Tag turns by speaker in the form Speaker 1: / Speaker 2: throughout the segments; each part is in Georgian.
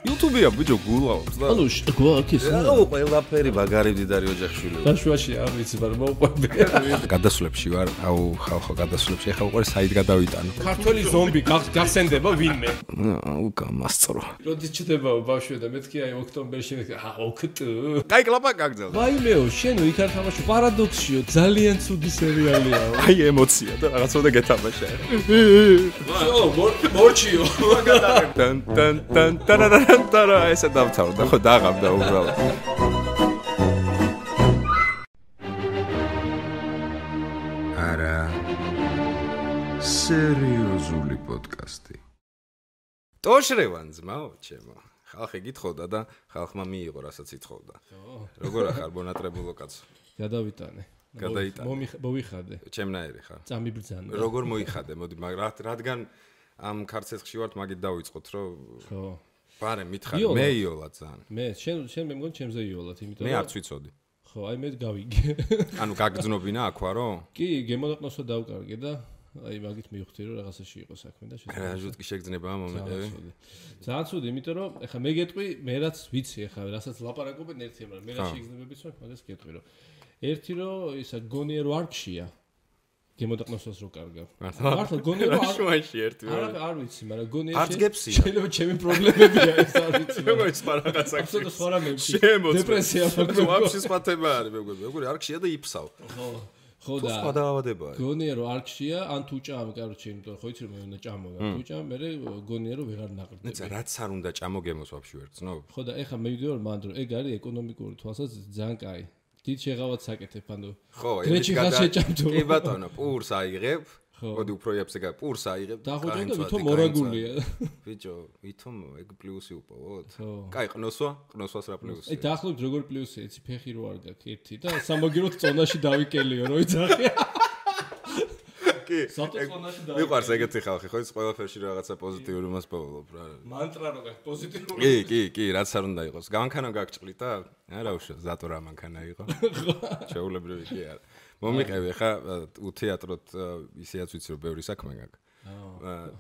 Speaker 1: YouTube-ია ბიჭო გულავს და.
Speaker 2: ანუ გვაქვს ეს.
Speaker 1: აუ ყველაფერი მაგარი მდიდარი ოჯახშვილი.
Speaker 2: დაშვაში არ ვიცი, მაგრამ მოყვები.
Speaker 1: გადასვლებში ვარ, აუ ხალხო გადასვლებში ახლა უყურე საით გადავიტანო.
Speaker 2: ქართველი ზომბი გახსენდება ვინმე?
Speaker 1: აუ გამასწრო.
Speaker 2: როდის ჩდება ბავშვი და მეთქი აი ოქტომბერში ოქტ.
Speaker 1: კაი კლაპა გაგძელდა.
Speaker 2: ვაიმეო, შენო იქ არ თამაში პარადოქსიო, ძალიან ცუდი სერიალია.
Speaker 1: აი ემოცია და რაღაცა გეთამაშა.
Speaker 2: მორჩიო.
Speaker 1: თან თან თან თან თან ესე დავთავრდა ხო დაღამდა უბრალოდ. არა სერიოზული პოდკასტი. ტოშრევან ძმაო ჩემო. ხალხი გითხოვდა და ხალხმა მიიღო რასაც ითხოვდა. როგორ ახარ ბონატრებულო კაცო?
Speaker 2: გადავიტანე. მოვიხადე.
Speaker 1: ჩემნაირი ხარ.
Speaker 2: წამიბრძანე.
Speaker 1: როგორ მოიხადე? მოდი რადგან ამ ქარცეცხში ვართ მაგით დავიწყოთ რომ
Speaker 2: ხო.
Speaker 1: ბარე მითხარი მე იოლა ძალიან.
Speaker 2: მე შენ მე მგონი ჩემზე იოლად, იმიტომ
Speaker 1: მე არც ვიცოდი.
Speaker 2: ხო, აი მე გავიგე.
Speaker 1: ანუ გაგძნობინა აქ ვარო?
Speaker 2: კი, გემონაყნოსო დავკარგე და აი მაგით მივხვდი რომ რაღაცაში იყო საქმე და
Speaker 1: რა ჟუტკი შეგძნება მომეყევი.
Speaker 2: ძალიან ცუდი, იმიტომ რომ ეხლა მე გეტყვი, მე რაც ვიცი ეხლა, რასაც ლაპარაკობენ ერთია, მაგრამ მე რა შეგძნებებიც მაქვს, მაგას გეტყვი რომ ერთი რომ ისა გონიერ ვარქშია. გემოდაყნოსოს რო კარგავ. მართლა გონიერ
Speaker 1: ვარქში ერთი.
Speaker 2: არ ვიცი, მაგრამ გონიერ
Speaker 1: არც გეფსია.
Speaker 2: შეიძლება ჩემი პრობლემებია ეს არ ვიცი.
Speaker 1: მეგობრებს რაღაცა.
Speaker 2: აბსოლუტურად სხვა რამეებში.
Speaker 1: დეპრესია მაქვს. ვაფშე სხვა თემა არის მეგობრებო. როგორი არქშია და იფსავ.
Speaker 2: ხო და
Speaker 1: სხვა დაავადებაა.
Speaker 2: გონიერ რო არქშია, ან თუ ჭამ, კაროჩე, იმიტომ ხო იცი რომ მე უნდა ჭამო და თუ ჭამ, მე გონიერ რო ვეღარ ნაყრდები.
Speaker 1: ნეცა რაც არ უნდა ჭამო გემოს ვაფშე ვერ გწნობ.
Speaker 2: ხო და ეხლა მე ვიდეო რომ მანდრო, ეგ არის ეკონომიკური თვალსაზრისით ძალიან კაი. დიდ შეღავად საკეთებ, ანუ
Speaker 1: ხო,
Speaker 2: გრეჩი ხალხს შეჭამთო.
Speaker 1: კი ბატონო, პურს აიღებ. მოდი უფრო იაფზე გა პურს აიღებ.
Speaker 2: დახოჭო და ვითომ მორაგულია.
Speaker 1: ბიჭო, ვითომ ეგ პლუსი უპოვოთ? კაი, ყნოსვას რა პლუსი?
Speaker 2: აი დაახლოებით როგორ პლუსია, იცი ფეხი რო არ გაქვს ერთი და სამაგიეროდ წონაში დავიკელიო, რო იცახი. კი. საწონაში დავიკელიო.
Speaker 1: მიყვარს ეგეთი ხალხი, ხო, ის ყველაფერში რაღაცა პოზიტიური მას პოულობ რა.
Speaker 2: მანტრა რო გაქვს პოზიტიური.
Speaker 1: კი, რაც არ უნდა იყოს. გამანქანა გაგჭყლით და არა უშო, ზატო რა მანქანა იყო. ჩეულებრივი კი არა. მომიყევი ხა უთეატროთ ისეაც ვიცი რომ ბევრი საქმე გაქვს.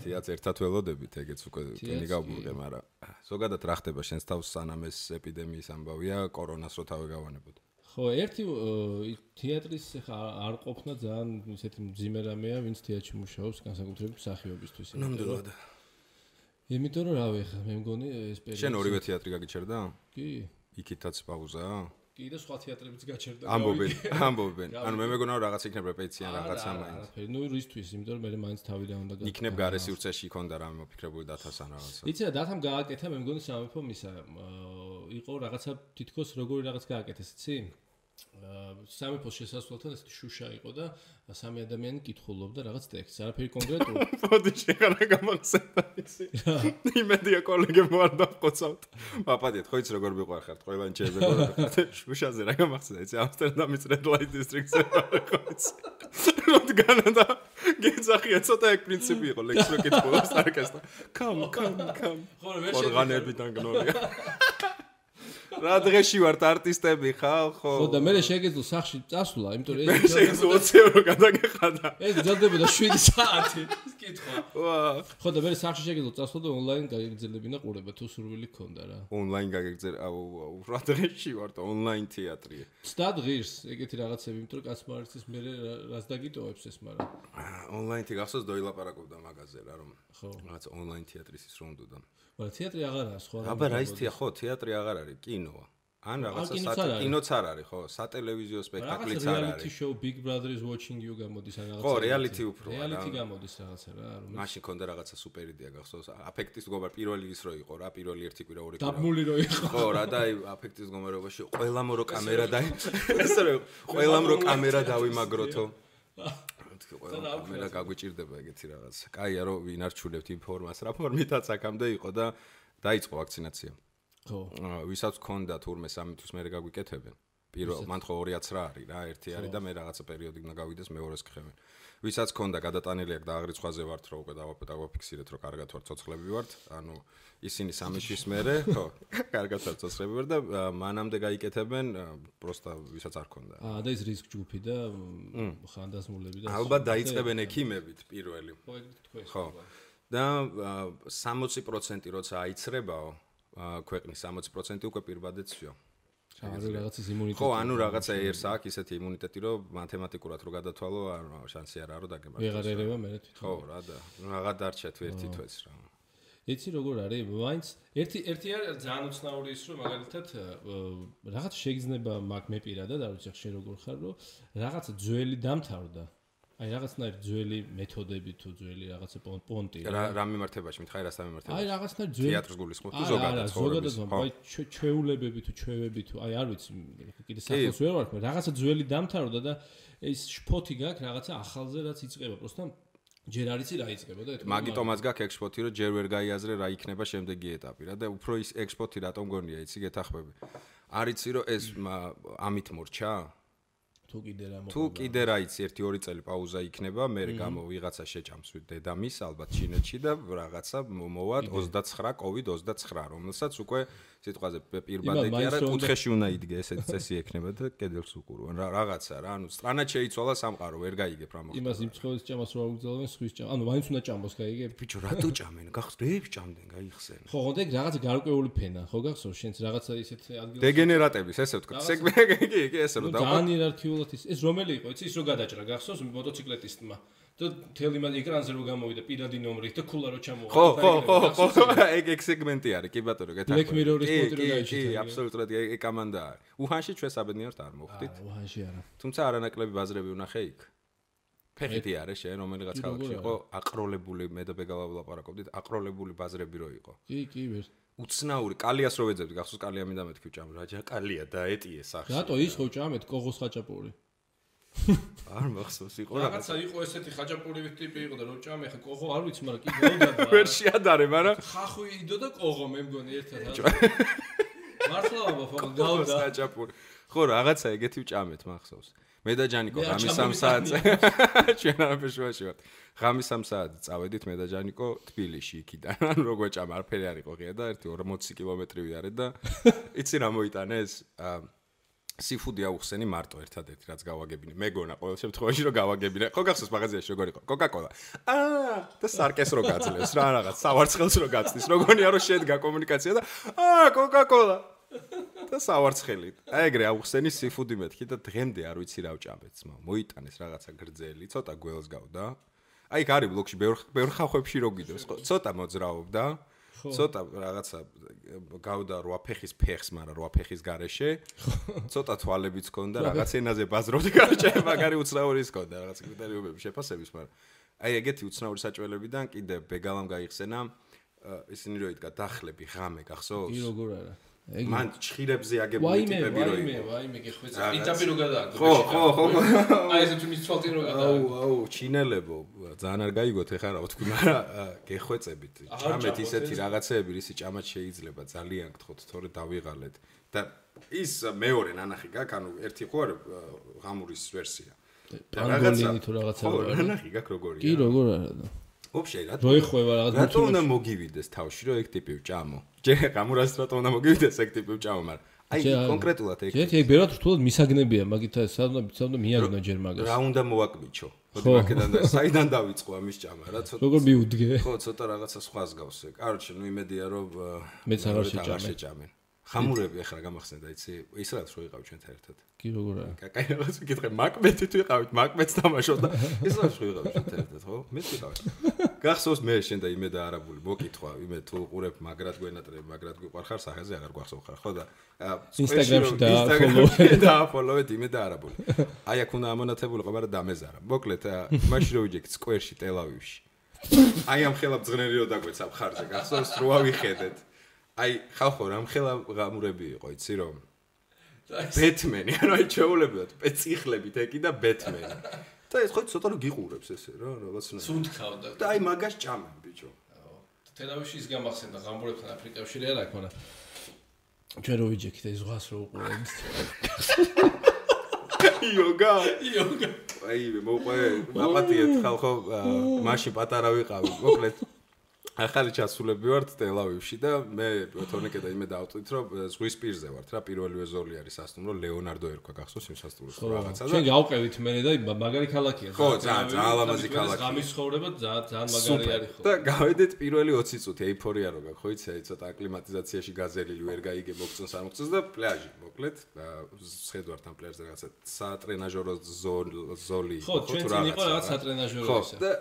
Speaker 1: თეატრ ერთად ველოდებით ეგეც უკვე ტენი გავუღე, მაგრამ ზოგადად რა ხდება შენს თავს სანამ ეს ეპიდემიის ამბავია, კორონას რო თავი გავანებოდ.
Speaker 2: ხო, ერთი თეატრის ხა არ ყოფნა ძალიან ისეთი მძიმე რამეა, ვინც თეატრში მუშაობს განსაკუთრებით მსახიობისთვის.
Speaker 1: ნამდვილად.
Speaker 2: იმიტომ რომ რავი ხა მე მგონი ეს პერიოდი.
Speaker 1: შენ ორივე თეატრი გაგიჩერდა?
Speaker 2: კი.
Speaker 1: იქითაც პაუზაა?
Speaker 2: კი და სხვა თეატრებიც გაჩერდა.
Speaker 1: ამბობენ. ანუ მე მეგონა რომ რაღაც იქნებ რეპეტიცია რაღაცა მაინც.
Speaker 2: ნუ რისთვის, იმიტომ რომ მე მაინც თავიდან უნდა გააკეთო.
Speaker 1: იქნებ გარე სივრცეში იქონდა რამე მოფიქრებული დათასან რაღაცა.
Speaker 2: იცი რა დათამ გააკეთა, მე მგონი სამეფო მისა იყო რაღაცა თითქოს როგორი რაღაც გააკეთეს, იცი? სამეფოს შესასვლელთან ესეთი შუშა იყო და სამი ადამიანი კითხულობდა რაღაც ტექსტს, არაფერი კონკრეტული.
Speaker 1: მოდი შეღარა გამახსენდა ისი. იმედია კოლეგებმა არ დავყოცავთ. მაპატიეთ, ხო იცი როგორ მიყვარხართ, ყველანი შეიძლება შუშაზე რა გამახსენდა, იცი ამსტერდამის Red Light District-ზე ხო იცი. რადგანა და გეძახია ცოტა ეგ პრინციპი იყო, ლექს რო კითხულობს არკესტა. Come.
Speaker 2: ხო ვერ
Speaker 1: ორგანებიდან გნორია. რა დღეში ვართ არტისტები ხალ ხო?
Speaker 2: ხო და მე შეგეძლო სახში წასვლა, იმიტომ რომ
Speaker 1: ეს შეგეძლო 20 евро გადაგეხადა.
Speaker 2: ეს გძლებოდა 7 საათი. კითხვა. ვა. ხო და მე სახში შეგეძლო წასვლა და ონლაინ გაგეგძელებინა ყურება თუ სურვილი ქონდა რა.
Speaker 1: ონლაინ გაგეგძელ, რა დღეში ვართ ონლაინ თეატრია.
Speaker 2: ცდად ღირს ეგეთი რაღაცები, იმიტომ რომ კაცმა არიცის მე რას დაგიტოვებს ეს, მაგრამ
Speaker 1: ონლაინი გახსოვს დოილაპარაკობდა მაგაზე რა რომ
Speaker 2: ხო
Speaker 1: რაღაც ონლაინ თეატრის ის რომ უნდა.
Speaker 2: მაგრამ თეატრი აღარაა სხვა.
Speaker 1: აბა რა ის ხო თეატრი აღარ არის, კინოა. ან რაღაცა კინოც არ არის, ხო, სატელევიზიო სპექტაკლიც არ არის.
Speaker 2: Reality show Big Brother is watching you გამოდის ან რაღაცა.
Speaker 1: ხო, reality უფრო.
Speaker 2: Reality გამოდის რაღაცა რა, რომ
Speaker 1: მაშინ ქონდა რაღაცა სუპერ იდეა გახსოვს. აფექტის მდგომარ პირველი ის რო იყო რა, პირველი ერთი კვირა ორი კვირა.
Speaker 2: დაბმული რო იყო.
Speaker 1: ხო, რა და აი აფექტის მდგომარეობაში ყველამ რო კამერა და ესე რომ ყველამ რო კამერა დავიმაგროთო. კამერა გაგვიჭირდება ეგეთი რაღაც. კაია რომ ვინ არჩულებთ ინფორმაციას, რა ფორმითაც აქამდე იყო და დაიწყო ვაქცინაცია. ხო. ვისაც ქონდა თურმე 3 თვის მერე გაგვიკეთებენ. პირველ მან ხო 2-აც რა არის რა, ერთი არის და მე რაღაცა პერიოდი უნდა გავიდეს მეორეს გხევენ. ვისაც ქონდა გადატანილი აქ და აღრიცხვაზე ვართ რომ უკვე დავაფიქსირეთ რომ კარგად ვარ ცოცხლები ვართ, ანუ ისინი 3 თვის მერე, ხო, კარგად ვარ ცოცხლები ვარ და მანამდე გაიკეთებენ პროსტა ვისაც არ ქონდა.
Speaker 2: და ის რისკ ჯგუფი და ხანდაზმულები და
Speaker 1: ალბათ დაიწყებენ ექიმებით პირველი.
Speaker 2: ხო, ეგ თქვენ.
Speaker 1: ხო. და 60% როცა აიცრებაო ქვეყნის 60% უკვე პირბადეთ всё.
Speaker 2: ანუ რაღაცის იმუნიტეტი.
Speaker 1: ხო, ანუ რაღაცა ერს აქვს ისეთი იმუნიტეტი, რომ მათემატიკურად რო გადათვალო, შანსი არ არის, რომ დაგემართოს.
Speaker 2: ვეღარ ერევა მე თვითონ.
Speaker 1: ხო, რა და რაღა დარჩა თუ ერთი თვეც რა.
Speaker 2: იცი როგორ არის? მაინც ერთი არის ძალიან უცნაური ის, რომ მაგალითად რაღაც შეგრძნება მაგ მე პირადად, არ ვიცი ხე როგორ ხარ, რომ რაღაცა ძველი დამთავრდა. აი რაღაცნაირი ძველი მეთოდები თუ ძველი რაღაცა პონტი
Speaker 1: რა მიმართებაში მითხარი რასთან მიმართებაში
Speaker 2: აი რაღაცნაირი ძველი
Speaker 1: თეატრს გულისხმობ თუ ზოგადად
Speaker 2: ზოგადად აი ჩვეულებები თუ ჩვევები თუ აი არ ვიცი კიდე სახელს ვერ ვარ რაღაცა ძველი დამთავრდა და ეს შფოთი გაქვს რაღაცა ახალზე რაც იწყება პროსტა ჯერ არ იცი რა იწყება და
Speaker 1: მაგიტომაც გაქვს ექსპორტი რომ ჯერ ვერ გაიაზრე რა იქნება შემდეგი ეტაპი რა და უფრო ის ექსპორტი რატომ გონია იცი გეთახმები არ იცი რომ ეს ამით მორჩა თუ კიდე რა იცი 1-2 წელი პაუზა იქნება მე გამო ვიღაცა შეჭამს დედამის ალბათ ჩინეთში და რაღაცა მოვად 29 COVID-29 რომელსაც უკვე სიტყვაზე პირბადე კი არა კუთხეში უნდა იდგე ესეთი წესი ექნება და კედელს უყურონ რაღაცა რა ანუ სტრანად შეიცვალა სამყარო ვერ გაიგებ რა მოხდა
Speaker 2: იმას იმ ცხოველის ჭამას რო აუგზავნენ სხვის ჭამ ანუ მაინც უნდა ჭამოს გაიგებ
Speaker 1: ბიჭო რატო ჭამენ გახსრებს ჭამდნენ გაიხსენ
Speaker 2: ხო ხონდე რაღაცა გარკვეული ფენა ხო გახსოვს შენც რაღაცა ისეთ ადგილას
Speaker 1: დეგენერატების ესე ვთქვა სეგმენტი კი ესე რომ
Speaker 2: და ძალიან იერარქიულად ეს რომელი იყო იცი ის რო გადაჭრა გახსოვს მოტოციკლეტისტმა და თელი მაგ ეკრანზე რო გამოვიდა პირადი ნომრით და ქულა რო ჩამოვა
Speaker 1: ხო ეგ სეგმენტი არის კი ბატონო გეთახმები
Speaker 2: Black Mirror-ის პონტი რო გაიჩიტა
Speaker 1: კი აბსოლუტურად ეგ კამანდა არის უჰანში ჩვენ საბედნიეროდ არ მოვხდით
Speaker 2: უჰანში არა
Speaker 1: თუმცა არანაკლები ბაზრები უნახე იქ ფეხითი არის შენ რომელიღაც ქალაქში იყო აყროლებული მე და ბეგალა ვლაპარაკობდით აყროლებული ბაზრები რო იყო
Speaker 2: კი ვერ
Speaker 1: უცნაური კალიას რო ვეძებდი გახსოვს კალია მინდა მეთქი ჭამ რაჯა კალია დაეტიე სახში
Speaker 2: რატო ის ხო ჭამეთ კოღოს ხაჭაპური
Speaker 1: არ მახსოვს იყო
Speaker 2: რაღაცა იყო ესეთი ხაჭაპური ტიპი იყო და რო ჭამე ხა კოღო არ ვიცი მაგრამ კი გავიდა
Speaker 1: ვერ შეადარე მაგრამ
Speaker 2: ხახვი იდო და კოღო მე მგონი ერთად მართლა ბაბა გავდა
Speaker 1: ხაჭაპური ხო რაღაცა ეგეთი ჭამეთ მახსოვს მე და ჯანიკო ღამის 3 საათზე ჩვენ არაფერში ვარ ღამის 3 საათზე წავედით მე და ჯანიკო თბილისში იქიდან ანუ როგორ ჭამა არაფერი არ იყო ღია და ერთი 40 კილომეტრი ვიარეთ და იცი რა მოიტანეს სიფუდი აუხსენი მარტო ერთადერთი რაც გავაგებინე მეგონა ყოველ შემთხვევაში რომ გავაგებინე ხო გახსოვს მაღაზიაში როგორ იყო კოკაკოლა და სარკეს რო გაძლევს რა რაღაც სავარცხელს რო გაცდის როგორია რომ შედგა კომუნიკაცია და კოკაკოლა და სავარცხელი აი ეგრე აუხსენი სიფუდი მეთქი და დღემდე არ ვიცი რა ვჭამეთ ძმა მოიტანეს რაღაცა გრძელი ცოტა გველს გავდა აი გარი ბლოკში ბევრ ხახვებში რო გიდევს ცოტა მოძრაობდა ცოტა რაღაცა გავდა 8 ფეხის ფეხს, მაგრამ 8 ფეხის გარეშე. ცოტა თვალებიც ჰქონდა, რაღაც ენაზე ბაზრობდი გარჩე, მაგარი უცნაურის ჰქონდა, რაღაც კრიტერიუმები შეფასების, მაგრამ აი ეგეთი უცნაური საჭველებიდან კიდე ბეგალამ გაიხსენა ისინი რო იდგა დახლები ღამე გახსოვს?
Speaker 2: კი როგორ არა.
Speaker 1: მან ჩხირებზე აგებული ტიპები რო იყო.
Speaker 2: ვაიმე გეხვეწა. პიტაპი რო გადააგდო.
Speaker 1: ხო.
Speaker 2: აი ეს თუ მის თვალთი რო გადააგდო.
Speaker 1: აუ, ჩინელებო, ძალიან არ გაიგოთ ეხლა რა ვთქვი, მაგრამ გეხვეწებით. ჭამეთ ისეთი რაღაცეები, რისი ჭამაც შეიძლება ძალიან გთხოვთ, თორე დავიღალეთ. და ის მეორე ნანახი გაქვს, ანუ ერთი ხო არის ღამურის ვერსია.
Speaker 2: პანგოლინი თუ რაღაცა
Speaker 1: ხო, ნანახი გაქვს როგორია.
Speaker 2: კი როგორ არა და
Speaker 1: Вообще,
Speaker 2: რო ეხובה რაღაც
Speaker 1: რატო უნდა მოგივიდეს თავში რომ ეგ ტიპი ვჭამო? ჯერ გამურას რატო უნდა მოგივიდეს ეგ ტიპი ვჭამო, მაგრამ აი კონკრეტულად ეგ.
Speaker 2: ეგ ბერად რთულად მისაგნებია, მაგითა სადმა მიაგნო ჯერ მაგას.
Speaker 1: რა უნდა მოვაკვიჩო? მოდი მაგედან და საიდან დავიწყო ამის ჭამა რა ცოტა.
Speaker 2: როგორ მიუდგე?
Speaker 1: ხო, ცოტა რაღაცა სხვას გავს ეგ. კაროჩე, ნუ იმედია რომ
Speaker 2: მეც აღარ შეჭამენ.
Speaker 1: ხამურები ახლა გამახსენდა, იცი? ის რაც რო იყავ ჩვენთან ერთად.
Speaker 2: კი როგორ არა?
Speaker 1: კაი რაღაც ვიკითხე, მაკმეთი თუ იყავით, მაკმეთს თამაშობ და ის რაც რო იყავ ჩვენთან ერთად, ხო? მეც ვიყავ. გახსოვს მე შენ და იმე და არაბული მოკითხვა, იმე თუ უყურებ მაგრად გვენატრებ, მაგრად გვიყვარხარ სახეზე აღარ გვახსოვ ხარ, ხო და
Speaker 2: Instagram-ში
Speaker 1: და follow-ეთ იმე და არაბული. აი აქ უნდა ამონათებულიყო, მაგრამ დამეზარა. მოკლედ, მაშინ რო ვიჯექ სკვერში, ტელ-ავივში. აი ამ ხელა ბძღნელი რო დაგვეცა მხარზე, გახსოვს რო ავიხედეთ. აი ხალხო რამ ხელა ღამურები იყო, იცი რომ ბეთმენი, ანუ აი ჩეულებად, პეციხლებით ეკი და ბეთმენი. და ეს ხო ცოტა რომ გიყურებს ესე რა, რაღაცნაირად.
Speaker 2: სუნთქავდა.
Speaker 1: და აი მაგას ჭამენ, ბიჭო.
Speaker 2: თელავიში ის გამახსენდა ღამურებთან აფრიკაში რა აქვს, მაგრამ ჩვენ რო ვიჯექით ეს ზღვას რო უყურებთ.
Speaker 1: იოგა. აი მოყვე, აპატიეთ ხალხო, მაშინ პატარა ვიყავი, მოკლედ ახალი ჩასულები ვართ ტელ-ავივში და მე თორნიკე და იმე დავწვით რომ ზღვის პირზე ვართ რა პირველივე ზოლი არის სასტუმრო ლეონარდო ერქვა გახსოვს იმ სასტუმროს რაღაცა და
Speaker 2: ჩვენ გავყევით მე და მაგარი ქალაქია
Speaker 1: ხო ძალიან ლამაზი ქალაქია
Speaker 2: გამის ცხოვრება ძალიან მაგარი არის ხო
Speaker 1: და გავედით პირველი 20 წუთი ეიფორია რო გაქვს ხო იცი ცოტა აკლიმატიზაციაში გაზელილი ვერ გაიგე მოგწონს არ მოგწონს და პლაჟი მოკლედ შეხედვართ ამ პლაჟზე რაღაცა სატრენაჟორო ზოლი
Speaker 2: ხო ჩვენ წინ იყო რაღაც სატრენაჟორო ისა
Speaker 1: და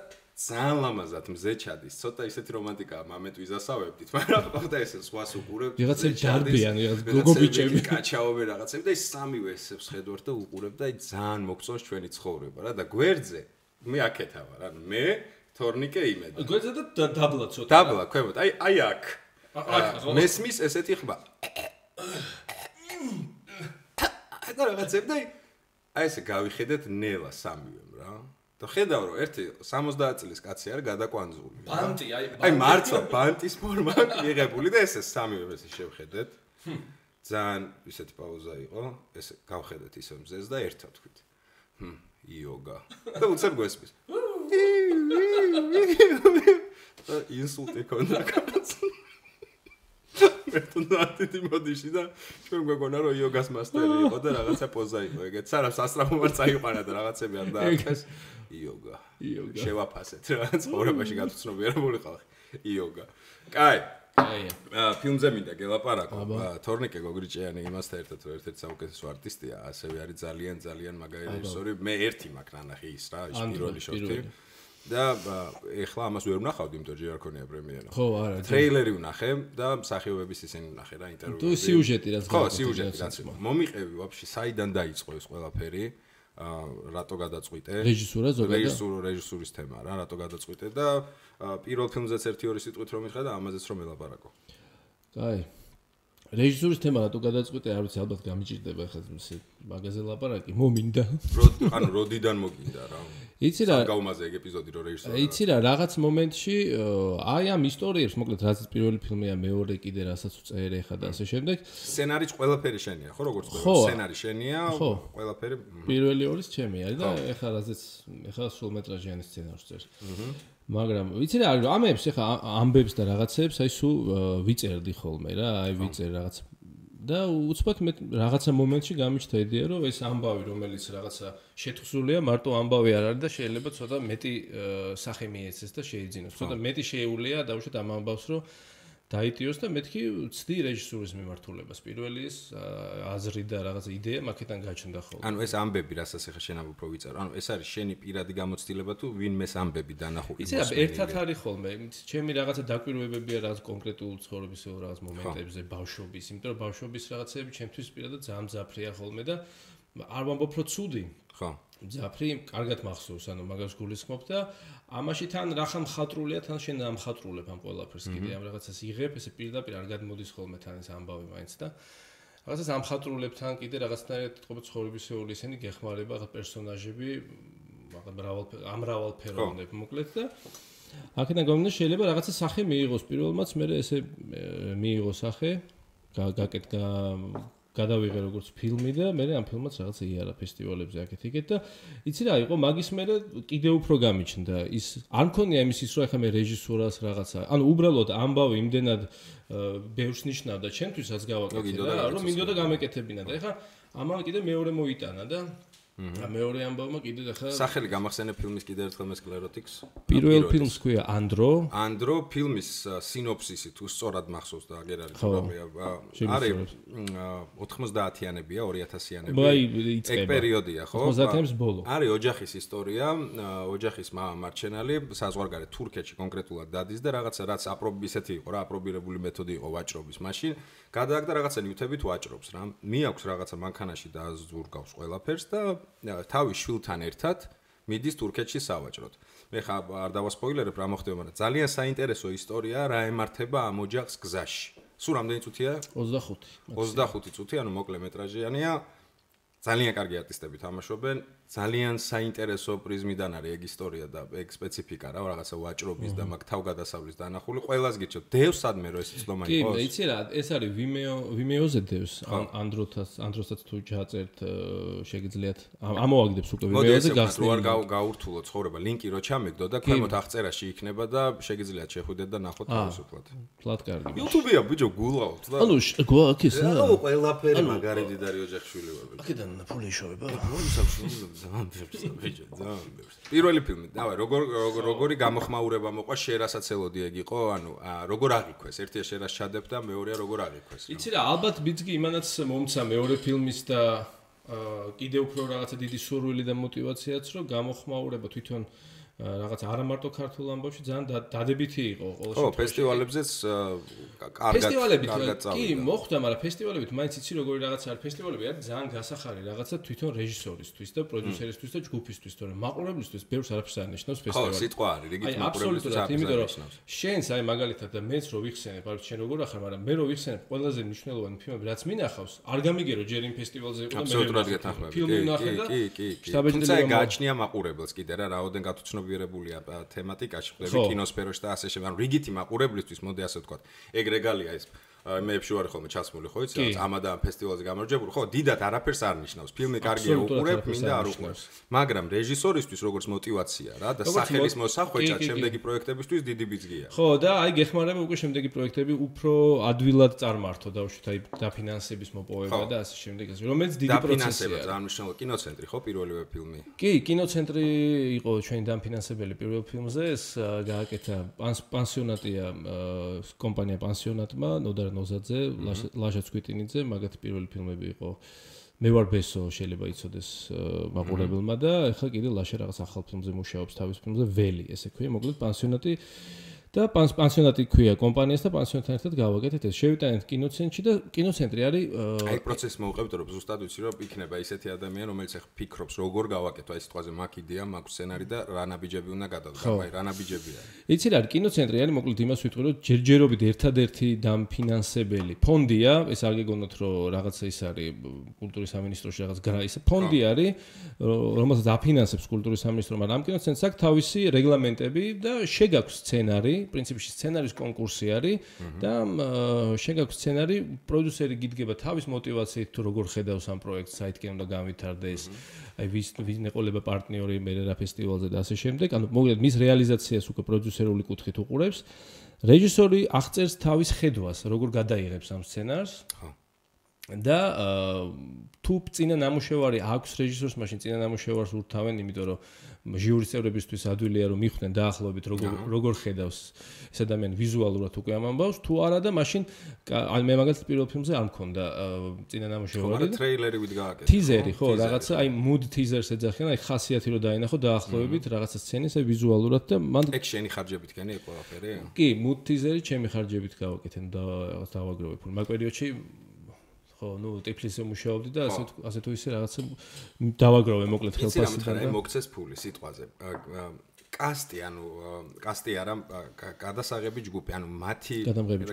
Speaker 1: ძალიან ლამაზად მზე ჩადის. ცოტა ისეთი რომანტიკაა მამეთ ვიზასავებდით, მაგრამ ხოდა ესე სხვას უყურებ.
Speaker 2: ვიღაცა ჯარბიან, გოგობიჭები,
Speaker 1: კაჩაობე რაღაცები და ის სამივე ესებს ხედავთ და უყურებ და ძალიან მოგწონს ჩვენი ცხოვრება რა და გვერდზე მე აქეთა ვარ, ანუ მე თორნიკე იმედა.
Speaker 2: გვერდზე და დაბლა ცოტა.
Speaker 1: დაბლა, ქვემოთ, აი აქ. მესმის ესეთი ხმა. და რაღაცები და აი ესე გავიხედეთ ნელა სამივემ რა. და ხედავ რომ ერთი 70 წლის კაცი არის გადაკვანძული.
Speaker 2: ბანტი,
Speaker 1: აი მართლა ბანტის ფორმა მიღებული და ესე სამივე ესე შევხედეთ. ძალიან ისეთი პაუზა იყო. ესე გავხედეთ ისე მზეს და ერთად თქვით. იოგა. და უცებ გვესმის. და ინსულტი ქონდა კაცს. მე თუნდაც იმოდიში და ჩვენ გვეგონა რომ იოგას მასტერი იყო და რაღაცა პოზა იყო ეგეც. სანამ სასწრაფო არ წაიყვანა და რაღაცები არ დააკეთეს. იოგა. შევაფასეთ რა ცხოვრებაში გაცნობიერებული ხალხი. იოგა. კაი. ფილმზე მინდა გელაპარაკო. თორნიკე გოგრიჭიანი იმასთან ერთად რომ ერთ-ერთი საუკეთესო არტისტია, ასევე არის ძალიან მაგარი რეჟისორი. მე ერთი მაქვს ნანახი ის რა, ის პირველი შოთი. და ეხლა ამას ვერ ვნახავდი, იმიტომ რომ ჯერ არ ქონია პრემიერა.
Speaker 2: ხო, არა.
Speaker 1: ტრეილერი ვნახე და მსახიობების ისინი ვნახე რა ინტერვიუები.
Speaker 2: თუ სიუჟეტი რაც
Speaker 1: ხო, სიუჟეტი რაც მომიყევი ვაფშე საიდან დაიწყო ეს ყველაფერი. რატო გადაწყვიტე?
Speaker 2: რეჟისურა ზოგადად.
Speaker 1: რეჟისურის თემა რა, რატო გადაწყვიტე და პირველ ფილმზეც 1-2 სიტყვით რომ მითხრა და ამაზეც რომ ელაპარაკო.
Speaker 2: კაი. რეჟისურის თემა რატო გადაწყვიტე, არ ვიცი, ალბათ გამიჭირდება ხა მაგაზე ლაპარაკი, მომინდა.
Speaker 1: ანუ როდიდან მოგინდა რა?
Speaker 2: იცი რა
Speaker 1: გავუმაზე ეგ ეპიზოდი რომ რეჟისორი.
Speaker 2: იცი რა, რაღაც მომენტში აი ამ ისტორიებს, მოკლედ რაც პირველი ფილმია, მეორე კიდე რასაც უწერე ხა და ასე შემდეგ.
Speaker 1: სცენარიც ყველაფერი შენია, ხო როგორც სცენარი შენია, ყველაფერი
Speaker 2: პირველი ორის ჩემი არის და ეხლა რაზეც ეხლა სრულმეტრაჟიანი სცენარს წერს. მაგრამ ვიცი რა არის, ამებს ეხლა ამბებს და რაღაცებს აი სულ ვიწერდი ხოლმე რა, აი ვიწერ რაღაც და უცბად მე რაღაცა მომენტში გამიჩნდა იდეა რომ ეს ამბავი რომელიც რაღაცა შეთხზულია მარტო ამბავი არ არის და შეიძლება ცოტა მეტი სახე მიეცეს და შეიძინოს. ცოტა მეტი შეეულია დაუშვათ ამ ამბავს რომ დაიტიოს და მეთქი ვცდი რეჟისურის მიმართულებას. პირველი ეს აზრი და რაღაც იდეა მაქედან გაჩნდა ხოლმე.
Speaker 1: ანუ ეს ამბები, რასაც ახლა შენ უფრო ვიწერო, ანუ ეს არის შენი პირადი გამოცდილება თუ ვინმეს ამბები დანახო იმას.
Speaker 2: იცი რა, ერთად არის ხოლმე. ჩემი რაღაცა დაკვირვებებია რაღაც კონკრეტულ ცხოვრების რაღაც მომენტებზე, ბავშვობის, იმიტომ რომ ბავშვობის რაღაცები ჩემთვის პირადად ძალიან მძაფრია ხოლმე და არ ვამბობ რომ ცუდი.
Speaker 1: ხო.
Speaker 2: მძაფრი, კარგად მახსოვს, ანუ მაგას გულისხმობ და ამაში თან რახა მხატვრულია, თან შენ ამხატრულებ ამ ყველაფერს კიდე ამ რაღაცას იღებ, ესე პირდაპირ არ გადმოდის ხოლმე თან ეს ამბავი მაინც და რაღაცას ამხატრულებ თან კიდე რაღაცნაირად თქო ცხოვრებისეული ისინი გეხმარება ხა პერსონაჟები, ამრავალფეროვნები მოკლედ და აქედან გამომდინარე შეიძლება რაღაცა სახე მიიღოს პირველმაც, მე ესე მიიღო სახე, გაკეთდა გადავიღე როგორც ფილმი და მე ამ ფილმაც რაღაცა იარა ფესტივალებზე აქეთ-იქეთ და იცი რა იყო მაგის მერე კიდე უფრო გამიჩნდა ის არ მქონია იმის ის რომ ახლა მე რეჟისურას რაღაცა ანუ უბრალოდ ამბავი იმდენად ბევრს ნიშნავდა ჩემთვისაც გავაკეთე რა რომ მინდოდა გამეკეთებინა და ახლა ამან კიდე მეორე მოიტანა და მეორე ამბავმა კიდე ახლა
Speaker 1: სახელი გამახსენე ფილმის კიდე ერთხელ მე სკლეროტიკს
Speaker 2: პირველ ფილმს ქვია ანდრო ფილმის
Speaker 1: სინოფსისი თუ სწორად მახსოვს და აგერ არის არის 90-იანებია 2000-იანები ეგ პერიოდია ხო
Speaker 2: 90-იანების ბოლო
Speaker 1: არის ოჯახის ისტორია ოჯახის მარჩენალი საზღვარგარეთ თურქეთში კონკრეტულად დადის და რაღაცა რაც ისეთი იყო რა აპრობირებული მეთოდი იყო ვაჭრობის მაშინ გადააგდა რაღაცა ნივთებით ვაჭრობს რა მიაქვს რაღაცა მანქანაში დააზურგავს ყველაფერს და თავის შვილთან ერთად მიდის თურქეთში სავაჭროდ. მე ხა არ დავასპოილერებ რა მოხდება, მაგრამ ძალიან საინტერესო ისტორიაა რა ემართება ამ ოჯახს გზაში. სულ რამდენი წუთია? 25 წუთი, ანუ მოკლე მეტრაჟიანია. ძალიან კარგი არტისტები თამაშობენ, ძალიან საინტერესო პრიზმიდან არის ეგ ისტორია და ეგ სპეციფიკა რა, რაღაცა ვაჭრობის და მაგ თავგადასავლის დანახული. ყველას გიჩვენებთ, დევს სადმე რო ეს ცდომა იყოს.
Speaker 2: კი, იცი რა, ეს არის Vimeo-ზე დევს, Android-საც თუ ჩაწერთ, შეგიძლიათ ამოვაგდებს უკვე Vimeo-ზე გახსნილი.
Speaker 1: რო არ გაურთულო ცხოვრება, ლინკი რო ჩამეგდო და ქვემოთ აღწერაში იქნება და შეგიძლიათ შეხვიდეთ და ნახოთ თავისუფლად.
Speaker 2: ფლატ კარგი.
Speaker 1: YouTube-ია ბიჭო გულავთ და.
Speaker 2: ანუ გვაქვს ეს რა?
Speaker 1: ანუ ყველაფერი მაგარი დიდარი ოჯახშვილი ვარ.
Speaker 2: აქედან ფული იშოვება.
Speaker 1: პირველი ფილმი, დავай, როგორი გამოხმაურება მოყვა შერასაც ელოდი ეგ იყო, ანუ როგორ აღიქვეს, ერთია შერას ჩადებ და მეორეა როგორ აღიქვეს.
Speaker 2: იცი რა, ალბათ ბიძგი იმანაც მომცა მეორე ფილმის და კიდევ უფრო რაღაცა დიდი სურვილი და мотиваციაც, რომ გამოხმაურება თვითონ რაღაც არა მარტო ქართულ ამბავში ძალიან დადებითი იყო ყოველ შემთხვევაში. ხო,
Speaker 1: ფესტივალებზეც კარგად
Speaker 2: კი, მოხდა, მაგრამ ფესტივალებით მაინც იცი როგორი რაღაცა არის. ფესტივალები არის ძალიან გასახარი რაღაცა თვითონ რეჟისორისთვის და პროდიუსერისთვის და ჯგუფისთვის, თორემ მაყურებლისთვის ბევრს არაფერს არ ნიშნავს ფესტივალი.
Speaker 1: ხო, სიტყვა არის, რიგით
Speaker 2: მაყურებლისთვის არაფერს არ ნიშნავს. შენს აი მაგალითად და მეც რო ვიხსენებ, არ ვიცი შენ როგორ ახარ, მაგრამ მე რო ვიხსენებ ყველაზე მნიშვნელოვანი ფილმები, რაც მინახავს, არ გამიგერო ჯერ იმ ფესტივალზე იყო და მე ფილმი ვნახე და
Speaker 1: თუმცა გააჩნია მაყურებელს კიდე რა, რაოდენ გათუცნობიერებულია თემატიკაში, ხდები კინოსფეროში და ასე შემდეგ. ანუ რიგითი მაყურებლისთვის, მოდი ასე ვთქვათ. ეგ რეგალია ის მეებში ვარ ხოლმე ჩასმული, ხო იცი, რაც ამადან ფესტივალზე გამარჯვებული, ხო, დიდად არაფერს არ ნიშნავს. ფილმი კარგია უყურებ, მინდა არ უყურებს. მაგრამ რეჟისორისთვის როგორც мотиваცია რა და სახელის მოსახვეჭად შემდეგი პროექტებისთვის დიდი ბიძგია.
Speaker 2: ხო, და აი გეხმარება უკვე შემდეგი პროექტები უფრო ადვილად წარმართო დაუშვით აი დაფინანსების მოპოვება და ასე შემდეგ, რომელიც დიდი პროცესია.
Speaker 1: ძალიან მნიშვნელოვანი კინოცენტრი ხო პირველივე ფილმი.
Speaker 2: კი, კინოცენტრი იყო ჩვენი დაფინანსებელი პირველ ფილმზე, ეს გააკეთა პანსიონატია კომპანია პანსიონატმა, ნოდარ ნოზაძე, ლაშა ცკვიტინიძე, მაგათი პირველი ფილმები იყო. მე ვარ ბესო, შეიძლება იცოდეს მაყურებელმა და ეხლა კიდე ლაშა რაღაც ახალ ფილმზე მუშაობს თავის ფილმზე ველი, ესე ქვია, მოკლედ პანსიონატი და პანსიონატი ქვია კომპანიას და პანსიონატთან ერთად გავაკეთეთ ეს. შევიტანეთ კინოცენტრში და კინოცენტრი არის
Speaker 1: აი პროცესი მოვუყევთ რომ ზუსტად ვიცი რომ იქნება ისეთი ადამიანი რომელიც ახ ფიქრობს როგორ გავაკეთო აი სიტყვაზე მაგ იდეა, მაგ სცენარი და რა ნაბიჯები უნდა გადავდგა, აი რა ნაბიჯები არის.
Speaker 2: იცი რა, კინოცენტრი არის მოკლედ იმას ვიტყვი რომ ჯერჯერობით ერთადერთი დამფინანსებელი ფონდია, ეს არ გეგონოთ რომ რაღაცა ის არის კულტურის სამინისტროში რაღაც ის ფონდი არის, რომელსაც აფინანსებს კულტურის სამინისტრო, მაგრამ ამ კინოცენტრს აქვს თავისი რეგლამენტები და შეგაქვს სცენარი პრინციპში სცენარის კონკურსი არის და შეგაქვს სცენარი, პროდიუსერი გიდგება თავის мотиваციით თუ როგორ ხედავს ამ პროექტს, საითკენ უნდა გამვითარდეს, აი ვის ნეყოლება პარტნიორი მე რა ფესტივალზე და ასე შემდეგ. ანუ მოკლედ მის რეალიზაციას უკვე პროდიუსერული კუთხით უყურებს. რეჟისორი აღწერს თავის ხედვას, როგორ გადაიღებს ამ სცენარს. და თუ წინა ნამუშევარი აქვს რეჟისორს, მაშინ წინა ნამუშევარს ურთავენ, იმიტომ რომ ჟიურის წევრებისთვის ადვილია რომ მიხვდნენ დაახლოებით როგორ ხედავს ეს ადამიანი ვიზუალურად უკვე ამ ამბავს, თუ არა და მაშინ მე მაგალითად პირველ ფილმზე არ მქონდა წინა ნამუშევარი და
Speaker 1: ტრეილერი ვით გააკეთე.
Speaker 2: ტიზერი, ხო, რაღაცა აი mood teasers ეძახიან, აი ხასიათი რომ დაინახო დაახლოებით რაღაცა სცენის აი ვიზუალურად და მან
Speaker 1: ეგ შენი ხარჯებით გენი ეს ყველაფერი?
Speaker 2: კი, mood teaseri ჩემი ხარჯებით გავაკეთე და რაღაც დავაგროვე. მაგ პერიოდში ხო, ნუ ტიფლისზე მუშაობდი და ასე თუ ისე რაღაცა დავაგროვე მოკლედ ხელფასიდან და
Speaker 1: მოგცეს ფული სიტყვაზე. კასტი, ანუ კასტი არა, გადასაღები ჯგუფი, ანუ მათი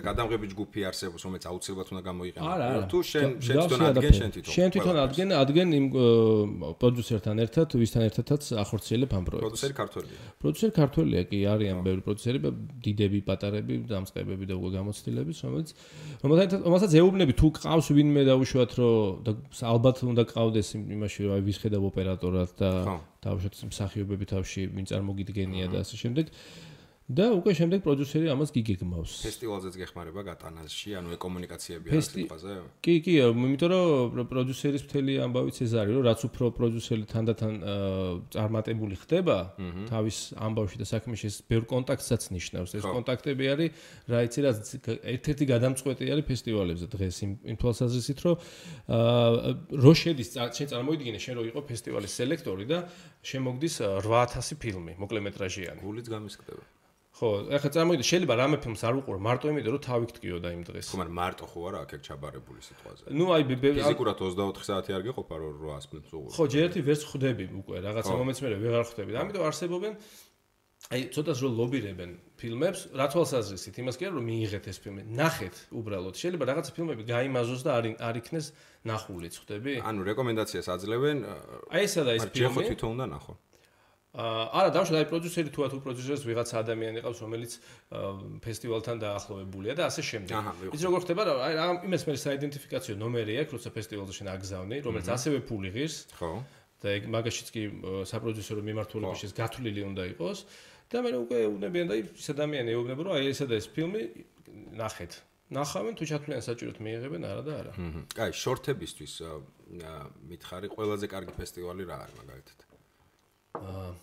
Speaker 1: გადამღები ჯგუფი არსებობს, რომელიც აუცილებლად უნდა გამოიყენოს. თუ შენ თვითონ ადგენ,
Speaker 2: შენ თვითონ ადგენ იმ პროდიუსერთან ერთად, ვისთან ერთადაც ახორციელებ ამ პროექტს.
Speaker 1: პროდიუსერი ქართველია.
Speaker 2: პროდიუსერი ქართველია, კი, არიან ბევრი პროდიუსერები, დიდები, პატარები, დამწყებები და უკვე გამოცდილების, რომელსაც ეუბნები თუ ყავს ვინმე დაუშვათ, რომ და ალბათ უნდა ყავდეს იმაში, რომ აი ვის ხედავ ოპერატორად და თავშოთ მსახიობები თავში ვინ წარმოგიდგენია და ასე შემდეგ და უკვე შემდეგ პროდიუსერი ამას გიგეგმავს.
Speaker 1: ფესტივალზეც გეხმარება გატანაში, ანუ ეკომუნიკაციები არის სიტყვაზე?
Speaker 2: კი, იმიტომ რომ პროდიუსერის მთელი ამბავიც ეს არის, რომ რაც უფრო პროდიუსერი თანდათან წარმატებული ხდება თავის ამბავში და საქმეში, ეს ბევრ კონტაქტსაც ნიშნავს. ეს კონტაქტები არის, რა იცი, რაც ერთ-ერთი გადამწყვეტი არის ფესტივალებზე დღეს იმ თვალსაზრისით, რომ რო შედის შენ წარმოიდგინე შენ რო იყო ფესტივალის სელექტორი და შემოგდის 8000 ფილმი, მოკლემეტრაჟიანი.
Speaker 1: გულიც გამისკდება.
Speaker 2: ხო, ახლა წარმოიდგინე, შეიძლება რამე ფილმს არ უყურო, მარტო იმიტომ რომ თავი გტკიოდა იმ დღეს.
Speaker 1: ხო, მაგრამ მარტო ხო არა აქ ჩაბარებული სიტყვაზე.
Speaker 2: ნუ აი
Speaker 1: ფიზიკურად 24 საათი არ გეყოფა რომ 800 ფილმს უყურო.
Speaker 2: ხო, ჯერ ერთი ვერც ხვდები უკვე, რაღაცა მომენტს მე ვეღარ ხვდები. ამიტომ არსებობენ აი ცოტას რომ ლობირებენ ფილმებს, რა თვალსაზრისით, იმას კი არა რომ მიიღეთ ეს ფილმი, ნახეთ უბრალოდ. შეიძლება რაღაცა ფილმები გაიმაზოს და არ იქნეს ნახულიც, ხვდები?
Speaker 1: ანუ რეკომენდაციას აძლევენ.
Speaker 2: აი ესა და ეს ფილმი.
Speaker 1: ხო, თვითონ უნდა ნახო.
Speaker 2: არა, დავუშვათ, აი პროდიუსერი თუ პროდიუსერს ვიღაცა ადამიანი ყავს, რომელიც ფესტივალთან დაახლოვებულია და ასე შემდეგ. ის როგორ ხდება, აი იმას მე საიდენტიფიკაციო ნომერი აქვს, როცა ფესტივალზე შენ აგზავნი, რომელიც ასევე ფული ღირს.
Speaker 1: ხო.
Speaker 2: და ეგ მაგაშიც კი საპროდიუსერო მიმართულებაშიც გათვლილი უნდა იყოს. და მე უკვე უნებიან და ის ადამიანი ეუბნება, რომ აი ესა და ეს ფილმი ნახეთ. ნახავენ თუ ჩათვლიან საჭიროდ მიიღებენ არა და არა.
Speaker 1: კაი, შორტებისთვის მითხარი, ყველაზე კარგი ფესტივალი რა არის მაგალითად?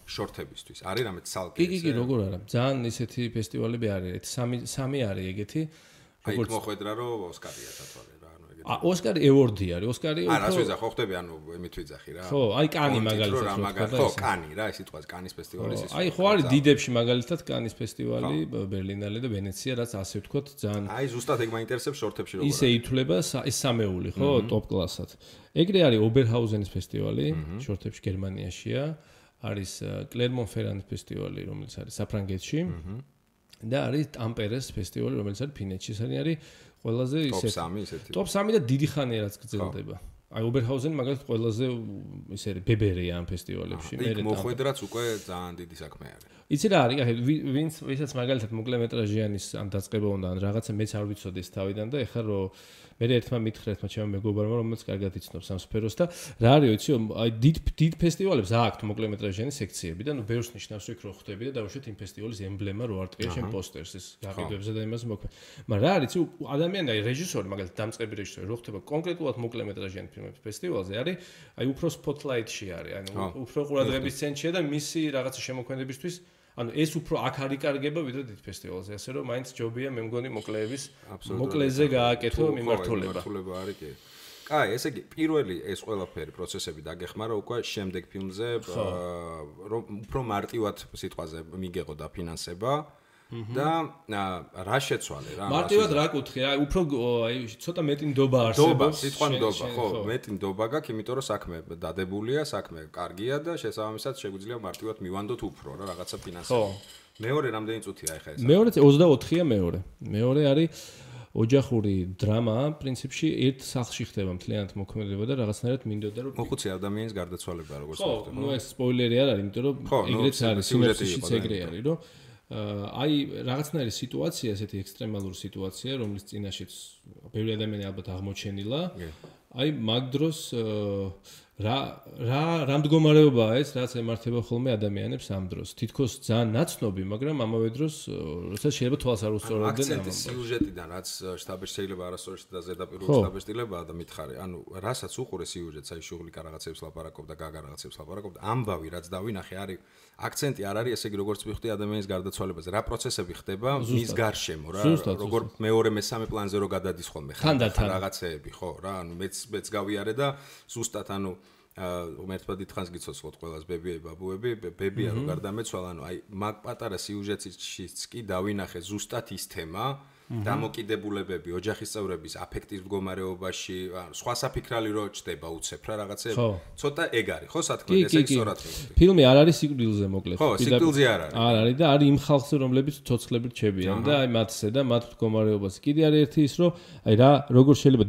Speaker 1: შორტებისთვის. არის რამე ცალკე?
Speaker 2: კი, როგორ არა. ძალიან ისეთი ფესტივალები არის. სამი არის ეგეთი.
Speaker 1: აი, მოხვედრა რომ ოსკარია დათვალე რა, ანუ ეგეთი.
Speaker 2: ოსკარი ევორდი არის. ოსკარი
Speaker 1: არა, რას ვიძახ, ხო ხდები, ანუ იმით ვიძახი რა.
Speaker 2: ხო, აი კანი მაგალითად.
Speaker 1: ხო, კანი რა, ეს სიტყვას კანის ფესტივალის ის.
Speaker 2: აი, ხო არის დიდებში მაგალითად კანის ფესტივალი, ბერლინალე და ვენეცია, რაც ასე ვთქვათ, ძალიან.
Speaker 1: აი, ზუსტად ეგ მაინტერესებს შორტებში როგორ.
Speaker 2: ისე ითვლება ეს სამეული, ხო, ტოპ კლასად. ეგრე არის ობერჰაუზენის ფესტივალი, შორტებში გერმანიაშია. არის კლერმონ-ფერანის ფესტივალი, რომელიც არის საფრანგეთში. და არის ტამპერეს ფესტივალი, რომელიც არის ფინეთში. ეს არის ყველაზე ისეთი. ტოპ 3 და დიდი ხანია რაც გრძელდება. აი ობერჰაუზენი მაგალითად ყველაზე ისე არის ბებერია ამ ფესტივალებში.
Speaker 1: მე მოხვედრაც უკვე ძალიან დიდი საქმე არის.
Speaker 2: იცი რა არის, ვინც მაგალითად მოკლემეტრაჟიანის ან დაწყება უნდა ან რაღაცა მეც არ ვიცოდი ეს თავიდან და ეხლა რომ მე ერთმა მითხრა ერთმა ჩემმა მეგობარმა რომელიც კარგად იცნობს ამ სფეროს და რა არის იცი აი დიდ ფესტივალებს აქვთ მოკლემეტრაჟიანი სექციები და ნუ ბევრს ნიშნავს იქ რო ხვდები და დაუშვათ იმ ფესტივალის ემბლემა რო არტყია შენ პოსტერს ეს გაყიდვებზე და იმას მოქმედ. მაგრამ რა არის იცი ადამიანი აი რეჟისორი მაგალითად დამწყები რეჟისორი რო ხდება კონკრეტულად მოკლემეტრაჟიანი ფილმების ფესტივალზე არის აი უფრო სპოტლაიტში არის ანუ უფრო ყურადღების ცენტრშია და მისი რაღაცა შემოქმედებისთვის ანუ ეს უფრო აქ არ იკარგება ვიდრე დიდ ფესტივალზე, ასე რომ მაინც ჯობია მე მგონი მოკლეების მოკლეზე გააკეთო მიმართულება.
Speaker 1: მიმართულება არის კი. კაი, ესე იგი პირველი ეს ყველაფერი პროცესები დაგეხმარა უკვე შემდეგ ფილმზე რომ უფრო მარტივად სიტყვაზე მიგეღო და ფინანსება და რა შეცვალე რა
Speaker 2: მარტივად რა კუთხე აი უფრო აი ცოტა მეტი ნდობა არსებობს
Speaker 1: სიტყვა ნდობა ხო მეტი ნდობა გაქვს იმიტომ რომ საქმე დადებულია საქმე კარგია და შესაბამისად შეგვიძლია მარტივად მივანდოთ უფრო რა რაღაცა ფინანსები მეორე რამდენი წუთია ეხა ეს
Speaker 2: მეორე 24-ია მეორე არის ოჯახური დრამა პრინციპში ერთ სახლში ხდება მთლიანად მოქმედება და რაღაცნაირად მინდოდა რომ
Speaker 1: მოხუცი ადამიანის გარდაცვალება როგორც
Speaker 2: ხდება ხო ნუ ეს სპოილერი არ არის იმიტომ რომ ეგრეც არის სინოპსისიც ეგრე არის რომ აი რაღაცნაირი სიტუაცია, ესეთი ექსტრემალური სიტუაცია, რომლის წინაშეც ბევრი ადამიანი ალბათ აღმოჩენილა. აი მაგ დროს რა მდგომარეობაა ეს, რაც ემართება ხოლმე ადამიანებს ამ დროს. თითქოს ძალიან ნაცნობი, მაგრამ ამავე დროს როდესაც შეიძლება თვალს არ უსწორებდნენ ამ
Speaker 1: აქცენტის სიუჟეტიდან, რაც შტაბში შეიძლება არასოდეს და ზედაპირული შტაბშტილებაა და მითხარი, ანუ რასაც უყურე სიუჟეტს, აი შუღლიკა რაღაცებს ლაპარაკობდა, გაგა რაღაცებს ლაპარაკობდა, ამბავი რაც დავინახე არის აქცენტი არ არის ესე იგი როგორც ვიხდი ადამიანის გარდაცვალებაზე. რა პროცესები ხდება მის გარშემო რა, როგორ მეორე მესამე პლანზე რო გადადის ხოლმე ხანდახან რაღაცეები, ხო რა, ანუ მეც გავიარე და ზუსტად ანუ უმეტესად დიდხანს გიცოცხლოთ ყველას ბებიები, ბაბუები, ბებია რო გარდამეცვალა, ანუ აი მაგ პატარა სიუჟეტშიც კი დავინახე ზუსტად ის თემა დამოკიდებულებები ოჯახის წევრების აფექტის მდგომარეობაში, სხვა საფიქრალი რო ჩდება უცებ რა რაღაცები. ცოტა ეგ არის, ხო სათქმე, ესე იგი სწორად ხდება.
Speaker 2: ფილმი არ არის სიკვდილზე მოკლედ.
Speaker 1: ხო, სიკვდილზე არ არის.
Speaker 2: არ არის და არის იმ ხალხზე, რომლებიც ცოცხლებით რჩებიან და აი მათზე და მათ მდგომარეობას. კიდე არის ერთი ის, რომ აი რა როგორ შეიძლება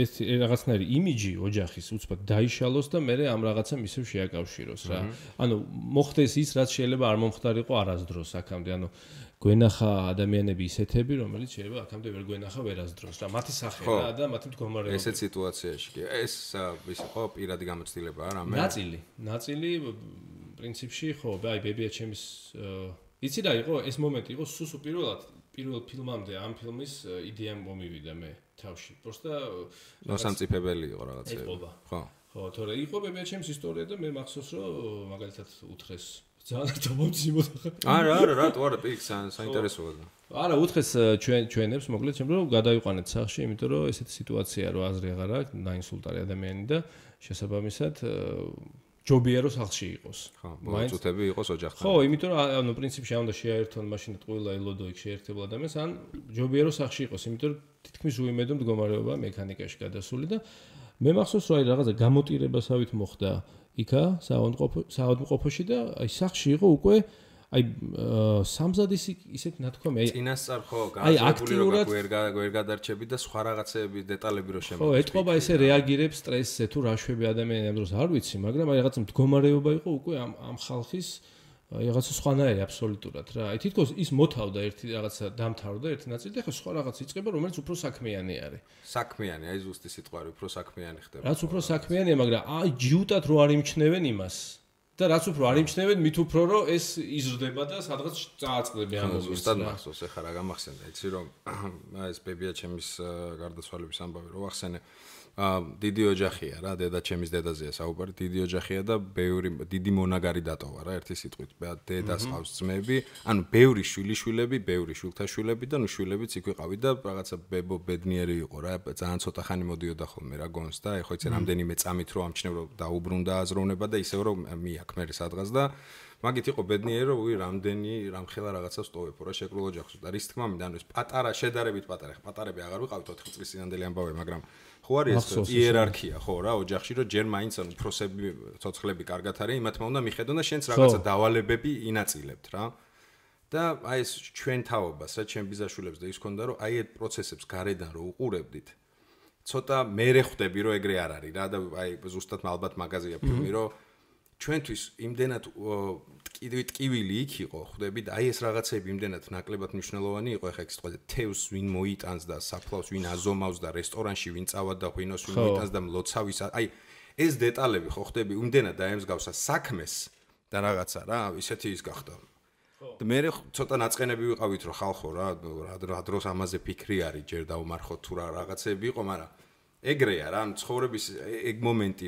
Speaker 2: ეს რაღაცნაირი იმიჯი ოჯახის უცბად დაიშალოს და მე ამ რაღაცამ ისევ შეაკავშიროს რა. ანუ მოხდეს ის, რაც შეიძლება არ მომხდარიყო არასდროს აქამდე, ანუ გვენახა ადამიანები ისეთები, რომელიც შეიძლება აქამდე ვერ გვენახა ვერასდროს რა. მათი სახე რა და მათი მდგომარეობა.
Speaker 1: ესეთ სიტუაციაში კი. ეს ის ხო პირადი გამოცდილებაა რა მე.
Speaker 2: ნაწილი პრინციპში ხო, აი ბებია ჩემის იცი რა იყო ეს მომენტი იყო სუსუ პირველ ფილმამდე ამ ფილმის იდეა მომივიდა მე თავში. Просто
Speaker 1: მოსამწიფებელი იყო რაღაცა.
Speaker 2: ხო. ხო, თორე იყო ბებია ჩემის ისტორია და მე მახსოვს რომ მაგალითად უთხრეს ძალიან დამომძიმოდა.
Speaker 1: არა, რატო არა, პიქს საინტერესოა.
Speaker 2: არა, უთხრეს ჩვენებს, მოკლედ, რომ გადაიყვანეთ სახლში, იმიტომ რომ ესეთი სიტუაცია რო აზრი აღარ აქვს, დაინსულტარი ადამიანი და შესაბამისად ჯობია რომ სახლში იყოს.
Speaker 1: ხო, მოწუთები იყოს ოჯახთან.
Speaker 2: ხო, იმიტომ რომ ანუ პრინციპში არ უნდა შეაერთონ მაშინ ყველა ელოდო იქ შეერთებულ ადამიანს, ან ჯობია რომ სახლში იყოს, იმიტომ რომ თითქმის უიმედო მდგომარეობა მექანიკაში გადასული და მე მახსოვს რომ აი რაღაცა გამოტირებასავით მოხდა იქა საავადმყოფოში და აი სახლში იყო უკვე აი სამზადის ისეთ ნათქვამი აი
Speaker 1: წინასწარ ხო გააზრებული როგორ ვერ გადარჩები და სხვა რაღაცეების დეტალები რო შემო.
Speaker 2: ხო, ეთყობა ესე რეაგირებს სტრესზე თუ რა შვები ადამიანი ამ დროს არ ვიცი, მაგრამ აი რაღაცა მდგომარეობა იყო უკვე ამ ხალხის რაღაცა სხვანაირი აბსოლუტურად რა. აი თითქოს ის მოთავდა ერთი რაღაცა დამთავრდა ერთი ნაწილი და ხო სხვა რაღაც იწყება, რომელიც უფრო საქმიანი არის.
Speaker 1: საქმიანი, აი ზუსტი სიტყვა არის, უფრო საქმიანი ხდება.
Speaker 2: რაც უფრო საქმიანია, მაგრამ აი ჯიუტად რო არ იმჩნევენ იმას და რაც უფრო არ იმჩნევენ, მით უფრო რომ ეს იზრდება და სადღაც წააწყდება ამ მომენტს.
Speaker 1: ზუსტად მახსოვს, ეხლა რა გამახსენდა, იცი რომ ეს ბებია ჩემის გარდაცვალების ამბავი რო ვახსენე. დიდი ოჯახია რა, დედა ჩემის დედაზეა საუბარი, დიდი ოჯახია და ბევრი დიდი მონაგარი დატოვა რა, ერთი სიტყვით. დედას ყავს ძმები, ანუ ბევრი შვილიშვილები, ბევრი შვილთაშვილები და ნუ შვილებიც იქ ვიყავი და რაღაცა ბებო ბედნიერი იყო რა, ძალიან ცოტა ხანი მოდიოდა ხოლმე რა გონს და ეხლა იცი რამდენიმე წამით რო ამჩნევ რომ დაუბრუნდა აზროვნება და ისევ რომ მიაქ მე სადღაც და მაგით იყო ბედნიერი რომ რამდენი რამხელა რაღაცას ტოვებ რა შეკრულ ოჯახს და რის თქმა მინდა ანუ ეს პატარა შედარებით პატარა ხა პატარები აღარ ვიყავით 4 წლის წინანდელი ამბავი მაგრამ ხო არის ეს იერარქია ხო რა ოჯახში რომ ჯერ მაინც ანუ უფროსები ცოცხლები კარგად არის იმათ უნდა მიხედონ და შენც რაღაცა დავალებები ინაწილებთ რა და აი ეს ჩვენ თაობას რა ჩვენ ბიზაშულებს და ის ქონდა რომ აი ეს პროცესებს გარედან რო უყურებდით ცოტა მერე ხვდები რომ ეგრე არ არის რა და აი ზუსტად ალბათ მაგაზია ფილმი რომ ჩვენთვის იმდენად ტკივილი იქ იყო ხვდები და აი ეს რაღაცები იმდენად ნაკლებად მნიშვნელოვანი იყო ეხა ეს თქვა თევს ვინ მოიტანს და საფლავს ვინ აზომავს და რესტორანში ვინ წავად და ღვინოს ვინ მოიტანს და მლოცავის აი ეს დეტალები ხო ხვდები იმდენად დაემსგავსა საქმეს და რაღაცა რა ისეთი ის გახდა და მე ცოტა ნაწყენები ვიყავით რომ ხალხო რა დროს ამაზე ფიქრი არის ჯერ დაუმარხოთ თუ რა რაღაცები იყო მაგრამ ეგრეა რა ცხოვრების ეგ მომენტი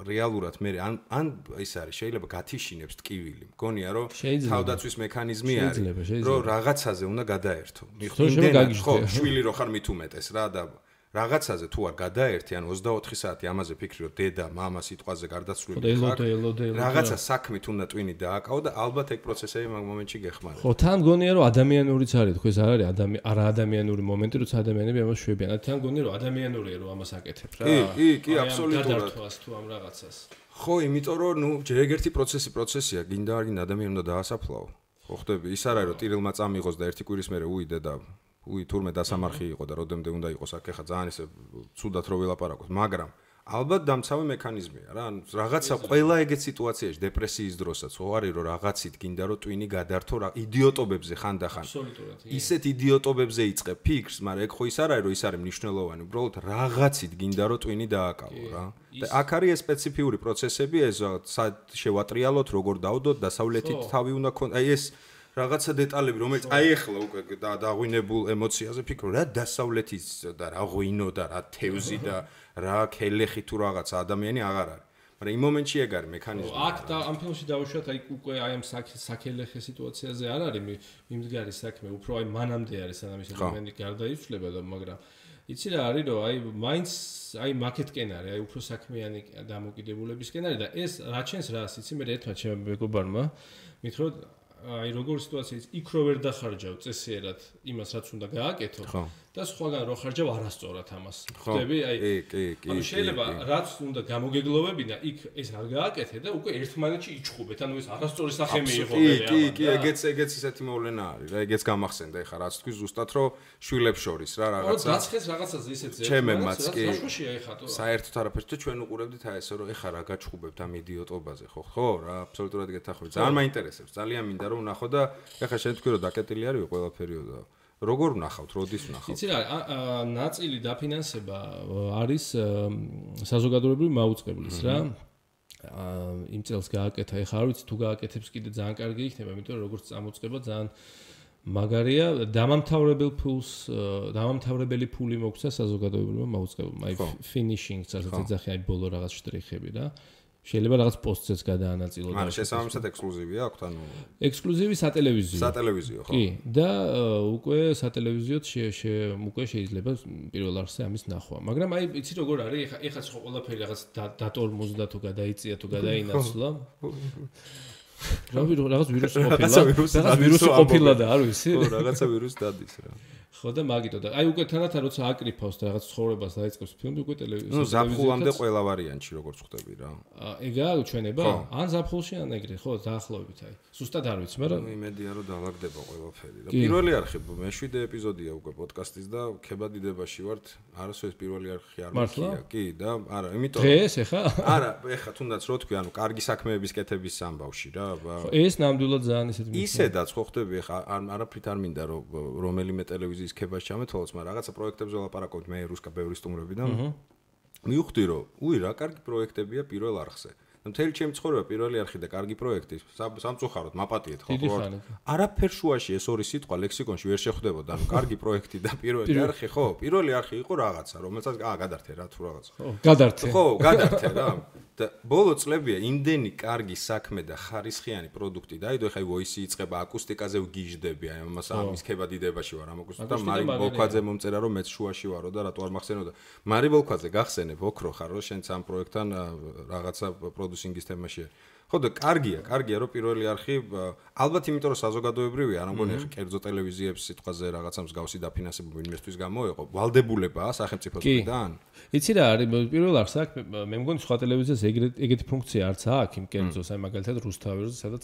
Speaker 1: რეალურად მე ან ის არის შეიძლება გათიშინებს ტკივილი მგონია რომ თავდაცვის მექანიზმი არის რომ რაღაცაზე უნდა გადაერთო იმდენად ხო შვილი რო ხარ მით უმეტეს რა და რაღაცაზე თუ არ გადაერთი ან 24 საათი ამაზე ფიქრი რომ დედა მამა სიტყვაზე გარდაცვლილი ხარ რაღაცა საქმით უნდა ტვინი დააკავო და ალბათ ეგ პროცესები მაგ მომენტში გეხმარება
Speaker 2: ხო თან გონია რომ ადამიანურიც არის თქო ეს არ არის არა ადამიანური მომენტი როცა ადამიანები ამას შვებიან თან გონია რომ ადამიანურია რომ ამას აკეთებ რა
Speaker 1: კი აბსოლუტურად
Speaker 2: გადართვას თუ ამ რაღაცას
Speaker 1: ხო იმიტომ რომ ნუ ჯერ ეგერთი პროცესია გინდა არ გინდა ადამიანი უნდა დაასაფლაო ხო ხდები ის არ არის რომ ტირილმა წამიღოს და ერთი კვირის მერე უიდე და თურმე დასამარხი იყო და როდემდე უნდა იყოს აქ ხა ძალიან ისე ცუდად რო ველაპარაკოთ მაგრამ ალბათ დამცავი მექანიზმია რა ანუ რაღაცა ყველა ეგეთ სიტუაციაში დეპრესიის დროსაც ხო არის რომ რაღაცით გინდა რომ ტვინი გადართო რა იდიოტობებზე ხანდახან ისეთ იდიოტობებზე იწყებ ფიქრს მაგრამ ეგ ხო ის არ არის რომ ის არის მნიშვნელოვანი უბრალოდ რაღაცით გინდა რომ ტვინი დააკავო რა და აქ არის ეს სპეციფიური პროცესები ეს შევატრიალოთ როგორ დავდოთ დასავლეთით თავი უნდა ქონდეს აი ეს რაღაცა დეტალები რომელიც აი ახლა უკვე დაღვინებულ ემოციაზე ფიქრო რა დასავლეთის და რა ღვინო და რა თევზი და რა ქელეხი თუ რაღაცა ადამიანი აღარ არის მაგრამ იმ მომენტში ეგ არის მექანიზმი
Speaker 2: აქ და ამ ფილმში დავუშვათ აი უკვე აი ამ საქელეხე სიტუაციაზე არ არის მიმდგარი საქმე უფრო აი მანამდე არის სანამ ეს ადამიანი გარდაიცვლება და მაგრამ იცი რა არის რომ აი მაინც აი მაკეთკენ არის აი უფრო საქმიანი დამოკიდებულებისკენ არის და ეს რა ჩენს რას იცი მე ერთმა ჩემმა მეგობარმა მითხრა აი როგორ სიტუაცია იქ რო ვერ დახარჯავ წესიერად იმას რაც უნდა გააკეთო და სხვაგან რო ხარჯავ არასწორად ამას ხვდები აი ანუ შეიძლება რაც უნდა გამოგეგლოვებინა იქ ეს არ გააკეთე და უკვე ერთმანეთში იჩხუბეთ ანუ ეს არასწორი სახე მიიღო
Speaker 1: კი ეგეც ისეთი მოვლენა არის რა ეგეც გამახსენდა ეხა რაც თქვი ზუსტად რომ შვილებს შორის რა რაღაცა
Speaker 2: დაცხეს რაღაცაზე ისეთი
Speaker 1: ჩემემაც კი
Speaker 2: საშუშია ეხა თუ
Speaker 1: საერთოდ არაფერს და ჩვენ უყურებდით აი ესე რომ ეხა რა გაჩხუბებთ ამ იდიოტობაზე ხო რა აბსოლუტურად გეთახმებით ძალიან მაინტერესებს ძალიან მინდა რომ ვნახო და ეხა შენ თქვი რომ დაკეტილი არის ყველაფერიო და როგორ ვნახავთ, როდის ვნახავთ?
Speaker 2: იცი რა, ნაწილი დაფინანსება არის საზოგადოებრივი მაუწყებლის რა. იმ წელს გააკეთა, ეხლა არ ვიცი თუ გააკეთებს კიდე ძალიან კარგი იქნება, იმიტომ რომ როგორც წამოწყება ძალიან მაგარია, დამამთავრებელი ფული მოგვცა საზოგადოებრივმა მაუწყებელმა, აი finishing-ს ასე ეძახიან, აი ბოლო რაღაც შტრიხები რა. შეიძლება რაღაც პოსტზეც გადაანაწილო და
Speaker 1: ანუ შესაბამისად ექსკლუზივია აქვთ ანუ
Speaker 2: ექსკლუზივი სატელევიზიო
Speaker 1: ხო
Speaker 2: კი და უკვე სატელევიზიოდ უკვე შეიძლება პირველ არხზე ამის ნახვა მაგრამ აი იცი როგორ არის ეხაც ხო ყველაფერი რაღაც დატორმოზდა თუ გადაიწია თუ გადაინაცვლა რაღაც ვირუსი ყოფილა და არ ვიცი
Speaker 1: ხო რაღაცა ვირუსი დადის რა
Speaker 2: ხო და მაგიტო და აი უკვე თანათან როცა აკრიფავს და რაღაც ცხოვრებას დაიწყებს ფილმი უკვე ტელევიზორზე.
Speaker 1: ნუ ზაფხულამდე ყველა ვარიანტში როგორც ხვდები რა.
Speaker 2: ეგაა ჩვენება? ან ზაფხულში ან ეგრე, ხო, დაახლოებით აი. სუსტად არ ვიცი, მაგრამ
Speaker 1: იმედია რომ დაალაგდება ყველაფერი რა. პირველი არხი მე-7 ეპიზოდია უკვე პოდკასტის და ქებადიდებაში ვართ. არასოდეს პირველი არხი არ მიქია. კი და არა, იმიტომ
Speaker 2: დღეს ეხა?
Speaker 1: არა, ეხა თუნდაც რო თქვი, ანუ კარგი საქმეების კეთების ამბავში რა.
Speaker 2: ხო, ეს ნამდვილად ძალიან ისეთ
Speaker 1: ისედაც ხო ხდები ეხა არაფრით არ მინდა რომ რომელიმე ტელევიზიის ქებას ჩამეთვალოს, მაგრამ რაღაცა პროექტებზე ვლაპარაკობთ მე რუსკა ბევრი სტუმრებიდან. მივხვდი რომ უი რა კარგი პროექტებია პირველ არხზე. მთელი ჩემი ცხოვრება პირველი არხი და კარგი პროექტი სამწუხაროდ მაპატიეთ ხო არაფერ შუაში ეს ორი სიტყვა ლექსიკონში ვერ შეხვდებოდა ანუ კარგი პროექტი და პირველი არხი ხო პირველი არხი იყო რაღაცა რომელსაც გადართე რა თუ რაღაცა ხო გადართე რა და ბოლო წლებია იმდენი კარგი საქმე და ხარისხიანი პროდუქტი დაიდო ეხა ვოისი იწება აკუსტიკაზე ვგიჟდები აი ამას ამის ქებადიდებაში ვარ ამ აკუსტიკა მარი ბოლქვაძე მომწერა რომ მეც შუაში ვარო და რატო არ მახსენებდა მარი ბოლქვაძე გახსენებ ოქრო ხარ რომ შენც ამ პროექტთან რაღაცა პროდუსინგის თემაშია ხო და კარგია რომ პირველი არხი ალბათ იმიტომ რომ საზოგადოებრივია არ მგონი ახლა კერძო ტელევიზიებს სიტყვაზე რაღაცა მსგავსი დაფინანსება ინვესტვის გამოეყო ვალდებულებაა სახელმწიფოსგან
Speaker 2: იცი რა არის პირველ არხს აქ მე მგონი სხვა ტელევიზიას ეგეთი ფუნქცია არც აქვს იმ კერძოს აი მაგალითად რუსთაველზე სადაც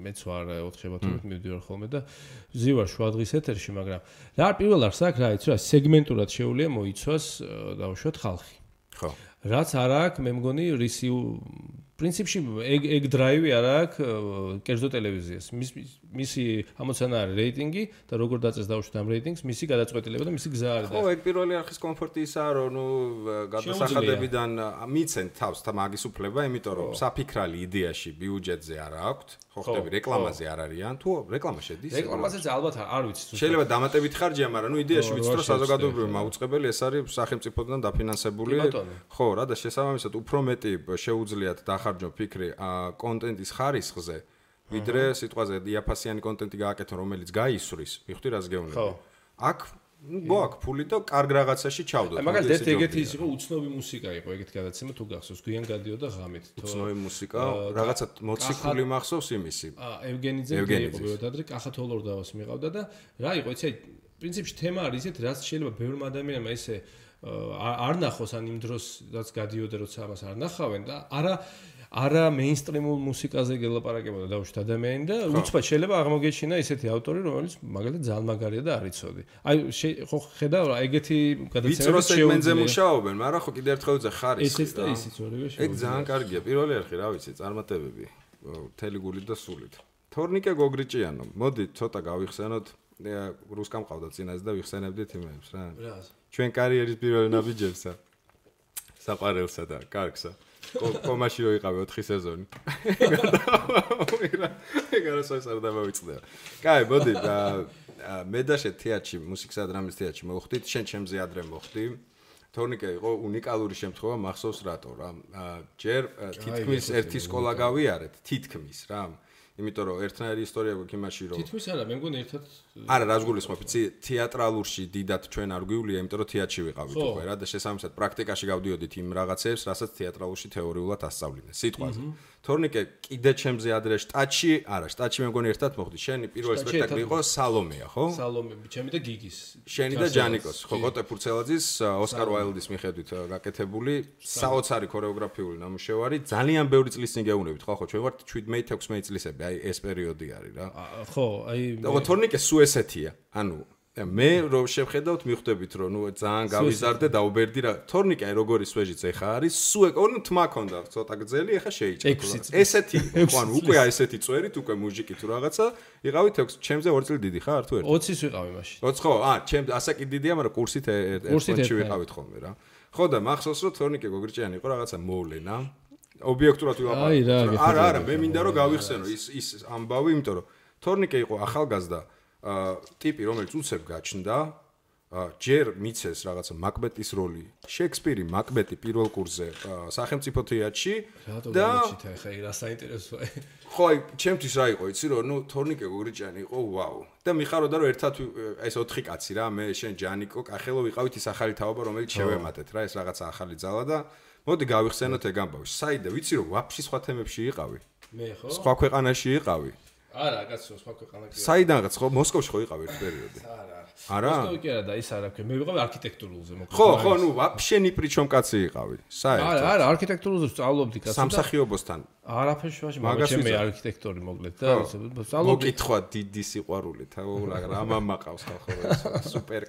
Speaker 2: მეც ვარ 4 შაბათობით მივდივარ ხოლმე და ზივარ შუადღის ეთერში მაგრამ რა არის პირველ არხს აქ რა იცი რა სეგმენტურად შეუძლია მოიცვას დავუშვათ ხალხი
Speaker 1: ხო
Speaker 2: რაც არ აქვს მე მგონი რისი პრინციპში ეგ დრაივი არ აქვს კერძო ტელევიზიას მისი ამოცანა არის რეიტინგი და როგორ დაწეს დავუშვით ამ რეიტინგს მისი გადაწყვეტილება და მისი გზა არის
Speaker 1: ხო ეგ პირველი არხის კომფორტი ისაა რომ ნუ გადასახადებიდან მიცენ თავს და მაგის უფლება იმიტომ რომ საფიქრალი იდეაში ბიუჯეტზე არ აქვს ხო ხტები რეკლამაზე არ არიან თუ რეკლამა შედის
Speaker 2: რეკლამაზეც ალბათ არ ვიცი
Speaker 1: შეიძლება დამატებით ხარჯია მაგრამ ნუ იდეაში ვიცით რომ საზოგადოებრივი მაუწყებელი ეს არის სახელმწიფოდან დაფინანსებული ხო რა და შესაბამისად უფრო მეტი შეუძლიათ დახარჯონ ფიქრი კონტენტის ხარისხზე ვიდრე სიტყვაზე დიაფასიანი კონტენტი გააკეთონ რომელიც გაისვრის მიხდი რას გეუბნები აქ გვაქვს ფული და კარგ რაღაცაში ჩავდოთ
Speaker 2: მაგალითად ეგეთი ის იყო უცნობი მუსიკა იყო ეგეთი გადაცემა თუ გახსოვს გვიან გადიოდა ღამით
Speaker 1: უცნობი მუსიკა რაღაცა მოციქული მახსოვს იმისი
Speaker 2: ევგენიძე იყო ბევრად კახა თოლორდავას მიყავდა და რა იყო იცი პრინციპში თემა არის ისეთ რაც შეიძლება ბევრმა ადამიანმა ესე არ ნახოს ან იმ დროს რაც გადიოდა როცა ამას არ ნახავენ და არა მეინსტრიმულ მუსიკაზე გელაპარაკებოდა დავუშვით ადამიანი და უცბად შეიძლება აღმოგეჩინა ისეთი ავტორი რომელიც მაგალითად ძალიან მაგარია და არ იცოდი. აი ხო ხედავ რა ეგეთი გადაცემა
Speaker 1: სეგმენტზე მუშაობენ, მაგრამ ხო კიდევ ერთხელ ზე ხარისხი.
Speaker 2: ესეც და ისიც ორივე
Speaker 1: ეგ ძალიან კარგია. პირველი არხი რა ვიცი, წარმატებები. მთელი გულით და სულით. თორნიკე გოგრიჭიანო, მოდი ცოტა გავიხსენოთ რუსკამ ყავდა წინაზე და ვიხსენებდით იმებს რა. ჩვენ კარიერის პირველ ნაბიჯებსა. საყარელსა და კარგსა. კომაში რო იყავი 4 სეზონი. ეგ არასოდეს არ დამოვიწყდება. კაი, მოდი მე და შე თეატრში, მუსიკისა და დრამის თეატრში მოვხდით, შენ ჩემზე ადრე მოვხდი. თორნიკე იყო უნიკალური შემთხვევა, მახსოვს რატო რა. ჯერ თითქმის ერთი სკოლა გავიარეთ, თითქმის რა. იმიტომ რომ ერთნაირი ისტორია გვაქვს იმაში რომ
Speaker 2: თითქმის არა მე მგონი ერთად
Speaker 1: არა რას გულისხმობ იცი თეატრალურში დიდად ჩვენ არ გვივლია იმიტომ რომ თეატრში ვიყავით უკვე რა და შესაბამისად პრაქტიკაში გავდიოდით იმ რაღაცებს რასაც თეატრალურში თეორიულად ასწავლინე სიტყვაზე თორნიკე კიდე ჩემზე ადრე შტატში არა შტატში მე მგონი ერთად მოხდი შენი პირველი სპექტაკლი იყო სალომეა ხო
Speaker 2: სალომე ჩემი და გიგის
Speaker 1: შენი და ჯანიკოს ხო გოტე ფურცელაძის ოსკარ ვაილდის მიხედვით გაკეთებული საოცარი ქორეოგრაფიული ნამუშევარი ძალიან ბევრი წლის წინ გეუბნებით ხო ჩვენ ვართ 17-16 წლისები აი ეს პერიოდი არის რა
Speaker 2: ხო აი
Speaker 1: და თორნიკე სუ ესეთია ანუ მე რო შევხედავთ მიხვდებით რომ ნუ ძალიან გავიზარდე დაუბერდი რა თორნიკე აი როგორი სვეჟიც ეხა არის სუ ეკონო თმა ქონდა ცოტა გძელი ეხა შეიჭრა ესეთი ხო ანუ უკვე ესეთი წვერით უკვე მუჟიკი თუ რაღაცა იყავით 6 ჩემზე 2 წელი დიდი ხარ თუ ერთი
Speaker 2: 20-ის ვიყავი მაშინ
Speaker 1: 20 ხო ჩემ ასაკი დიდია მაგრამ კურსით ერთში ვიყავით ხოლმე რა ხო და მახსოვს რომ თორნიკე გოგრიჭიანი იყო რაღაცა მოვლენა ობიექტურად ვიყავ არა მე მინდა რომ გავიხსენო ის ამბავი იმიტომ რომ თორნიკე იყო ახალგაზრდა ტიპი რომელიც უცებ გაჩნდა ჯერ მიცეს რაღაცა მაკბეტის როლი შექსპირი მაკბეტი პირველ კურსზე სახელმწიფო თეატრში
Speaker 2: და ხა რა საინტერესოა
Speaker 1: ხო აი ჩემთვის რა იყო იცი რომ ნუ თორნიკე გოგრიჭიანი იყო ვაუ და მიხაროდა რომ ერთად ეს 4 კაცი რა მე შენ ჯანიკო კახელო ვიყავით ის ახალი თაობა რომელიც შევემატეთ რა ეს რაღაცა ახალი ძალა და მოდი გავიხსენოთ ეგ ამბავი საიდა ვიცი რომ ვაფშე სხვა თემებში იყავი
Speaker 2: მე ხო
Speaker 1: სხვა ქვეყანაში იყავი
Speaker 2: არა, კაცო, სხვა ქვეყანა კი.
Speaker 1: საიდანღაც ხო მოსკოვში ხო იყავ ერთ პერიოდი? არა.
Speaker 2: მოსკოვი კი არა და ის არა, მე ვიყავი არქიტექტურულზე მოკლედ.
Speaker 1: ხო, ნუ ვაფშე ნი პრიჩომ კაცი იყავი. საერთოდ.
Speaker 2: არა, არქიტექტურულზე სწავლობდი კაცო.
Speaker 1: სამსახიობოსთან.
Speaker 2: არაფერში ვაში, მაგრამ მე არქიტექტორი მოკლედ და
Speaker 1: სწავლობდი. მოკითხვა დიდი სიყვარულით, რა მამაყავს ხალხო ეს სუპერ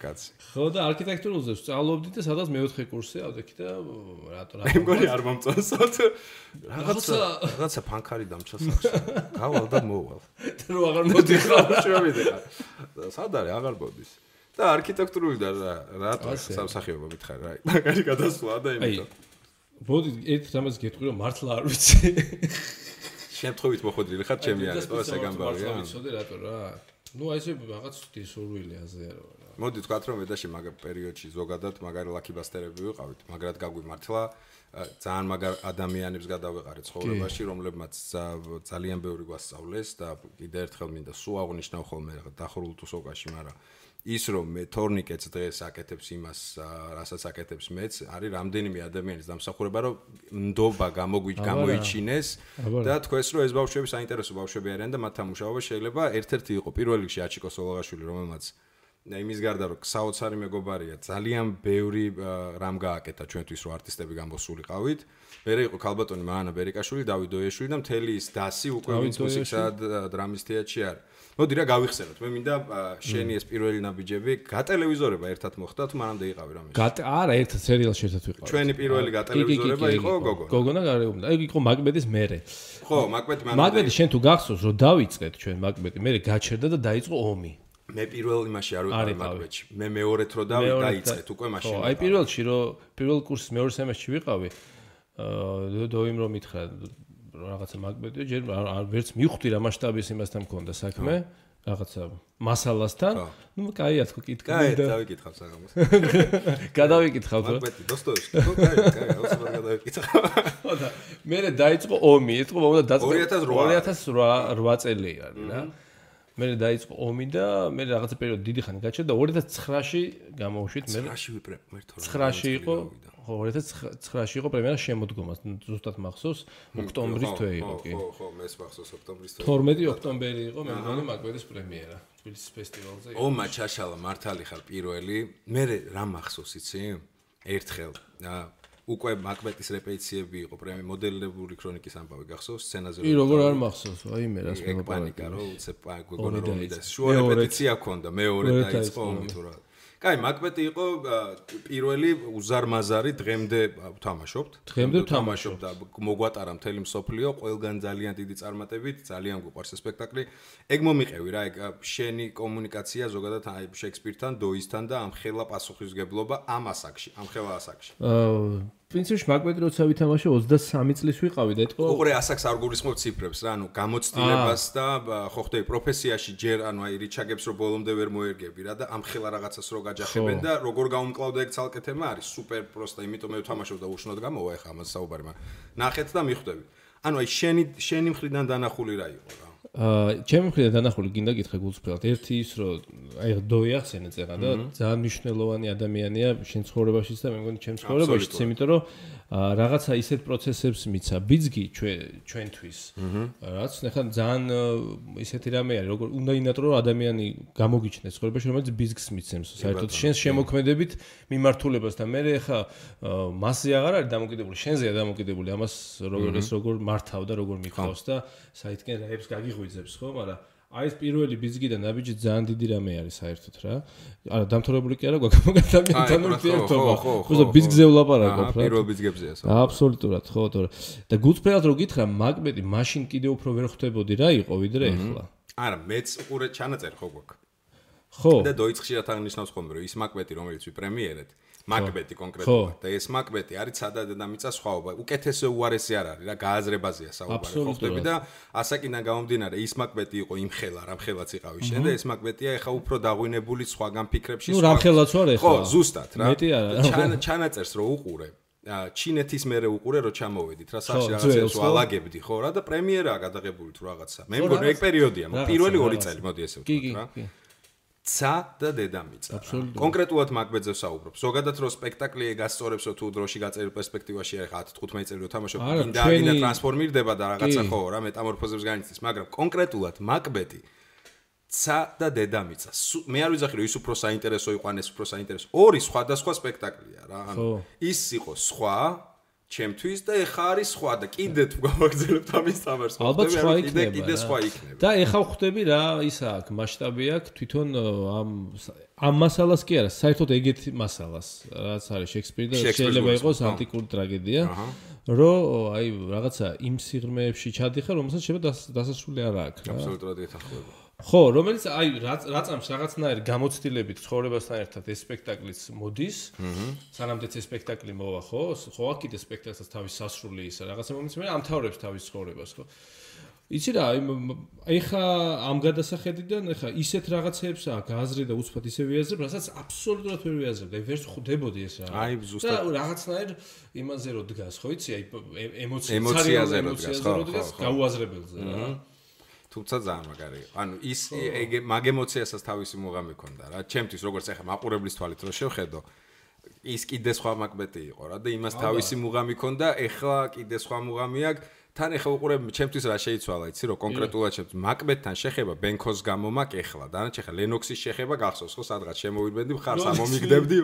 Speaker 1: კაცი.
Speaker 2: ხო და არქიტექტურულზე სწავლობდი და სადაც მეოთხე კურსზე ავდექი და რატო
Speaker 1: მე მგონი არ მომწონსოთ. რაღაცა ფანქარი დამჭა სახში. გავალ და მოვალ.
Speaker 2: რო აღარ მოდიხარ,
Speaker 1: შევიდეხარ. სად არის აღარ მოდის. და არქიტექტურული და რატო სამსახიობო მითხარ რა. მაგარი გადასვლა და იმითო.
Speaker 2: მოდი ერთ რამას გეტყვი რომ მართლა არ ვიცი.
Speaker 1: შემთხვევით მოხდრილი ხარ ჩემი არის, ეს ეგამბავია.
Speaker 2: ვიცოდი რატო რა. ნუ აი ესე რაღაც დისურვილი აზეა რა.
Speaker 1: მოდი თქვათ რომ ედაში მაგ პერიოდში ზოგადად მაგარი ლაკიბასტერები ვიყავით, მაგრად გაგვიმართლა ძალიან მაგარ ადამიანებს გადავეყარეთ ცხოვრებაში, რომლებმაც ძალიან ბევრი გვასწავლეს და კიდე ერთხელ მინდა სულ აღნიშნავ ხოლმე დახურულ თუსოკაში, მაგრამ ის რომ მე თორნიკეტს დღეს აკეთებს იმას, რასაც აკეთებს მეც, არის რამდენიმე ადამიანის დამსახურება, რომ ნდობა გამოიჩინეს და თქვენს რომ ეს ბავშვები საინტერესო ბავშვები არიან და მათთან მუშაობა შეიძლება ერთ-ერთი იყო პირველ რიგში აჩიკო სოლოღაშვილი, რომელმაც იმის გარდა რომ საოცარი მეგობარია, ძალიან ბევრი რამ გააკეთა ჩვენთვის რომ არტისტები გამოსულიყავით. მერე იყო ქალბატონი მანანა ბერიკაშვილი, დავით დოიაშვილი და მთელი ის დასი უკვე ვინც მუსიკსა და დრამის თეატრში არის. მოდი რა გავიხსენოთ. მე მინდა შენი ეს პირველი ნაბიჯები გატელევიზორება ერთად მოხდა თუ მანამდე იყავი რამე?
Speaker 2: არა, ერთად სერიალში ერთად ვიყავი.
Speaker 1: ჩვენი პირველი გატელევიზორება იყო გოგონა.
Speaker 2: გოგონა გარეუბნა. ეგ იყო მაკბეთის მერე.
Speaker 1: ხო, მაკბეთი მანამდე.
Speaker 2: მაკბეთი შენ თუ გახსოვს რომ დავიწყეთ ჩვენ მაკბეთი, მერე გაჩერდა და დაიწყო ომი.
Speaker 1: მე პირველ იმაში არ ვიყავი მაკბეთში. მე მეორეთ რო დაიწყეთ უკვე მაშინ.
Speaker 2: ხო, აი პირველში რო პირველ კურსის მეორე სემესტრში ვიყავი, დოიმ რომ მითხრა რაღაცა მაკბეთი, ჯერ ვერც მივხვდი რა მასშტაბის იმასთან მქონდა საქმე, რაღაცა მასალასთან. ნუ კაია თქო კითხავ
Speaker 1: და დავიკითხავ საღამოს.
Speaker 2: გადავიკითხავ რა.
Speaker 1: მაკბეთი დოსტოევსკი, ხო, კაია, ოსმარ გადავიკითხავ.
Speaker 2: ხო და მერე დაიწყო ომი, ეთქო მომდა დაწყო 2008 წელი არის რა. მერე დაიწყო ომი და მე რაღაცა პერიოდი დიდი ხანი გაჩერდა 2009-ში გამოვშვით მე 9-ში იყო ხო 2009-ში იყო პრემიერა შემოდგომა ზუსტად მახსოვს ოქტომბრის თვე იყო კი
Speaker 1: ხო მეც მახსოვს ოქტომბრის თვე
Speaker 2: 12 ოქტომბერი იყო მე მგონი მაკბეთის პრემიერა თბილისის ფესტივალზე
Speaker 1: ომა ჩაშალა მართალი ხარ პირველი მე რა მახსოვს იცი ერთხელ უკვე მაკბეთის რეპეტიციები იყო პრემი მოდელებული ქრონიკის ამბავი გახსოვს სცენაზე
Speaker 2: კი როგორ არ მახსოვს აი მე რას
Speaker 1: მე პანიკა რო უცებ გოგონა რომ მიდა შუა რეპეტიცია ქონდა მეორე დაიწყო ომი თუ რა კაი მაკბეთი იყო პირველი უზარმაზარი დღემდე ვთამაშობთ და მოგვატარა მთელი მსოფლიო ყველგან ძალიან დიდი წარმატებით ძალიან გვიყვარს ეს სპექტაკლი ეგ მომიყევი რა ეგ შენი კომუნიკაცია ზოგადად აი შექსპირთან დოისთან და ამხელა პასუხისგებლობა ამ ასაკში ამხელა ასაკში
Speaker 2: პრინციპში მაკბეთი როცა ვითამაშე 23 წლის ვიყავი და ეთქო
Speaker 1: უყურე ასაკს არ გულისხმობ ციფრებს რა ანუ გამოცდილებას და ხო ხდები პროფესიაში ჯერ ანუ აი რიჩაგებს რო ბოლომდე ვერ მოერგები რა და ამხელა რაღაცას რო გაჯახებენ და როგორ გაუმკლავდა ეგ ცალკე თემა არის სუპერ პროსტა იმიტომ მე ვთამაშობ და უშნოდ გამოვა ეხა ამას საუბარი მაგრამ ნახეთ და მიხვდები ანუ აი შენი მხრიდან დანახული რა იყო რა
Speaker 2: ჩემი მხრიდან დანახული გინდა გითხრა გულწრფელად ერთი ის რომ აი დოი ახსენე წერა და ძალიან მნიშვნელოვანი ადამიანია შენ ცხოვრებაშიც და მე მგონი ჩემ ცხოვრებაშიც იმიტომ რომ რაღაცა ისეთ პროცესებს მიცა ბიძგი ჩვენთვის რაც ნახა ძალიან ისეთი რამე არის როგორ უნდა ინატრო ადამიანი გამოგიჩნდეს ცხოვრებაში რომელიც ბიძგს მიცემს საერთოდ შენს შემოქმედებით მიმართულებას და მე ხა მასზე აღარ არის დამოკიდებული შენზეა დამოკიდებული ამას როგორ მართავ და როგორ მიხავს და საერთოდ რაებს გაგიღვიძებს ხო მაგრამ აი ეს პირველი ბიძგი და ნაბიჯი ძალიან დიდი რამე არის საერთოდ რა. არა, დამთავრებული კი არა გვაქვს ადამიანთან ურთიერთობა. ხო, ბიძგზე ვლაპარაკობ რა.
Speaker 1: პირველ ბიძგებზეა საუბარი.
Speaker 2: აბსოლუტურად, ხო, თორე. და გულწრფელად რო გითხრა, მაკბეთი მაშინ კიდე უფრო ვერ ხვდებოდი რა იყო ვიდრე ახლა.
Speaker 1: არა, მეც უყურე ჩანაწერი ხო გვაქვს.
Speaker 2: ხო.
Speaker 1: და დოიწყშირად აღნიშნავს ხოლმე რომ ის მაკბეთი რომელიც ვიპრემიერეთ მაკბეთი კონკრეტულად და ეს მაკბეთი არის სადა დედამიწა სხვაობა უკეთესო უარესი არ არის რა გააზრებაზეა საუბარი ხო ხდები და ასაკიდან გამომდინარე ის მაკბეთი იყო იმ ხელა რამ ხელაც იყავი შენ და ეს მაკბეთია ეხა უფრო დაღვინებული სხვაგან ფიქრებში
Speaker 2: ნუ რამ ხელაც ვარ ეხლა
Speaker 1: ხო ზუსტად რა
Speaker 2: მეტი არა
Speaker 1: ჩანაწერს რო უყურე ჩინეთის მერე უყურე რო ჩამოვედით რა სახში რაღაცებს ვალაგებდი ხო რა და პრემიერაა გადაღებული თუ რაღაცა მე მგონი ეგ პერიოდია პირველი 2 წელი მოდი ესე ვთქვა რა ცა და დედამიწა. კონკრეტულად მაგბედზე ვსაუბრობ. ზოგადად რო სპექტაკლი გასწორებსო თუ დროში გაწერილ პერსპექტივაში ახლა 10-15 წელი რო თამაშობ, ინდა ტრანსფორმირდება და რაღაცა ხო რა მეტამორფოზებს განიცდის, მაგრამ კონკრეტულად მაგბეთი ცა და დედამიწა. მე არ ვიძახი რომ ის უფრო საინტერესო იყო ან ეს უფრო საინტერესო. ორი სხვადასხვა სპექტაკლია რა. ანუ ის იყო სხვა ჩემთვის და ეხა არის სხვა და კიდე თუ გავაგზავნებთ ამის თამაშს.
Speaker 2: ალბათ სხვა იქნება.
Speaker 1: კიდე სხვა იქნება.
Speaker 2: და ეხა ხვდები რა ისა აქვს მასშტაბი აქვს თვითონ ამ მასალას კი არა, საერთოდ ეგეთი მასალას, რაც არის შექსპირი და შეიძლება იყოს ანტიკური ტრაგედია, რომ აი რაღაცა იმ სიღრმეებში ჩადიხარ, რომელსაც შეიძლება დასასრული არ აქვს რა.
Speaker 1: აბსოლუტურად ეთანხმება.
Speaker 2: ხო, რომელიც აი რაწამს რაღაცნაირი გამოცდილებით ცხოვრებასთან ერთად ეს სპექტაკლიც მოდის. სანამდეც ეს სპექტაკლი მოვა, ხო? ხო, აქ კიდე სპექტაკლსაც თავის სასრული ისა რაღაცა მომents მე ამთავრებს თავის ცხოვრებას, ხო? იცი რა, აი ხა ამ გადასახედიდან ხა ისეთ რაღაცეებს გააზრე და უცბად ისე ვიაზრებ, რასაც აბსოლუტურად ვერ ვიაზრებ. აი ვერც ხვდებოდი ეს რა.
Speaker 1: აი ზუსტად
Speaker 2: და რაღაცნაირ იმაზე რო დგას, ხო იცი, აი
Speaker 1: ემოციაზე რო დგას, ხო,
Speaker 2: გაუაზრებელზე რა.
Speaker 1: თუმცა ძალიან მაგარი. ანუ ის მაგ ემოციასაც თავისი მუღამი ქონდა რა. ჩემთვის როგორც ახლა მაყურებლის თვალით რო შევხედო, ის კიდე სხვა მაგბეთი იყო რა და იმას თავისი მუღამი ქონდა, ეხლა კიდე სხვა მუღამი აქვს. თან ეხლა უყურებ ჩემთვის რა შეიცვალა, იცი რომ კონკრეტულად ჩემთვის მაგბეთთან შეხება ბენქოს გამო მაქვს ეხლა. დანარჩენ ხა ლენოქსის შეხება გახსოვს ხო სადღაც შემოვიდგენდი მხარს ამომიგდებდი.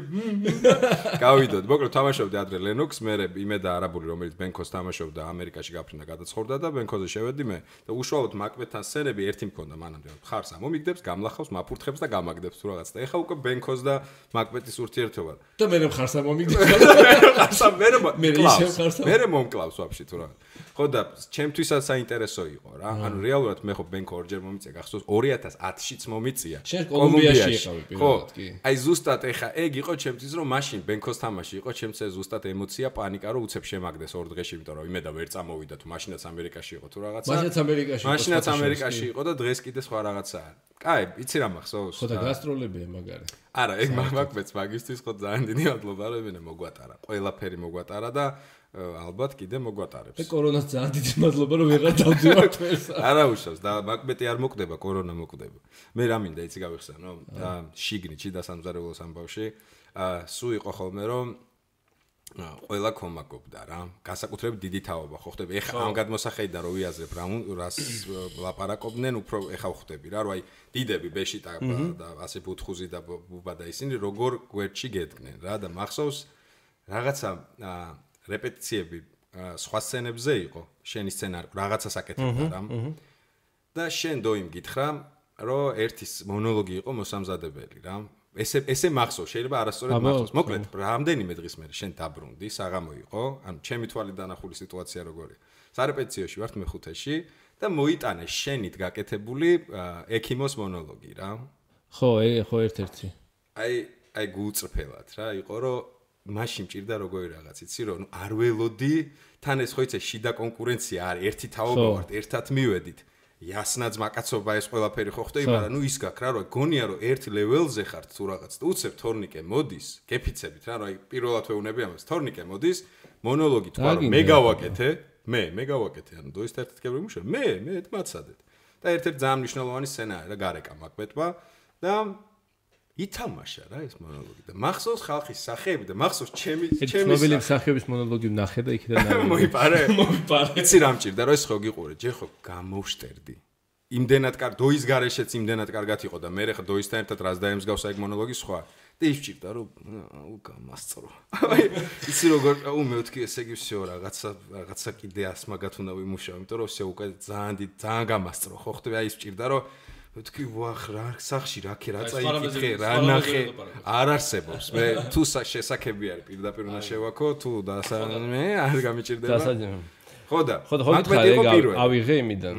Speaker 1: გავიდოდ, მოკლედ თამაშობდი ადრე ლენოქს, მე იმედა არაბული რომელიც ბენქოს თამაშობდა ამერიკაში გაფრინდა გადაცხოვრდა და ბენქოზე შევედი მე და უშუალოდ მაგბეთთან სცენები ერთი მქონდა მანამდე მხარს ამომიგდებს, გამლახავს, მაფურთხებს და გამაგდებს თუ რაღაც და ეხლა უკვე ბენქოს და მაგბეთის ურთიერთობა.
Speaker 2: და მე მხარს ამომიგდებს.
Speaker 1: მე მომკლავს ვაფშე თუ რაღაც. ხო და ჩემთვისაც საინტერესო იყო რა. ანუ რეალურად მე ხო ბენქო ორჯერ მომიწია გახსოვს 2010-შიც მომიწია.
Speaker 2: კოლუმბიაში იყავი პირველად კი.
Speaker 1: აი ზუსტად ეხა ეგ იყო ჩემთვის რომ მაშინ ბენქოს თამაში იყო ჩემთვის ზუსტად ემოცია, პანიკა რომ უცებ შემაგდეს ორ დღეში, იმიტომ რომ იმედა ვერ წამოვიდა თუ მაშინაც ამერიკაში იყო თუ რაღაცა. მაშინაც ამერიკაში იყო და დღეს კიდე სხვა რაღაცაა. კაი, იცი რა მახსოვს?
Speaker 2: ხო და გასტროლებია მაგარი.
Speaker 1: არა, ეგ მაგბეთს მაგისტრის ხო ძალიან დიდი მადლობა რომ მე მოგვატარა. ყველაფერი მოგვატარა და ალბათ კიდე მოგვატარებს.
Speaker 2: და კორონას ძალიან დიდი მადლობა რომ ვეღარ დავდივართ ეს.
Speaker 1: არა უშავს და მაგბეთი არ მოკვდება, კორონა მოკვდება. მე რა მინდა იცი გავიხსენო? შიგნიჩი და სამზარეულოს ამბავში სულ იყო ხოლმე რომ ყველა კომაკობდა რა. გასაკუთრებით დიდი თაობა ხო ხდები. ეხა ამ გადმოსახედიდან რო ვიაზრებ რას ლაპარაკობდნენ, უფრო ეხა ხვდები რა, რომ აი დიდები ბეშიტა და ასე ბუთხუზი და ბუბა და ისინი როგორ გვერდში გედგნენ რა და მახსოვს რაღაცა რეპეტიციები სხვა სცენებზე იყო, შენი სცენარი რაღაცას აკეთებდა რა. და შენ დოიმ გითხრა, რომ ერთის მონოლოგი იყო მოსამზადებელი რა. ესე მახსოვს, შეიძლება არასწორად მახსოვს. მოკლედ, რამდენიმე დღის მერე შენ დაბრუნდი, საღამო იყო, ანუ ჩემი თვალით დანახული სიტუაცია როგორია. სარეპეტიციოში ვართ მეხუთეში და მოიტანე შენით გაკეთებული ექიმოს მონოლოგი რა.
Speaker 2: ხო, ხო ერთ-ერთი.
Speaker 1: აი გულწრფელად რა, იყო რომ მაშინ მჭირდა როგორი რაღაც, იცი რომ არ ველოდი, თან ეს ხო იცი შიდა კონკურენცია არის, ერთი თაობა ვართ, ერთად მივედით. იასნაც მაკაცობა ეს ყველაფერი ხო ხდება, მაგრამ ნუ ის გაქვს რა, რომ გონია რომ ერთ ლეველზე ხართ თუ რაღაც და უცებ თორნიკე მოდის, გეფიცებით რა, რომ აი პირველად ვეუნები ამას, თორნიკე მოდის, მონოლოგი თქვა რომ მე გავაკეთე, მე გავაკეთე, ანუ დოის ერთ-ერთ გემუშა, მე მაცადეთ. და ერთ-ერთი ძალიან მნიშვნელოვანი სცენაა რა გარეკა მაგბეთმა და ითამაშა რა ეს მონოლოგი და მახსოვს ხალხის სახეები და მახსოვს ჩემი
Speaker 2: ცნობილი სახეების მონოლოგი ვნახე და იქიდან
Speaker 1: მოიპარე. იცი რა მჭირდა რომ ეს ხო გიყურე, ჯერ ხო გამოვშტერდი. იმდენად კარგ დოის გარეშეც იმდენად კარგად იყო და მე ხა დოისთან ერთად რას დაემსგავსა ეგ მონოლოგი სხვა. და ის მჭირდა რომ გამასწრო. აი იცი როგორ მეთქი ესე იგი всё რაღაცა კიდე ასმაგათ უნდა ვიმუშაო, იმიტომ რომ всё უკვე ძალიან გამასწრო ხო ხდება, აი ის მჭირდა რომ თქვი ვახ რა სახში რა წაიკითხე რა ნახე არ არსებობს მე თუ შესაძლებელია არის პირდაპირ უნდა შევაქო თუ მე არ გამიჭირდება ხო და
Speaker 2: ავიღე იმიდან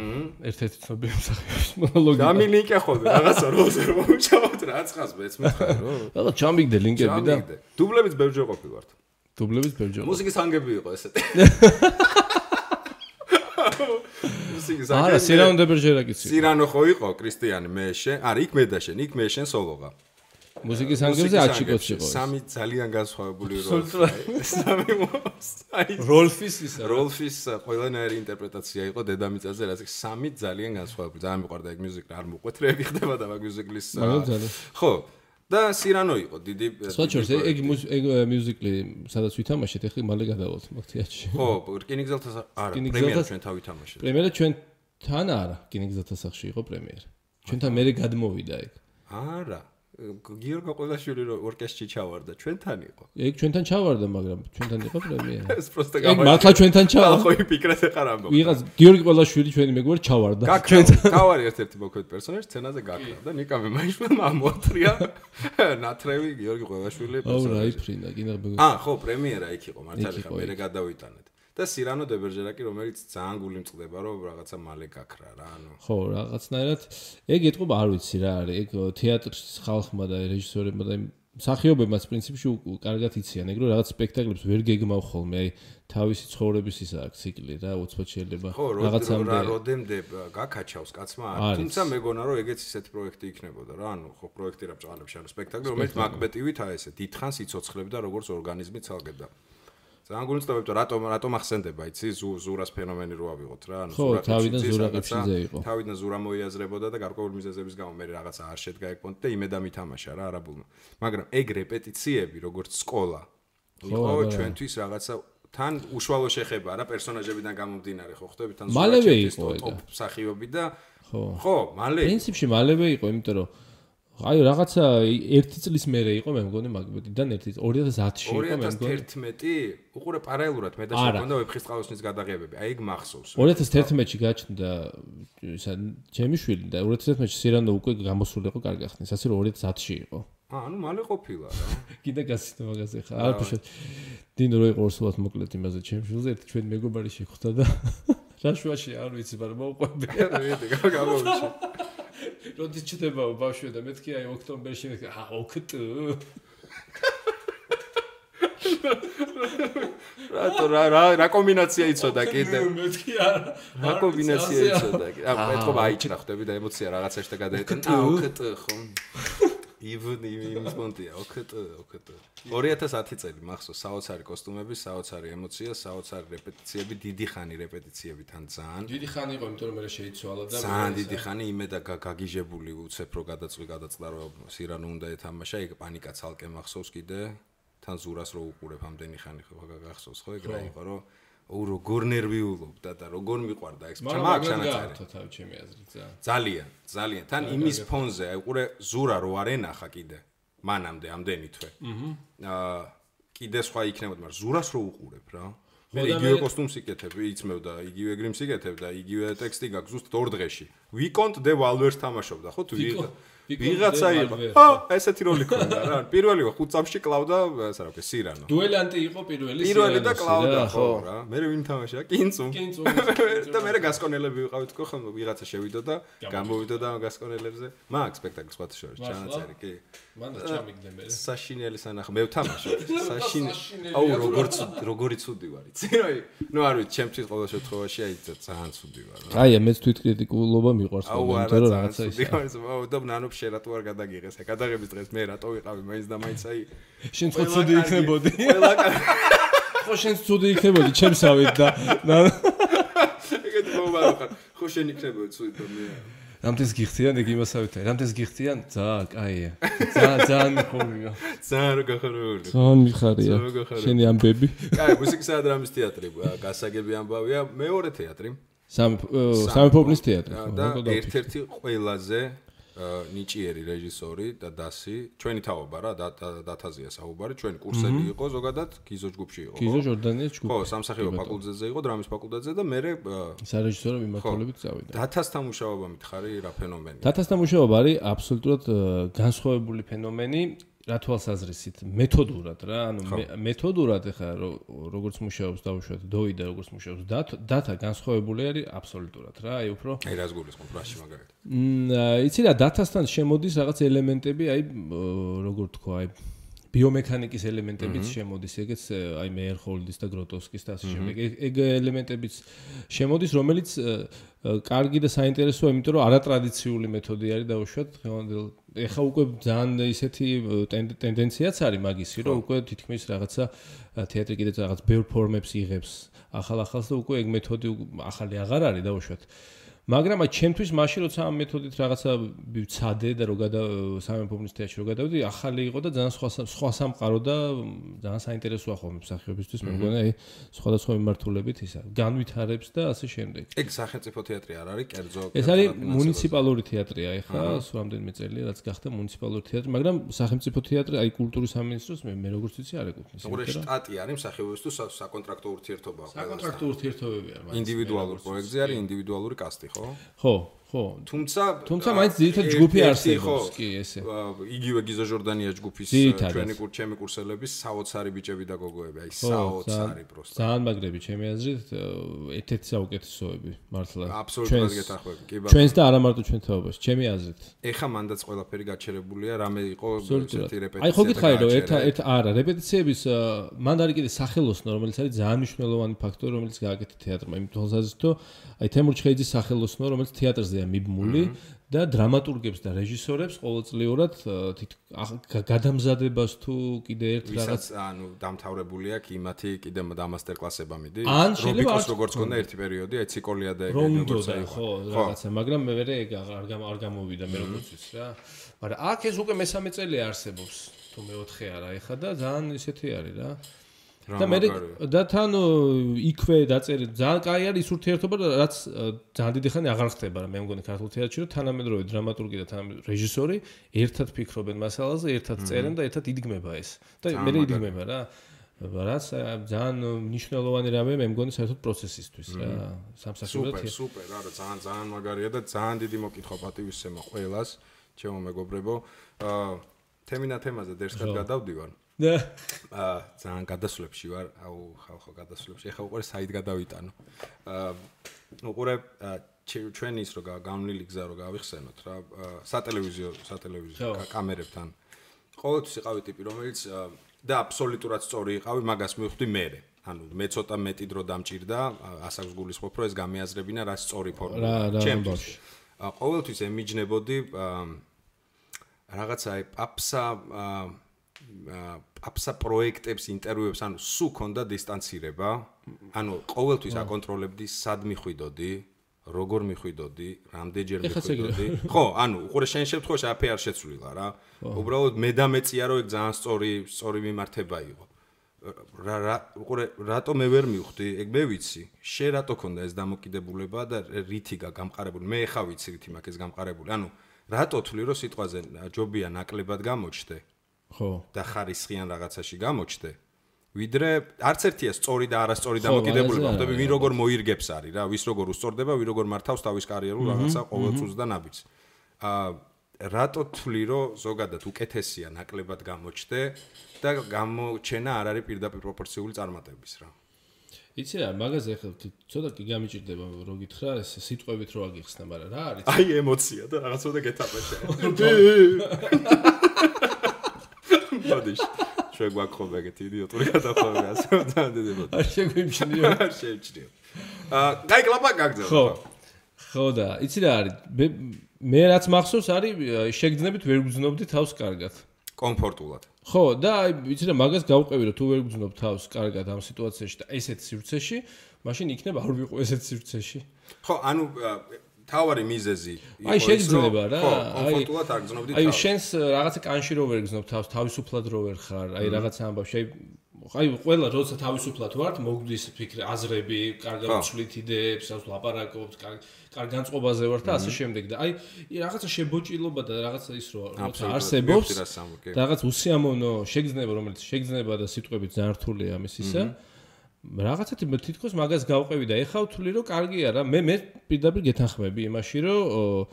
Speaker 2: ერთ-ერთი ცნობილი მსახიობის მონოლოგი
Speaker 1: გამილინკა ხო რაღაცა როზე მომჩავთ რა ცხას მეც მითხარ რომ
Speaker 2: და ჩამიგდე ლინკები და
Speaker 1: დუბლებიც ბევრჯერ ყოფილვართ მუსიკის ანგები იყო ესეთი
Speaker 2: არა, სირანო დებერჟერაკიც.
Speaker 1: სირანო ხო იყო, კრისტიანი მე შენ. არა, იქ მე და შენ, იქ მე შენ სოლოღა.
Speaker 2: მუსიკის ანგებზე აჩიკოც იყო.
Speaker 1: სამი ძალიან განსხვავებული როლი. სამი
Speaker 2: როლფის ისა.
Speaker 1: როლფის ყველანაირი ინტერპრეტაცია იყო დედამიწაზე, რაც სამი ძალიან განსხვავებული. ძალიან მიყვარდა ეგ მუსიკა, არ მოყვეთ რეები ხდება და მაგ მუსიკლის. ხო. და სირანო იყო დიდი.
Speaker 2: სხვაჩორს ეგ მუსიკლი სადაც ვითამაშეთ, ეხლა მალე გადავალთ მაგ თეატრში.
Speaker 1: ხო, რკინიგზელთა არა, პრემიერა ჩვენ თავ ვითამაშეთ.
Speaker 2: პრემიერა ჩვენთან არა, რკინიგზელთა სახლში იყო პრემიერა. ჩვენთან მე გადმოვიდა ეგ.
Speaker 1: არა. გიორგი ყოლაშვილი ორკესტრში ჩავარდა, ჩვენთან იყო.
Speaker 2: ეგ ჩვენთან ჩავარდა, მაგრამ ჩვენთან იყო პრემიერა.
Speaker 1: ეს პროსტა
Speaker 2: ეგ მართლა ჩვენთან ჩავარდა.
Speaker 1: ხო, იფიქრეთ ახლა ამბობ.
Speaker 2: ვიღაც გიორგი ყოლაშვილი ჩვენი მეგობარი ჩავარდა.
Speaker 1: ჩვენთან თავარი ერთ-ერთი მოქმედ პერსონაჟი სცენაზე გაკრა და ნიკამე მაიშვილმა მოათრია ნათრევი გიორგი ყოლაშვილი პერსონაჟი.
Speaker 2: აუ, რაიფრინა, კიდე
Speaker 1: ხო, პრემიერა იქ იყო, მართალი ხა, მე გადავიტანეთ. და სირანო დე ბერჟერაკი, რომელიც ძალიან გული მწყდება, რომ რაღაცა მალე გაქრა რა, ანუ.
Speaker 2: ხო, რაღაცნაირად ეგ ეთყობა, არ ვიცი რა არის, ეგ თეატრის ხალხმა და რეჟისორებმა და მსახიობებმაც პრინციპში კარგად იციან, ეგ რომ რაღაც სპექტაკლებს ვერ გეგმავ ხოლმე, აი თავისი ცხოვრების ისა აქვს ციკლი რა, უცბად შეიძლება
Speaker 1: რაღაცამდე როდემდე გაკაჩავს კაცმა, თუმცა მეგონა რომ ეგეც ისეთი პროექტი იქნებოდა რა, ანუ ხო პროექტი რა ბჭყალებს ანუ სპექტაკლი, რომელიც მაგბეტივით აი ესე დიდხანს იცოცხლებდა როგორც ორგანიზმი ცალკედა. ძალიან გულწრფელია რატომ ახსენდება იცი ზურას ფენომენი რო ავიღოთ რა ანუ
Speaker 2: ზურა თავიდან ზურაკებშიზე იყო
Speaker 1: თავიდან ზურა მოიაზრებოდა და გარკვეული მიზეზების გამო მე რაღაცა არ შედგა ეგ პონტი და იმედა მითამაშა რა არაბულმა მაგრამ ეგ რეპეტიციები როგორც სკოლა იყო ჩვენთვის რაღაცა თან უშუალო შეხება რა პერსონაჟებიდან გამომდინარე ხო ხვდები თან
Speaker 2: მალევე იყო ეგ
Speaker 1: მსახიობი და ხო მალე
Speaker 2: პრინციპში მალევე იყო იმიტომ რომ აი რაღაცა 1 წლის მერე იყო მე მგონი მაგბეტიდან 2010-ში იყო მე მგონი
Speaker 1: 2011 უყურე პარალელურად მე და შეგვქონდა ვეფხისტყაოსნის გადაღებები აი ეგ მახსოვს
Speaker 2: 2011-ში გაჩნდა ისა ჩემი შვილი და 2011-ში სირანო უკვე გამოსული იყო კარგი ხნის ასე რომ 2010-ში იყო
Speaker 1: ანუ მალე ყოფილა რა
Speaker 2: კიდე გასცდა მაგაზე ხა არ ფშოთ დინო რო იყო ორსულად მოკლედ იმაზე ჩემი შვილზე ერთი ჩვენი მეგობარი შეხვდა და რა შუაში არ ვიცი მაგრამ მოუყვები
Speaker 1: რა გამოვიში
Speaker 2: როდის ჩდებაო ბავშვი და მეთქი აი ოქტომბერში ოქტო
Speaker 1: რა კომბინაცია იცოდა კიდე
Speaker 2: მეთქი არა
Speaker 1: რა კომბინაცია იცოდა ეთქობა აიჭრა ხვდები და ემოცია რაღაცაში და გადაეტანა ოქტო ხო იმის მონტია ოქტო 2010 წელი მახსოვს საოცარი კოსტუმები საოცარი ემოცია საოცარი რეპეტიციები დიდი ხანი რეპეტიციები თან ძალიან
Speaker 2: დიდი ხანი იყო იმიტომ რომ მე შეიცვალა და
Speaker 1: ძალიან დიდი ხანი იმედა გაგიჟებული უცებ რო გადაწყვეტა რომ სირანო უნდა ეთამაშა ეგ პანიკა ცალკე მახსოვს კიდე თან ზურას რო უყურებ ამდენი ხანი ხო გახსოვს ხო ეგ რა იყო რომ როგორ ნერვიულობდა და როგორ მიყვარდა ეს
Speaker 2: მაგ ჩანაწერი თავი ჩემი აზრით
Speaker 1: ძალიან თან იმის ფონზე აი უყურე ზურა რო არ ენახა კიდე მანამდე ამდენი თვე კიდე სხვა იქნებოდა მაგრამ ზურას რო უყურებ რა მე იგივე კოსტუმს იკეთებ იცმევ და იგივე გრიმს იკეთებ და იგივე ტექსტი გაქვს ზუსტ 2 დღეში ვიკონტ დე ვალვერს თამაშობდა ხო თუ ვიღაცა იყო ესეთი როლი ქონდა რა პირველი 5 წამში კლავდა ასე რა ვქე სირანო
Speaker 2: დუელანტი იყო პირველი
Speaker 1: და კლავდა ხო რა მე ვინ თამაშა კინცუ და მე გასკონელები ვიყავით ხო ხომ ვიღაცა შევიდო და გამოვიდო და გასკონელებზე მაგ სპექტაკლს სხვა შორის ჩანაწერი კი
Speaker 2: მანდა ჩამიგდე მე
Speaker 1: საშინელი სანახ მე ვთამაშობ საშინელი აუ როგორი ცუდი ვარ იცი ნუ არ ვიცი ჩემთვის ყოველ შემთხვევაში აი ძალიან ცუდი ვარ
Speaker 2: აი მეც თვითკრიტიკულობა მიყვარს იმიტომ რომ რაღაცა ის
Speaker 1: აუ და ნანო შერატო არ გადაგიღეს გადაღების დღეს მე რატო ვიყავი მაინც და მაინც აი
Speaker 2: შენ ხო ცუდი იქნებოდი ხო შენ ცუდი იქნებოდი ჩემსავით და
Speaker 1: ეგეთი მომაროხარ ხო შენ იქნებოდი ცუდი და მე
Speaker 2: რამთეს გიხდიან ეგ იმასავითაა რამთეს გიხდიან კაია ძალიან მიხარია
Speaker 1: ძალიან გახარებული
Speaker 2: ძალიან მიხარია შენი ამბები
Speaker 1: კაი მუსიკის და დრამის თეატრი გასაგები ამბავია მეორე თეატრი
Speaker 2: სამეფობლის თეატრი
Speaker 1: და ერთ-ერთი ყველაზე ნიჭიერი რეჟისორი და დასი ჩვენი თაობა რა დათაზია საუბარი ჩვენი კურსები იყო ზოგადად გიზო ჯგუფში იყო
Speaker 2: გიზო ჟორდანიას ჯგუფი
Speaker 1: ხო სამსახიობო ფაკულტეტზე იყო დრამის ფაკულტეტზე და მე
Speaker 2: სარეჟისორო მიმართულებით წავიდა
Speaker 1: დათასთან მუშაობა მითხარი რა ფენომენი
Speaker 2: დათასთან მუშაობა არის აბსოლუტურად განსხვავებული ფენომენი რა თვალსაზრისით მეთოდურად რა ანუ მეთოდურად ეხლა როგორც მუშაობს დავუშვათ დოი და როგორც მუშაობს დათა განსხვავებული არის აბსოლუტურად რა აი უფრო
Speaker 1: აი რას გულისხმობ რაში მაგალითად
Speaker 2: იცი რა დათასთან შემოდის რაღაც ელემენტები აი როგორ თქვა აი ბიომექანიკის ელემენტებიც შემოდის ეგეც აი მეერჰოლდის და გროტოვსკის და ასე შემდეგ ეგ ელემენტებიც შემოდის რომელიც კარგი და საინტერესოა იმიტომ რომ არატრადიციული მეთოდი არის დავუშვათ ეხა უკვე ძალიან ისეთი ტენდენციაც არის მაგისი, რომ უკვე თითქმის რაღაცა თეატრი კიდეც რაღაც ბევრ ფორმებს იღებს, ახალ-ახალს და უკვე ეგ მეთოდი ახალი აღარ არის დაუშვათ. მაგრამ აი ჩემთვის მაშინ როცა ამ მეთოდით რაღაცა ვცადე და რო სამეფობნის თეატრში რო გადავდი, ახალი იყო და ძალიან სხვა სამყარო და ძალიან საინტერესოა ხოლმე მსახიობისთვის, მე მგონი აი სხვადასხვა მიმართულებით ისა განვითარებს და ასე შემდეგ.
Speaker 1: ეგ სახელმწიფო თეატრი არ არის, კერძო.
Speaker 2: ეს არის მუნიციპალური თეატრია, ეხლა რამდენიმე წელია რაც გახდა მუნიციპალური თეატრი, მაგრამ სახელმწიფო თეატრი აი კულტურის სამინისტროს მე როგორც ვიცი არ ეკუთვნის.
Speaker 1: უყურე შტატი არის მსახიობისთვის საკონტრაქტო ურთიერთობაა.
Speaker 2: საკონტრაქტო ურთიერთობები არის.
Speaker 1: ინდივიდუალური პროექტზე არის ინდივიდუალური კასტი.
Speaker 2: ხო. თუმცა მაინც ძირითადად ჯგუფი არსებობს, კი ესე.
Speaker 1: იგივე გიზო ჟორდანია ჯგუფის ჩვენი კურსელების საოცარი ბიჭები და გოგოები, აი საოცარი პროსტა.
Speaker 2: ძალიან მაგრები ჩემი აზრით, ერთ-ერთი საუკეთესოები, მართლა.
Speaker 1: აბსოლუტურად გეთანხმები, კი ბატონო.
Speaker 2: ჩვენს და არა მარტო ჩვენ თაობაში, ჩემი აზრით.
Speaker 1: ეხა მანდაც ყველაფერი გაჩერებულია, რამე იყო ესეთი რეპეტიცია.
Speaker 2: აი ხო გითხარი რომ არა, რეპეტიციების მანდ არის კიდე სახელოსნო, რომელიც არის ძალიან მნიშვნელოვანი ფაქტორი, რომელიც გააკეთა თეატრმა. იმით თვალსაზრისით, აი თემურ ჩხეიძის სახელოსნო, რომელიც თეატრზეა მიბმული და დრამატურგებს და რეჟისორებს ყოველწლიურად გადამზადებას თუ კიდე ერთ
Speaker 1: რაღაც ანუ დამთავრებული აქვს იმათი კიდე დამასტერ კლასება მიდის. რობიკოს როგორც ქონდა ერთი პერიოდი, აი ციკოლია და ეგ
Speaker 2: როგორც აი ხო რაღაცა, მაგრამ მე ვერ ეგ არ გამოვიდა მე როგორც ვიცი რა. მაგრამ აქ ეს უკვე მესამე წელი არსებობს, თუ მეოთხე არა, ეხა და ძალიან ისეთი არის რა. და მე და თან იქვე დაწერილი ძალიან კაი არის ის ურთიერთობა, რაც ძალიან დიდი ხანი აღარ ხდება რა მე მგონი ქართულ თეატრში, რომ თანამედროვე დრამატურგი და თანამედროვე რეჟისორი ერთად ფიქრობენ მასალაზე, ერთად წერენ და ერთად იდგმება ეს. და მე იდგმება რა. რაც ძალიან მნიშვნელოვანი რამე მე მგონი საერთოდ პროცესისთვის რა. სამსახიობო
Speaker 1: სუპერ, რა ძალიან მაგარია და ძალიან დიდი მოკითხვა პატივისცემა ყველას, ჩემო მეგობრებო. თემინა თემაზე დერსკად გადავდივარ. ძალიან გადასვლებში ვარ, ხალხო გადასვლებში. ეხლა უყურე საით გადავიტანო. უყურე ჩვენი ის რო გამნილი გზა რო გავიხსენოთ რა, სატელევიზიო კამერებთან. ყოველთვის იყავი ტიპი, რომელიც და აბსოლუტურად სწორი იყავი, მაგას მივხვდი მე. ანუ მე ცოტა მეტი დრო დამჭირდა, ასაკს გულისხმობ, რომ ეს გამეაზრებინა რა სწორი ფორმაა. ჩემთვის. ყოველთვის ემიჯნებოდი რაღაცა აი აფსა პროექტებს, ინტერვიუებს, ანუ სულ ქონდა დისტანცირება, ანუ ყოველთვის აკონტროლებდი, სად მიხვიდოდი, როგორ მიხვიდოდი, რამდენჯერ მიხვიდოდი. ხო, ანუ უყურე შენ შემთხვევაში აფე არ შეცვლილა რა. უბრალოდ მე და მეწია რომ ეგ ძალიან სწორი მიმართება იყო. უყურე რატო მე ვერ მივხვდი, ეგ მე ვიცი. შენ რატო ქონდა ეს დამოკიდებულება და რითი გამყარებული. მე ხა ვიცი რითი მაქვს ეს გამყარებული. ანუ რატო თვლი რომ სიტყვაზე ჯობია ნაკლებად გამოჩდე?
Speaker 2: ხო.
Speaker 1: და ხარისხიან რაღაცაში გამოჩდე. ვიდრე არც ერთია სწორი და არასწორი დამოკიდებულება, ხვდები ვინ როგორ მოირგებს არის რა, ვის როგორ უსწორდება, ვინ როგორ მართავს თავის კარიერულ რაღაცა ყოველწუთს და ნაბიჯს. რატო თვლი რომ ზოგადად უკეთესია ნაკლებად გამოჩდე და გამოჩენა არ არის პირდაპირ პროპორციული წარმატების რა.
Speaker 2: იცი რა, მაგაზე ახლა ცოტა კი გამიჭირდება რო გითხრა, ეს სიტყვებით რო აგიხსნა, მაგრამ რა არის?
Speaker 1: აი ემოცია და რაღაცა გეთაპეშე. ბოდიშ ჩვენ გვაქვს ეგეთი იდიოტური გადახვევები ასე ძალიან დიდი ბოდი.
Speaker 2: არ შეგვიმჩნიო.
Speaker 1: არ შეიმჩნიო. კაი კლაპა გაგძელო.
Speaker 2: ხო და იცი რა არის? მე რაც მახსოვს არის შეგძნებით ვერ გძნობდი თავს კარგად.
Speaker 1: კომფორტულად.
Speaker 2: ხო და აი იცი რა მაგას გავყევი რომ თუ ვერ გძნობ თავს კარგად ამ სიტუაციაში და ესეთ სივრცეში, მაშინ იქნება არ ვიყო ესეთ სივრცეში.
Speaker 1: ხო, ანუ თავარი მიზეზი
Speaker 2: იყო აი შეგძნება რა.
Speaker 1: კომფორტულად არ გძნობდი თავს.
Speaker 2: აი შენს რაღაცა კანში რო ვერ გძნობ თავს, თავისუფლად რო ვერ ხარ, აი რაღაცა ამბავში, აი ყველა როცა თავისუფლად ვართ, მოგდის ფიქრი, აზრები, კარგად ვცვლით იდეებს, ლაპარაკობთ, კარგ განწყობაზე ვართ და ასე შემდეგ და აი რაღაცა შებოჭილობა და რაღაცა ის როცა არსებობს, რაღაც უსიამოვნო შეგძნება, რომელიც შეგძნება და სიტყვებით ძალიან რთულია ამის ისა. რაღაცა თითქოს მაგას გავყევი და ეხა ვთვლი რომ კარგია რა, მე პირდაპირ გეთანხმები იმაში რომ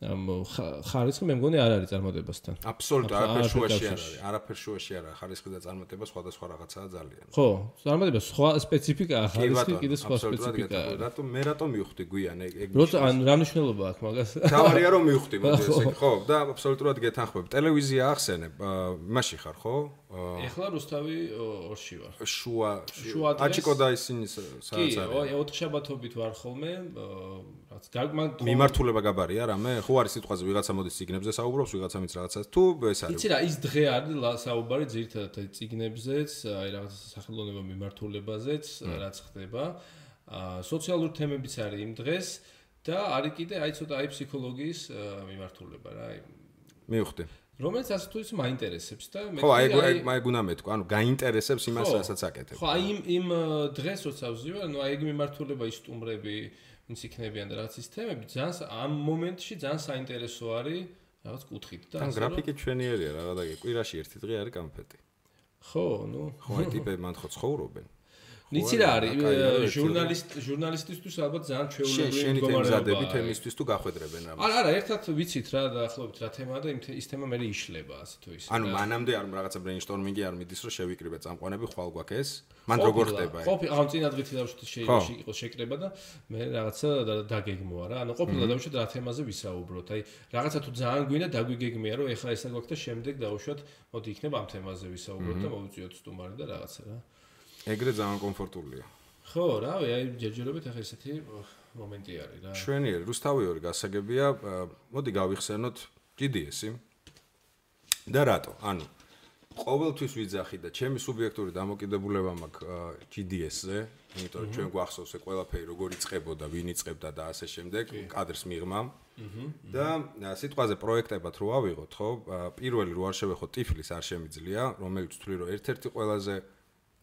Speaker 2: ხარისხი მე მგონი არ არის წარმატებასთან.
Speaker 1: აბსოლუტურად არაფერ შუაში არ არის. არაფერ შუაში არ არის. ხარისხი და წარმატება სხვადასხვა რაღაცაა ძალიან.
Speaker 2: ხო, წარმატება სხვა სპეციფიკაა, ხარისხი კიდე სხვა სპეციფიკაა.
Speaker 1: რატომ მე რატომ მივხვდი გვიან ეგ?
Speaker 2: როცა ან რა მნიშვნელობა აქვს მაგას?
Speaker 1: თავარია რომ მივხვდი მოდი ესე ხო და აბსოლუტურად გეთანხმებ. ტელევიზია ახსენებ, მაშინ ხარ ხო?
Speaker 2: ეხლა რუსთავი 2-ში ვარ.
Speaker 1: შუა აჭიკო და ისინი სადაც არის.
Speaker 2: კი, ოთხშაბათობით ვარ ხოლმე,
Speaker 1: მიმართულება გაბარია რამე? ხო არის სიტყვაზე ვიღაცა მოდის ციგნებზე საუბრობს, ვიღაცა მის რაღაცას თუ ეს არის.
Speaker 2: იცი რა, ის დღე არის საუბარი ძირითადად ციგნებზეც, აი რაღაცა სახელოვნება მიმართულებაზეც, რაც ხდება. სოციალური თემებიც არის იმ დღეს და არის კიდე აი ცოტა აი ფსიქოლოგიის მიმართულება რა, აი.
Speaker 1: მივხვდი.
Speaker 2: რომელიც ასე თუ ისე მაინტერესებს და
Speaker 1: მე ხო აი გუნა მეთქვა, ანუ გაინტერესებს იმას, რასაც აკეთებ.
Speaker 2: ხო, აი იმ დღეს როცა ვზივარ, ნუ აი ეგ მიმართულება ის სტუმრები ვინც იქნებიან და რაც ის თემები ძალიან ამ მომენტში ძალიან საინტერესო არის რაღაც კუთხით და
Speaker 1: ან გრაფიკი ჩვენიერია რა და კვირაში ერთი დღე არის კამფეტი.
Speaker 2: ხო, ნუ
Speaker 1: ხო აი ტიპები მან ხო ცხოვრობენ.
Speaker 2: ნიცი რა არის ჟურნალისტისთვის ალბათ ძალიან ჩვეულებრივი
Speaker 1: მდგომარეობა. შენი თემზადები თემისთვის თუ გახვედრებენ რამე.
Speaker 2: არა, ერთად ვიცით რა დაახლოებით რა თემაა და ის თემა მე იშლება ასე თუ ისე.
Speaker 1: ანუ მანამდე არ რაღაცა ბრეინშტორმინგი არ მიდის რომ შევიკრიბე წამყვანები ხვალ გვაქვს ეს? მან როგორ ხდება ეს?
Speaker 2: ყოფილი ამ წინა დღით დავუშვით შეიძლება იყოს შეკრება და მე რაღაცა დაგეგმოა რა. ანუ ყოფილი დავუშვით რა თემაზე ვისაუბროთ. აი რაღაცა თუ ძალიან გვინდა დაგვიგეგმია რომ ეხლა ესა გვაქვს და შემდეგ დავუშვათ მოდი იქნება ამ თემაზე ვისაუბროთ და მოვიწვიოთ სტუმარი და რაღაცა რა. ეგრე
Speaker 1: ძალიან კომფორტულია.
Speaker 2: ხო, რავი, აი ჯერჯერობით ახლა ესეთი მომენტი არის რა.
Speaker 1: შვენიერი, რუსთავიორი გასაგებია, მოდი გავიხსენოთ GDS-ი. და რატო? ანუ ყოველთვის ვიძახი და ჩემი სუბიექტური დამოკიდებულება მაქვს GDS-ზე, იმიტომ რომ ჩვენ გვახსოვს ეს ყველაფერი როგორ იწყებოდა, ვინ იწყებდა და ასე შემდეგ, კადრს მიღმა. და სიტყვაზე პროექტებად რო ავიღოთ, ხო? პირველი რო არ შევეხოთ ტიფლის არ შემიძლია, რომელიც თვლი რომ ერთ-ერთი ყველაზე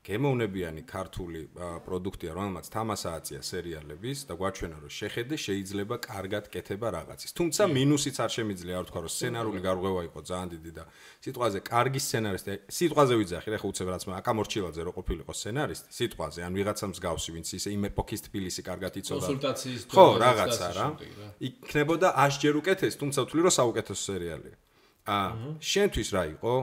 Speaker 1: გემოვნებიანი ქართული პროდუქტია, რომელმაც თამასა აწია სერიალების და გვაჩვენა რომ შეხედე შეიძლება კარგად კეთება რაღაცის. თუმცა მინუსიც არ შემიძლია არ ვთქვა რომ სცენარული გარღვევა იყო ძალიან დიდი და სიტყვაზე კარგი სცენარისტი, სიტყვაზე ვიძახი, რა ხო უცებ რაც აკა მორჩილაძე რო ყოფილიყო სცენარისტი, სიტყვაზე ან ვიღაცა მსგავსი, ვინც ისე იმ ეპოქის თბილისი კარგად იცოდა.
Speaker 2: კონსულტაციის
Speaker 1: ხო, რაღაცა რა. იქნებოდა 100 ჯერ უკეთეს, თუმცა ვთვლი რომ საუკეთესო სერიალია. შენთვის რა იყო?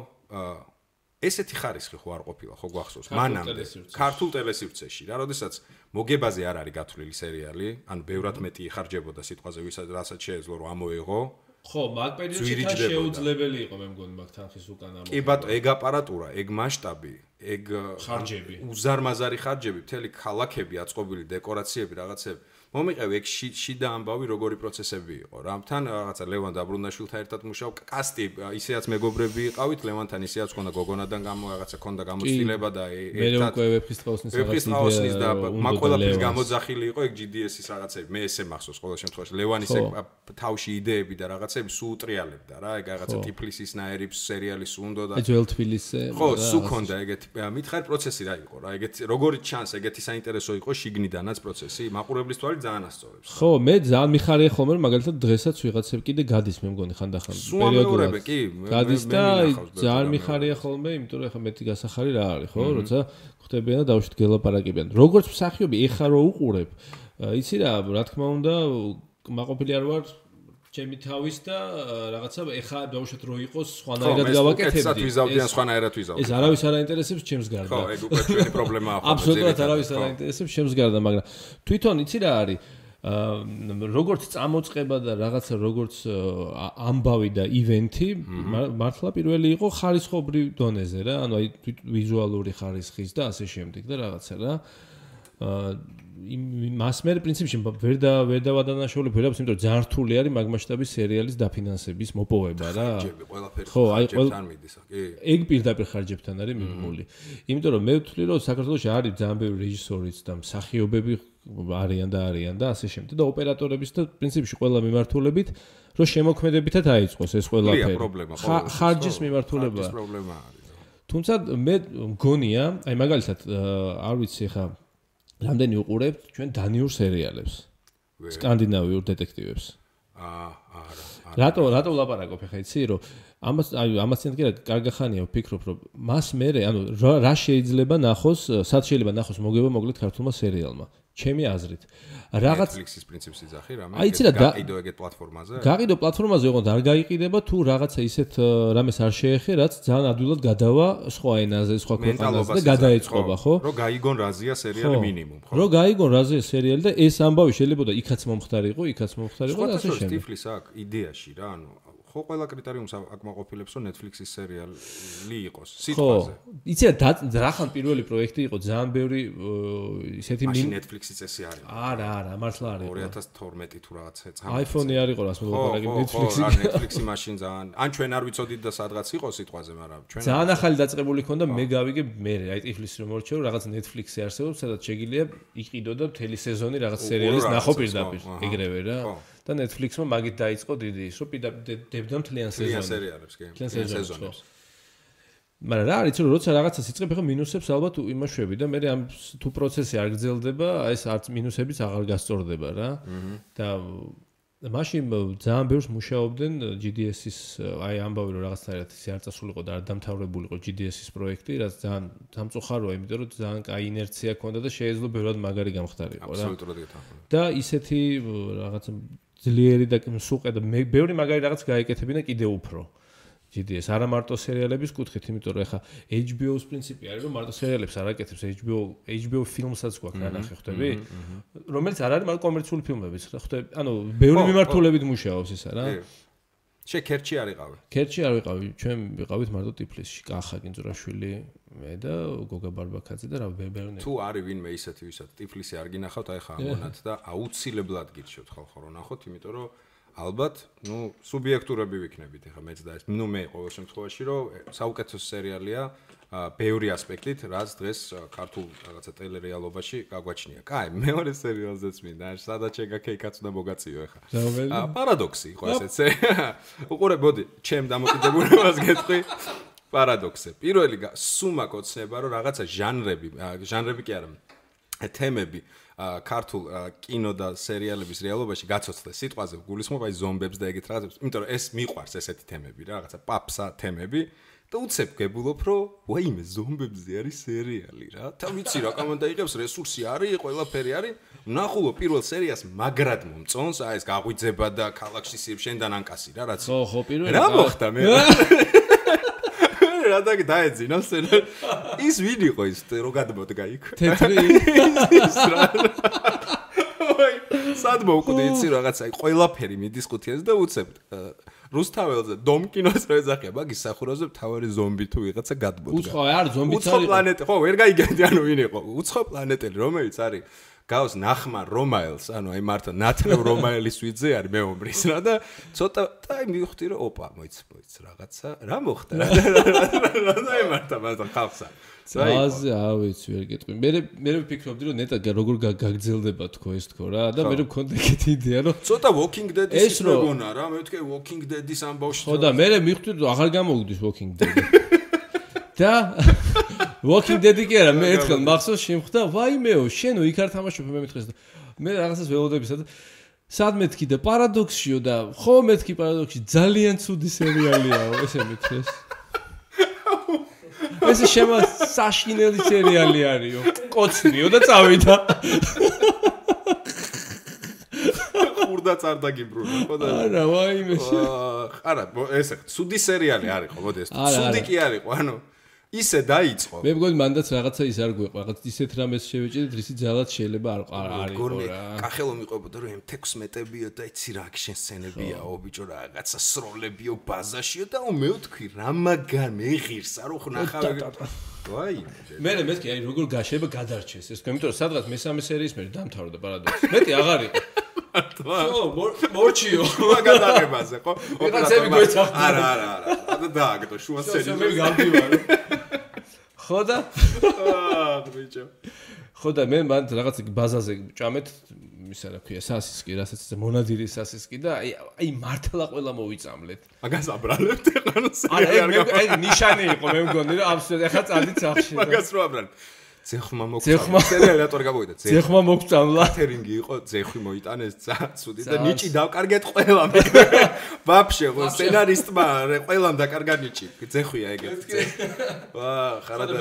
Speaker 1: ესეთი ხარისხი ხო არ ყოფილა, ხო გვახსოვს? მანამდე ქართულ ტელესივრცეში რა, როდესაც მოგებაზე არ არის გათვლილი სერიალი, ანუ ბევრად მეტი იხარჯებოდა სიტყვაზე, რასაც შეეძლო რომ ამოეღო.
Speaker 2: ხო, მაგ პერიოდში თან შეუძლებელი იყო მე მგონი მაგ თანხის უკან ამოღება.
Speaker 1: კი ბატონო, ეგ აპარატურა, ეგ მასშტაბი, ეგ
Speaker 2: ხარჯები,
Speaker 1: უზარმაზარი ხარჯები, მთელი ქალაქები, აწყობილი დეკორაციები, რაღაცები. მომიყევი ეგ შიდა ამბავი როგორი პროცესები იყო რა. თან რაღაცა ლევან დაბრუნაშვილთან ერთად მუშაობ, კასტი ისეაც მეგობრები იყავით, ლევანთან ისეაც ქონდა გოგონადან რაღაცა ქონდა გამოცდილება და
Speaker 2: ერთად მე ვეფხისტყაოსნის
Speaker 1: და მაგ ყველაფერს გამოძახილი იყო ეგ GDS-ის რაღაცები. მე ესე მახსოვს ყოველ შემთხვევაში ლევანის ეგ თავში იდეები და რაღაცები სულ უტრიალებდა რა. ეგ რაღაცა ტიფლისის ნაერი სერიალი სულ უნდა და
Speaker 2: ძველ თბილისზე
Speaker 1: ხო, სულ ქონდა ეგეთი მითხარ პროცესი რა იყო რა. ეგეთი როგორი ჩანს ეგეთი საინტერესო იყო შიგნიდანაც პროცესი, მაყურებლის თვალით ძალიან ასწორებს.
Speaker 2: ხო, მე ძალიან მიხარია ხოლმე რომ მაგალითად დღესაც ვიღაცები კიდე გადის მე მგონი ხანდახან
Speaker 1: პერიოდულად. კი,
Speaker 2: გადის და ძალიან მიხარია ხოლმე, იმიტომ რომ ახლა მეტი გასახარი რა არის, ხო, როცა ხვდებიან და დავუშვით გელაპარაკებიან. როგორც მსახიობი ეხა რო უყურებ, იცი რა თქმა უნდა, მაყოფილი არ ვარ ჩემი თავის და რაღაცა ეხა დავუშვით რო იყოს სხვანაირად გავაკეთებდი.
Speaker 1: ეს ვიზავდიან სხვანაირად ვიზავდი.
Speaker 2: ეს არავის არ აინტერესებს ჩემს გარდა.
Speaker 1: ხო, ეგ უკვე ჩვენი პრობლემაა.
Speaker 2: აბსოლუტურად არავის არ აინტერესებს ჩემს გარდა, მაგრამ თვითონ იცი რა არის? როგორც წამოწყება და რაღაცა როგორც ამბავი და ივენთი მართლა პირველი იყო ხარისხობრივ დონეზე რა, ანუ აი ვიზუალური ხარისხის და ასე შემდეგ და რაღაცა რა. მას მე პრინციპში ვერ დავადანაშაულებ ვერაფერს, იმიტომ რომ ძალიან რთული არის მაგ მასშტაბის სერიალის დაფინანსების მოპოვება რა.
Speaker 1: ხო, აი ყველაფერთან მიდის, კი.
Speaker 2: ეგ პირდაპირ ხარჯებთან არის მიღმული. იმიტომ რომ მე ვთვლი რომ საქართველოში არის ძალიან ბევრი რეჟისორიც და მსახიობები არიან და ასე შემდეგ და ოპერატორების და პრინციპში ყველა მიმართულებით რომ შემოქმედებითად აიწყოს ეს ყველაფერი. ხარჯის მიმართულება.
Speaker 1: ხარჯის პრობლემა არის.
Speaker 2: თუმცა მე მგონია, აი მაგალითად არ ვიცი ხა რამდენი უყურებთ ჩვენ დანიურ სერიალებს, სკანდინავიურ დეტექტივებს. არა. რატო ვლაპარაკობ ხა იცი რომ ამას წინ კი რა კარგახანია ვფიქრობ რომ მას მე ანუ რა შეიძლება ნახოს, სად შეიძლება ნახოს მოგება მოკლედ ქართულმა სერიალმა. ჩემი აზრით.
Speaker 1: რაღაც Netflix-ის პრინციპს იძახი რა, მე გაყიდო ეგეთ პლატფორმაზე.
Speaker 2: გაყიდო პლატფორმაზე, ოღონდ არ გაიყიდება თუ რაღაცა ისეთ რამეს არ შეეხე, რაც ძალიან ადვილად გადავა სხვა ენაზე, სხვა ქვეყანაზე და გადაეწყობა, ხო?
Speaker 1: რომ გაიგონ რაზია სერიალი მინიმუმ, ხო?
Speaker 2: რომ გაიგონ რაზია სერიალი და ეს ამბავი შეიძლება იქაც მომხდარიყო და ასე შემდეგ.
Speaker 1: სხვა ტიფლის აქვს იდეაში რა, ანუ ხო ხო ყველა კრიტერიუმს აკმაყოფილებს რომ Netflix-ის სერიალი იყოს სიტყვაზე.
Speaker 2: იცი რახან პირველი პროექტი იყო ძალიან ბევრი ისეთი
Speaker 1: მაშინ Netflix-ი წესი არის.
Speaker 2: არა, მართლა არის.
Speaker 1: 2012 თუ რაღაცა წამო.
Speaker 2: iPhone-ი არ იყო რას მოგაპარაკე Netflix-ი.
Speaker 1: Netflix-ი მაშინ ძალიან ან ჩვენ არ ვიცოდით და სადღაც იყო სიტყვაზე, მაგრამ ჩვენ
Speaker 2: ძალიან ახალი დაწყებული ქონდა მე გავიგე მე აი ტიფლის რომ მორჩე რომ რაღაც Netflix-ი არსებობს, სადაც შეგიძლია იყიდო და მთელი სეზონი რაღაც სერიალის ნახო პირდაპირ ეგრევე რა. და Netflix-მა მაგით დაიწყო დიდი ის რომ დებდა მთლიან
Speaker 1: სერიალებს კი.
Speaker 2: მთლიან სეზონებს. მაგრამ რა არის რომ როცა რაღაცას იწყებ ახლა მინუსებს ალბათ იმაშვები და მე ამ თუ პროცესი არ გრძელდება, ეს არც მინუსებიც აღარ გასწორდება რა. და მაშინ ძალიან ბევრს მუშაობდნენ GDS-ის აი ამბავი რომ რაღაცნაირად ისე არ წასულიყო და არ დამთავრებულიყო GDS-ის პროექტი, რაც ძალიან სამწუხაროა, იმიტომ რომ ძალიან კაი ინერცია ჰქონდა და შეეძლო ბევრად მაგარი გამხდარიყო რა.
Speaker 1: აბსოლუტურად გეთანხმები.
Speaker 2: და ისეთი რაღაც ძლიერი და მსუყე და ბევრი მაგარი რაღაც გაეკეთებინა კიდე უფრო. GDS არა მარტო სერიალების კუთხით, იმიტომ რომ ეხა HBO-ს პრინციპი არის რომ მარტო სერიალებს არ აკეთებს, HBO ფილმსაც გვაქვს განახე, ხვდები? რომელიც არ არის მარტო კომერციული ფილმებიც, ხვდები? ანუ ბევრი მიმართულებით მუშაობს ისა რა.
Speaker 1: შე ქერჩი არ იყავი.
Speaker 2: ქერჩი არ ვიყავი, ჩვენ ვიყავით მარტო ტიფლისში, კახა კინძურაშვილი, მე და გოგა ბარბაკაძე და რა ბევრი.
Speaker 1: თუ არის ვინმე ისეთი ვისაც ტიფლისი არ გინახავთ, აი ხა ამონათ და აუცილებლად გირჩევთ ხალხო რომ ნახოთ, იმიტომ რომ ალბათ, სუბიექტურები ვიქნებით ეხლა მეც და ეს, მე ყოველ შემთხვევაში რომ საუკეთესო სერიალია ბევრი ასპექტით, რაც დღეს ქართულ რაღაცა ტელერეალობაში გაგვაჩნია. კაი, მეორე სერიალზეც მინდა, სადაც შეგაქეიქაც უნდა მოგაწიო ეხლა. პარადოქსი იყო ესეც. უყურებოდი, ჩემ დამოკიდებულებას გეტყვი. პარადოქსი. პირველი სუმაკ ოცნება რომ რაღაცა ჟანრები კი არა, თემები ქართულ კინო და სერიალების რეალობაში გაცოცხლეს სიტყვაზე გულისხმობ აი ზომბებს და ეგეთ რაღაცებს, იმიტომ რომ ეს მიყვარს ესეთი თემები რა, რაღაცა პაპსა თემები და უცებ გებულობ რომ ვაიმე ზომბებზე არის სერიალი რა. და ვიცი რა კომანდა იღებს, რესურსი არის, ყველაფერი არის. ნახულო პირველ სერიას მაგრად მომწონს, აი ეს გაღვიძება და ქალაქში შენდან ანკასი რა, რაც
Speaker 2: ხო, პირველი
Speaker 1: რა მოხდა მე რა დაეძინა სცენა. ის ვინ იყო ის რო გადმოდგა იქ?
Speaker 2: თეთრი.
Speaker 1: სად მოვკვდი იცი რაღაცა ყველაფერი მიდის ყუთიაზე და უცებ რუსთაველზე დომ კინოს რო ეძახია მაგის სახურაზე მთავარი ზომბი თუ ვიღაცა გადმოდგა.
Speaker 2: უცხო არ ზომბიც არის.
Speaker 1: უცხო პლანეტი ხო ვერ გაიგებდი ანუ ვინ იყო? უცხო პლანეტელი რომელიც არის გავს ნახმარ რომაელს, ანუ აი მართლა ნათლევ რომაელის ვიძე არის მეომრის რა და ცოტა და აი მივხვდი რომ ოპა მოიც რაღაცა რა მოხდა რა მარტა ხალხსა.
Speaker 2: ზაზე ავიც ვერ გეტყვი. მე ვფიქრობდი რომ ნეტა როგორ გაგძელდება თქო ეს თქო რა და მე მქონდა ეგეთი იდეა რომ
Speaker 1: ცოტა Walking Dead-ის მეგონა რა, მე ვთქვი Walking Dead-ის ამბავში.
Speaker 2: ხო და მე მივხვდი რომ აღარ გამოვიდეს Walking Dead. და Walking Dead-ი კი არა, მე ერთხელ მახსოვს შემხვდა, ვაიმეო, შენო იქ არ თამაშობ მე მეთქეს და მე რაღაცას ველოდებისა და სად მეთქი და პარადოქსიო და ხო მეთქი პარადოქსი ძალიან ცუდი სერიალიაო, ესე მეთქეს. ეს შემა საშინელი სერიალი არისო. კოცნიო და წავიდა.
Speaker 1: ხურდა წარდაგიბრუნა, ხო და
Speaker 2: არა, ვაიმე.
Speaker 1: არა, ესე ცუდი სერიალი არისო, მოდი ეს. ცუდი კი არისო, ანუ ისე დაიწყო.
Speaker 2: მე მგონი მანდაც რაღაცა ის არ გვეყვა, რაღაც ისეთ რამეს შევეჭედით, რისი ძალად შეიძლება არ არისო რა.
Speaker 1: კახელო მიყვებოდა რომ M16-ებიო და იცი რა აქშენ სცენებიაო, ბიჭო რაღაცა სროლებიო ბაზაშიო და მე ვთქვი რა მაგარ მეღირსა რო ხნახავი. ვაი.
Speaker 2: მე მეთქი აი როგორ გაშება გადარჩეს ეს, იმიტომ რომ სადღაც მესამე სერიის მერე დამთავრდა პარადოქსი. მეტი აღარ იყო. ხო, მორჩიო.
Speaker 1: მაგადაღებაზე, ხო?
Speaker 2: ოპერაცები გვეცახდა.
Speaker 1: არა. და დააგდო შუა სერიის.
Speaker 2: მე გამდივარ. ხო და?
Speaker 1: ბიჭო.
Speaker 2: ხო და მე მანდ რაღაც ბაზაზე ჭამეთ, ისა რა ქვია, სასისკი, რასაც მონადირი სასისკი და აი მართლა ყველა მოვიწამლეთ.
Speaker 1: მაგას აბრალებთ ეხლა
Speaker 2: სერიალი. აი ნიშანი იყო მე მგონი რომ აბსოლუტურად ეხლა წადით სახში.
Speaker 1: მაგას რო აბრალებ. ძეხმა მოგწამლა. სერიალი რატო არ გამოვიდა?
Speaker 2: ძეხმა მოგწამლა.
Speaker 1: კათერინგი იყო, ძეხვი მოიტანეს, ცუდი და ნიჭი დავკარგეთ ყველამ. ვაფშე, ხო, სცენარისტმა ყველამ დაკარგა ნიჭი. ძეხვია ეგეთი. ვა, ხარადა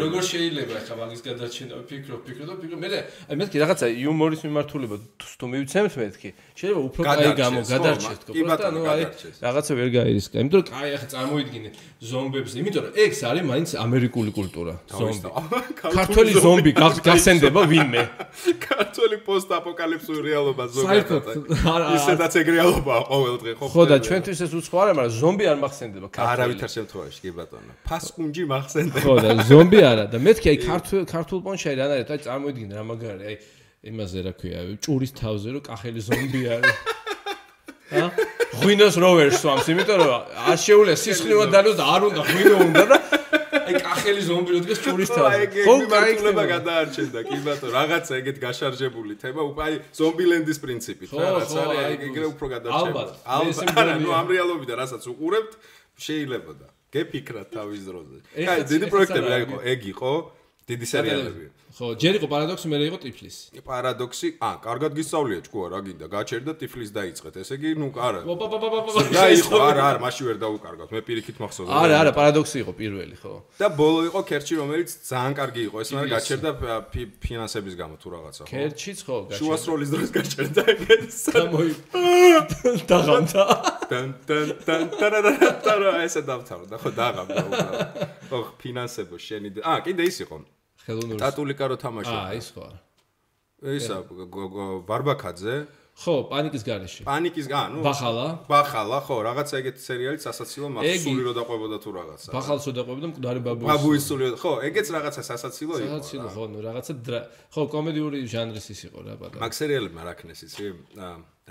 Speaker 2: როგორ შეიძლება ახლა მაგის გადარჩენა ვფიქრობ და მე მეთქი რაღაცა იუმორის მიმართულება თუ მივცემთ მეთქი. შეიძლება უფრო კაი გადარჩეს თქო. პროსტა ნუ აი რაღაცა ვერ გაირისკა. იმიტომ რომ კაი ახლა წარმოიდგინე ზომბებს, იმიტომ რომ ეს არის მაინც ამერიკული კულტურა. ზომბი. ქართველი ზომბი გახსენდება ვინმე.
Speaker 1: ქართველი პოსტ-აპოკალიფსური რეალობა ზოგადად. ისედაც ეგ რეალობაა ყოველ დღე ხო?
Speaker 2: ხო და ჩვენთვის ეს უცხო არა, მაგრამ ზომბი არ მახსენდება ქართველი.
Speaker 1: არავითარ შემთხვევაში კი ბატონო. ფასკუნჯი მახსენდება.
Speaker 2: ხო და ზომბი არა და მეთქი აი ქართულ პონჩი აი რანაირად აი წარმოიდგინე რა მაგარი აი იმაზე რა ქვია ჭურის თავზე რომ კახელი ზომბი არის. ა? ღვინოს რო ვერ სვამს, იმიტომ რომ აშეულია სისხლივად დალოს და არ უნდა ღვინო უნდა და აი კახელი ზომბი რო დგას ჭურის თავზე.
Speaker 1: ხო, მართლობა გადაარჩენდა, კი ბატონო, რაღაცა ეგეთ გაშარჟებული თემა, აი ზომბილენდის პრინციპით რა რაც არის, ეგრე უფრო გადარჩება. ალბათ, ნუ ამ რეალობიდან რასაც უყურებთ, შეიძლება და გეფიქრათ თავის დროზე. აი, დიდი პროექტები რა იყო, ეგ იყო, დიდი სერიალები.
Speaker 2: ხო, ჯერ იყო პარადოქსი, მერე იყო ტიფლისი.
Speaker 1: პარადოქსი, კარგად გისწავლია ჭკუა რა გინდა, გაჩერდა ტიფლის დაიწყეთ. ესე იგი, ნუ არა.
Speaker 2: პაპაპაპაპაპა.
Speaker 1: და იყო, არა, მაშინ ვერ დაუკარგავთ. მე პირიქით მახსოვს.
Speaker 2: არა, პარადოქსი იყო პირველი, ხო.
Speaker 1: და ბოლო იყო ქერჩი, რომელიც ძალიან კარგი იყო. ეს მაგრამ გაჩერდა ფინანსების გამო თუ რაღაცა, ხო?
Speaker 2: ქერჩიც ხო, გაჩერდა.
Speaker 1: შუასროლის დროს გაჩერდა ეგეც.
Speaker 2: დაღამდა.
Speaker 1: ტან ესე დავთავრდა, ხო, დაღამდა უბრალოდ. ხო, ფინანსებო შენი. კიდე ის იყო.
Speaker 2: ხელოვნური
Speaker 1: ტატულიკა რო თამაშობდა.
Speaker 2: ის ხო არა.
Speaker 1: ისა ბარბაკაძე.
Speaker 2: ხო, პანიკის გარეშე.
Speaker 1: ნუ
Speaker 2: ბახალა,
Speaker 1: ხო, რაღაცა ეგეთ სერიალი სასაცილო მაქსული რო დაყვებოდა თუ რაღაცა.
Speaker 2: ბახალსო დაყვებოდა მკვდარი
Speaker 1: ბაბუის სული, ხო, ეგეც რაღაცა სასაცილო იყო.
Speaker 2: სასაცილო, ხო, ნუ რაღაცა ხო, კომედიური ჟანრის ის იყო რა ბატონო.
Speaker 1: მაგ სერიალებმა რა ქნეს იცი?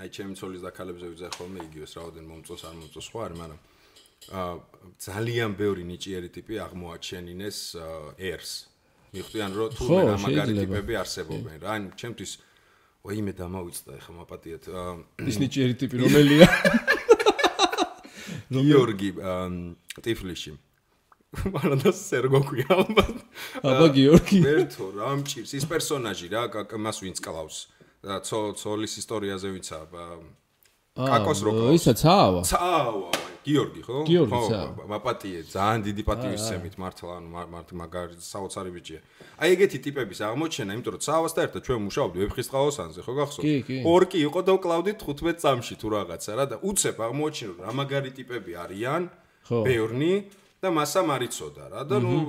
Speaker 1: აი ჩემი ცოლის და ქალებზე ვიძახ ხოლმე იგივეს რაოდენ მომწონს არ მომწონს ხო არის, მაგრამ ძალიან ბევრი ნიჭიერი ტიპი აღმოაჩენინეს ერს. მიხვდიან რომ თუ მაგარი ტიპები არსებობენ რა. ანუ ჩემთვის ვაიმე დამავიწყდა ეხა მაპატიეთ.
Speaker 2: ის ნიჭიერი ტიპი რომელია?
Speaker 1: გიორგი ტიფლიში. მაგრამ და სერგო ქვია ალბათ.
Speaker 2: აბა გიორგი.
Speaker 1: ვერთო რა მჭირს ის პერსონაჟი რა მას ვინც კლავს. ცოლის ისტორიაზე ვიცა კაკოს რო კლავს.
Speaker 2: ისა цаава.
Speaker 1: გიორგი ხო?
Speaker 2: ხო,
Speaker 1: მაპატიე, ძალიან დიდი პატივისცემით მართლა, ანუ მაგარი საოცარი ბიჭია. აი ეგეთი ტიპების აღმოჩენა, იმიტომ რომ цаавასთან ერთად ჩვენ მუშაობდით ვეფხისტყაოსანზე, ხო გახსოვს? ორკი იყო და ვკლავდით 15 წამში თუ რაღაცა რა და უცებ აღმოჩენო რა მაგარი ტიპები არიან, ბევრნი და მასა მარიცოდა რა და ნუ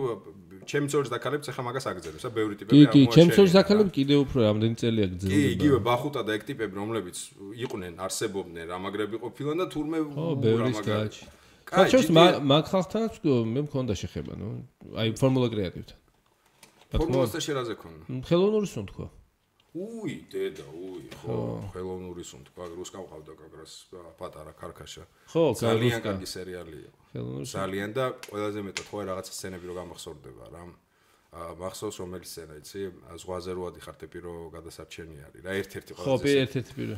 Speaker 1: ჩემი ცოლის დაქალებს ახლა მაგას აგზელებს, ბევრი ტიპები
Speaker 2: კი,
Speaker 1: აღმოჩენილი.
Speaker 2: ჩემი ცოლის დაქალები კიდევ უფრო რამდენი წელი აგზელდა.
Speaker 1: კი, იგივე ბახუტა და ეგ ტიპები, რომლებიც იყვნენ, არსებობდნენ, რამაგრები ყოფილან და თურმე
Speaker 2: რამაგრები. ხალხს მაგ ხალხთანაც მე მქონდა შეხება, ნუ, აი ფორმულა კრეატივთან.
Speaker 1: ფორმულასთან შერაზე ქონდა.
Speaker 2: ხელოვნური სუნ თქვა.
Speaker 1: დედა, ხო, ხელოვნური სუნ თქვა, რუსკა ყავდა კაგრას პატარა ქარქაშა.
Speaker 2: ხო,
Speaker 1: ძალიან კარგი სერიალი იყო. ძალიან და ყველაზე მეტად ხო რაღაცა სცენები რო გამახსოვდება რა. მახსოვს რომელი სცენა იცი? ზღვაზე რო ადიხარ ტიპი რო გადასარჩენი არის რა, ერთ-ერთი
Speaker 2: ხო, ერთ-ერთი პირო.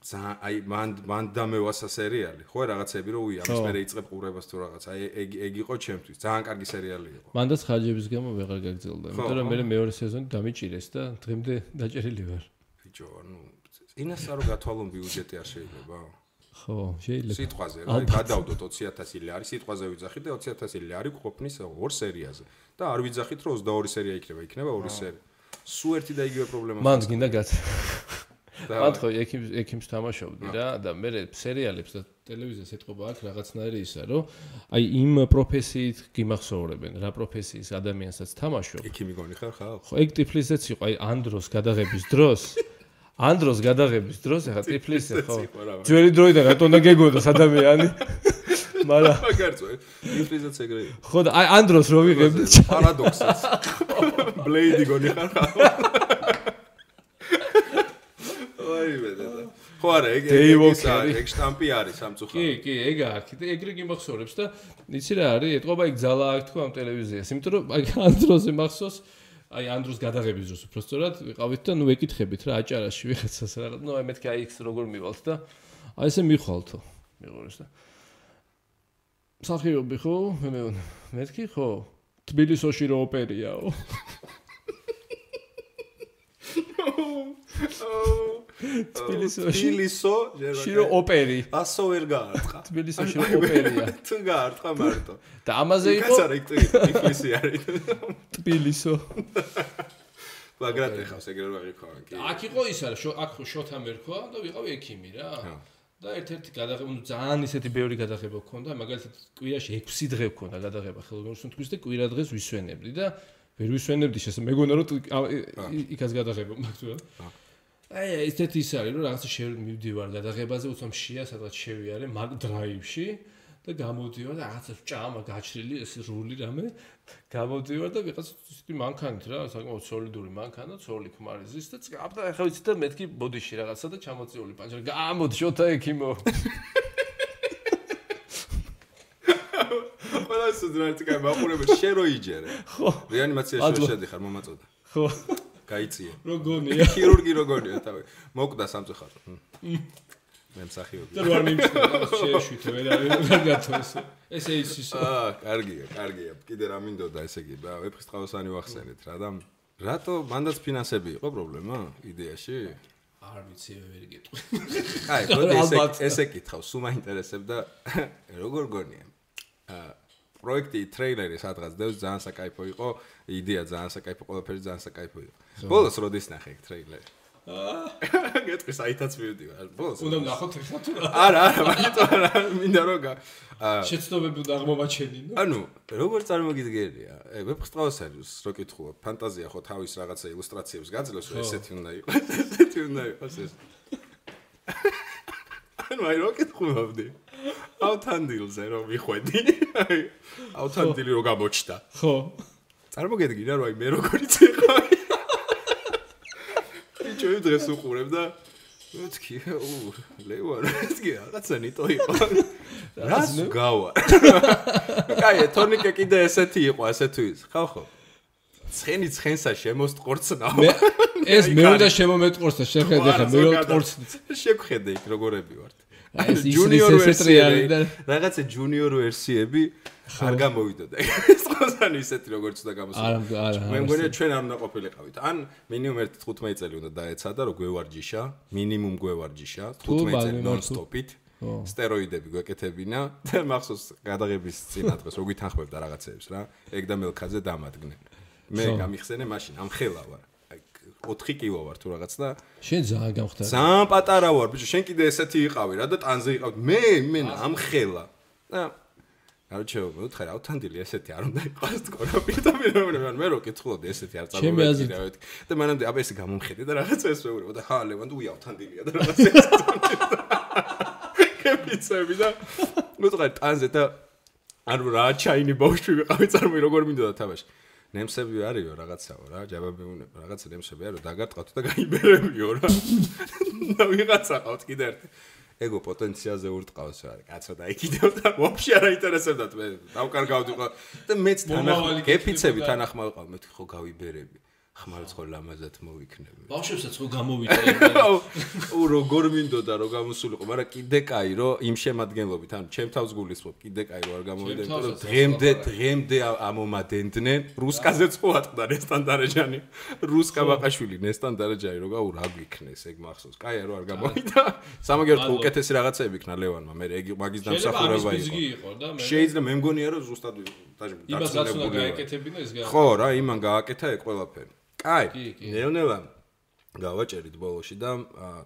Speaker 1: აი მან დამევასა სერიალი. ხო რაღაცები რო ამის მერე იწყებ ყურებას თუ რაღაც. აი ეგ იყო ჩემთვის. ძალიან კარგი სერიალი იყო.
Speaker 2: მანდაც ხარჯების გამო ვეღარ გაგრძელდა. იმიტომ რომ მე მეორე სეზონი დამიჭირეს და დღემდე დაჭერილი ვარ.
Speaker 1: ბიჭო, ანუ ინასა რო გათვალონ ბიუჯეტი არ შეიძლება?
Speaker 2: ხო, შეიძლება.
Speaker 1: სიტყვაზე რა, გადავდოთ 20000 ლარი, სიტყვაზე ვიძახით და 20000 ლარი გვყოფნის ორ სერიაზე. და არ ვიძახით რომ 22 სერია იქნება 2 სერია. სულ ერთი და იგივე პრობლემა.
Speaker 2: მან გინდა გაცა. მან ხო ექიმს თამაშობდი რა და მე სერიალებს და ტელევიზიას ეთყობა აქ რაღაცნაირი ისა რომ აი იმ პროფესიით გიმახსოვრებენ რა პროფესიის ადამიანსაც თამაშობ.
Speaker 1: ექიმი გონი ხარ ხალ?
Speaker 2: ხო, ეგ ტიფლისეც იყო აი ანდროს გადაღების დროს ეხა ტიფლისე ხო. ძველი დროიდან რატომ და გეგონოს ადამიანი? მაგრამ
Speaker 1: მაგარწო ტიფლისეც ეგრე.
Speaker 2: ხო და აი ანდროს რო ვიღებდი
Speaker 1: პარადოქსიც. ბლეიდი გონი ხარ ხალ? ხო არა, ეგ შტამპი არის სამწუხაროდ.
Speaker 2: კი, ეგ აქვს. ეგრე გიმახსოვრებს და იცი რა არის? ეთყობა იქ ძალა აქვს თქო ამ ტელევიზიას. იმიტომ რომ აი ანდროზე მახსოვს, აი ანდროს გადაღების დროს უბრალოდ ვიყავით და ნუ ეკითხებით რა აჭარაში ვიღაცას რა. ნუ აი მეთქი აი იქ როგორ მივალთ და აი ესე მიხვალთო. მიყურეს და სახიობი ხო? მეთქი ხო? თბილისში რო ოპერიაო. თბილისში რო ოპერი.
Speaker 1: ასო ვერ გაარტყა.
Speaker 2: თბილისში რო ოპერია.
Speaker 1: თუ გაარტყა მარტო.
Speaker 2: და ამაზე იყო.
Speaker 1: კაცარა იქ ტიფლისი არის.
Speaker 2: თბილისო.
Speaker 1: ბაგრატ ეხავს ეგრე რა იქაა კი.
Speaker 2: აქ იყო ის არა, აქ შოთა მერქვა და ვიყავი ექიმი რა. და ერთ-ერთი გადაღება, ძალიან ისეთი ბევრი გადაღება გქონდა, მაგალითად კვირაში 6 დღე გქონდა გადაღება ხელოვნური სუნთქვის და კვირა დღეს ვისვენებდი და ვერ ვისვენებდი მეგონა რომ იქაც გადაღება მაქვს რა. აი ესეთი ის არის რომ რაღაცა მივდივარ გადაღებაზე უცებ შეა სადღაც შევიარე მაგ დრაივში და გამოდივარ და რაღაცა ჭამა გაჩრილი ეს რული რამე გამოდივარ და ვიღაცა ისეთი მანქანით რა საკმაოდ სოლიდური მანქანა ცოლი ქმარიზის და აბა ახლა ვიცი და მეთქი ბოდიში რაღაცა და ჩამოწეული პანჩერი გამოდი შოთა ექიმო
Speaker 1: ყველა ეს ძრაიტი კაი მაყურებელ შენ რო იჯერე ხო რეანიმაციაში შედიხარ მომაწოდა
Speaker 2: ხო
Speaker 1: გაიწიე
Speaker 2: როგორია
Speaker 1: ქირურგი როგორია თავი მოკვდა სამწუხაროდ მე მსახიობი
Speaker 2: და არ მიმწევ შეეშვით ვერ არის კარგათო ესე ის
Speaker 1: კარგია კიდე რა მინდოდა ესე იგი ვეფხისტყაოსანი ვახსენეთ რა და რატო მანდაც ფინანსები იყო პრობლემა იდეაში
Speaker 2: არ ვიცი ვერ გეტყვი
Speaker 1: აი მოდი ესე კითხავ სულ მაინტერესებდა როგორ გონია პროექტი ტრეილერი სადღაც დევს ძალიან საკაიფო იყო იდეა ძალიან საკაიფო ყველაფერი ძალიან საკაიფო იყო ბოლოს როდის ნახე ტრეილერი გეტყვი საითაც მივდივარ ბოლოს
Speaker 2: უნდა ნახოთ ეხლა თუ
Speaker 1: არა მაგიტო არა მინდა რომ
Speaker 2: შეცდომები უნდა აღმოვაჩენინო
Speaker 1: ანუ როგორ წარმოგიდგენია ვეფხისტყაოსანს რო კითხულობ ფანტაზია ხო თავის რაღაცა ილუსტრაციებს გაძლევს რომ ესეთი უნდა იყოს ეს ანუ აი რო კითხულობდი ავთანდილზე რომ მიხვედი ავთანდილი რო გამოჩნდა
Speaker 2: ხო
Speaker 1: წარმოგედგინა რომ აი მე როგორიც იყავი ჩვენ დღეს უყურებ და მეთქი ლევან მეთქი რაღაცა ნიტო იყო რას გავა კაი თორნიკე კიდე ესეთი იყო ასე თუ ის ხო ცხენი ცხენსა შემოსტყორცნაო
Speaker 2: ეს მე უნდა შემომეტყორს და შეხედე ხა მე ვტყორცნი
Speaker 1: შეგხედე იქ როგორები ვართ
Speaker 2: ეს ჯუნიორ ვერსიები და
Speaker 1: რაღაცა ჯუნიორ ვერსიები არ გამოვიდოდა ეს ყოსანი ისეთი როგორც უნდა გამოსულა
Speaker 2: არა
Speaker 1: მე მგონია ჩვენ არ უნდა ყოფილიყავით ან მინიმუმ 1-15 წელი უნდა დაეცადა რომ გვევარჯიშა მინიმუმ გვევარჯიშა 15 წელი ნონ-სტოპით სტეროიდები გვეკეთებინა და მახსოვს გადაღების წინა დღეს რო გვითანხმებდა რაღაცეებს რა ეგ და მელქაძე დამადგნენ მე გამიხსენე მაშინ ამ ხელა ვარ 4 კილო ვარ თუ რაღაც და
Speaker 2: შენ ძალიან გამხდარ
Speaker 1: ძალიან პატარა ვარ ბიჭო შენ კიდე ესეთი იყავი რა და ტანზე იყავ მე ამ ხელა და არჩევ მოთხარ ავთანდილი ესეთი არ უნდა იყოს თქო პირდა მე რო კითხულობდი ესეთი არ წარმოვედგინე და მანამდე აბა ესე გამომხედე და რაღაცა ეს მეუბნება და ხა ლევან თუ ავთანდილია და რაღაცა ეს კეპიცები და მოთხარ ტანზე და ანუ რა ჩაინი ბავშვი ვიყავი წარმოი როგორ მინდოდა თამაში ნემსები არისო რაღაცაო რა ჯაბები უნება რაღაცა ნემსები არო დაგარტყავთ და გაიბერებიო რა და ვიღაცა ყავთ კიდე ერთი ეგო პოტენციალზე ურტყავს რა კაცო და იქიდევ და ვაფშე არ აინტერესებდათ მე დავკარგავდი ყო და მეც თანახმად გეფიცები თანახმად ყავ მე ხო გავიბერები ხმალს ხო ლამაზად მოვიქნები
Speaker 2: ბავშვებსაც ხო გამოვიწერე
Speaker 1: უ როგორ მინდოდა რომ გამოსულიყო მაგრამ კიდე კაი რომ იმ შემადგენლობით ანუ ჩემ თავს გულისხმობ კიდე კაი რომ არ გამოვიდა იმიტომ რომ დღემდე ამომადენდნენ რუსკაზეც ხო ატყდა ნესტან დარეჯანი რუსკა ბაყაშვილი ნესტან დარეჯანი რო გაუ რა გიქნეს ეგ მახსოვს კაია რომ არ გამოვიდა სამაგერთ უკეთესი რაღაცები იქნა ლევანმა მე ეგ მაგის დამსახურება იყო შეიძლება მე მგონია რომ ზუსტად
Speaker 2: დაწუნებული
Speaker 1: ხო რა იმან გააკეთა ეგ ყველაფერი კაი ნეონელა გავაჭერით ბოლოში და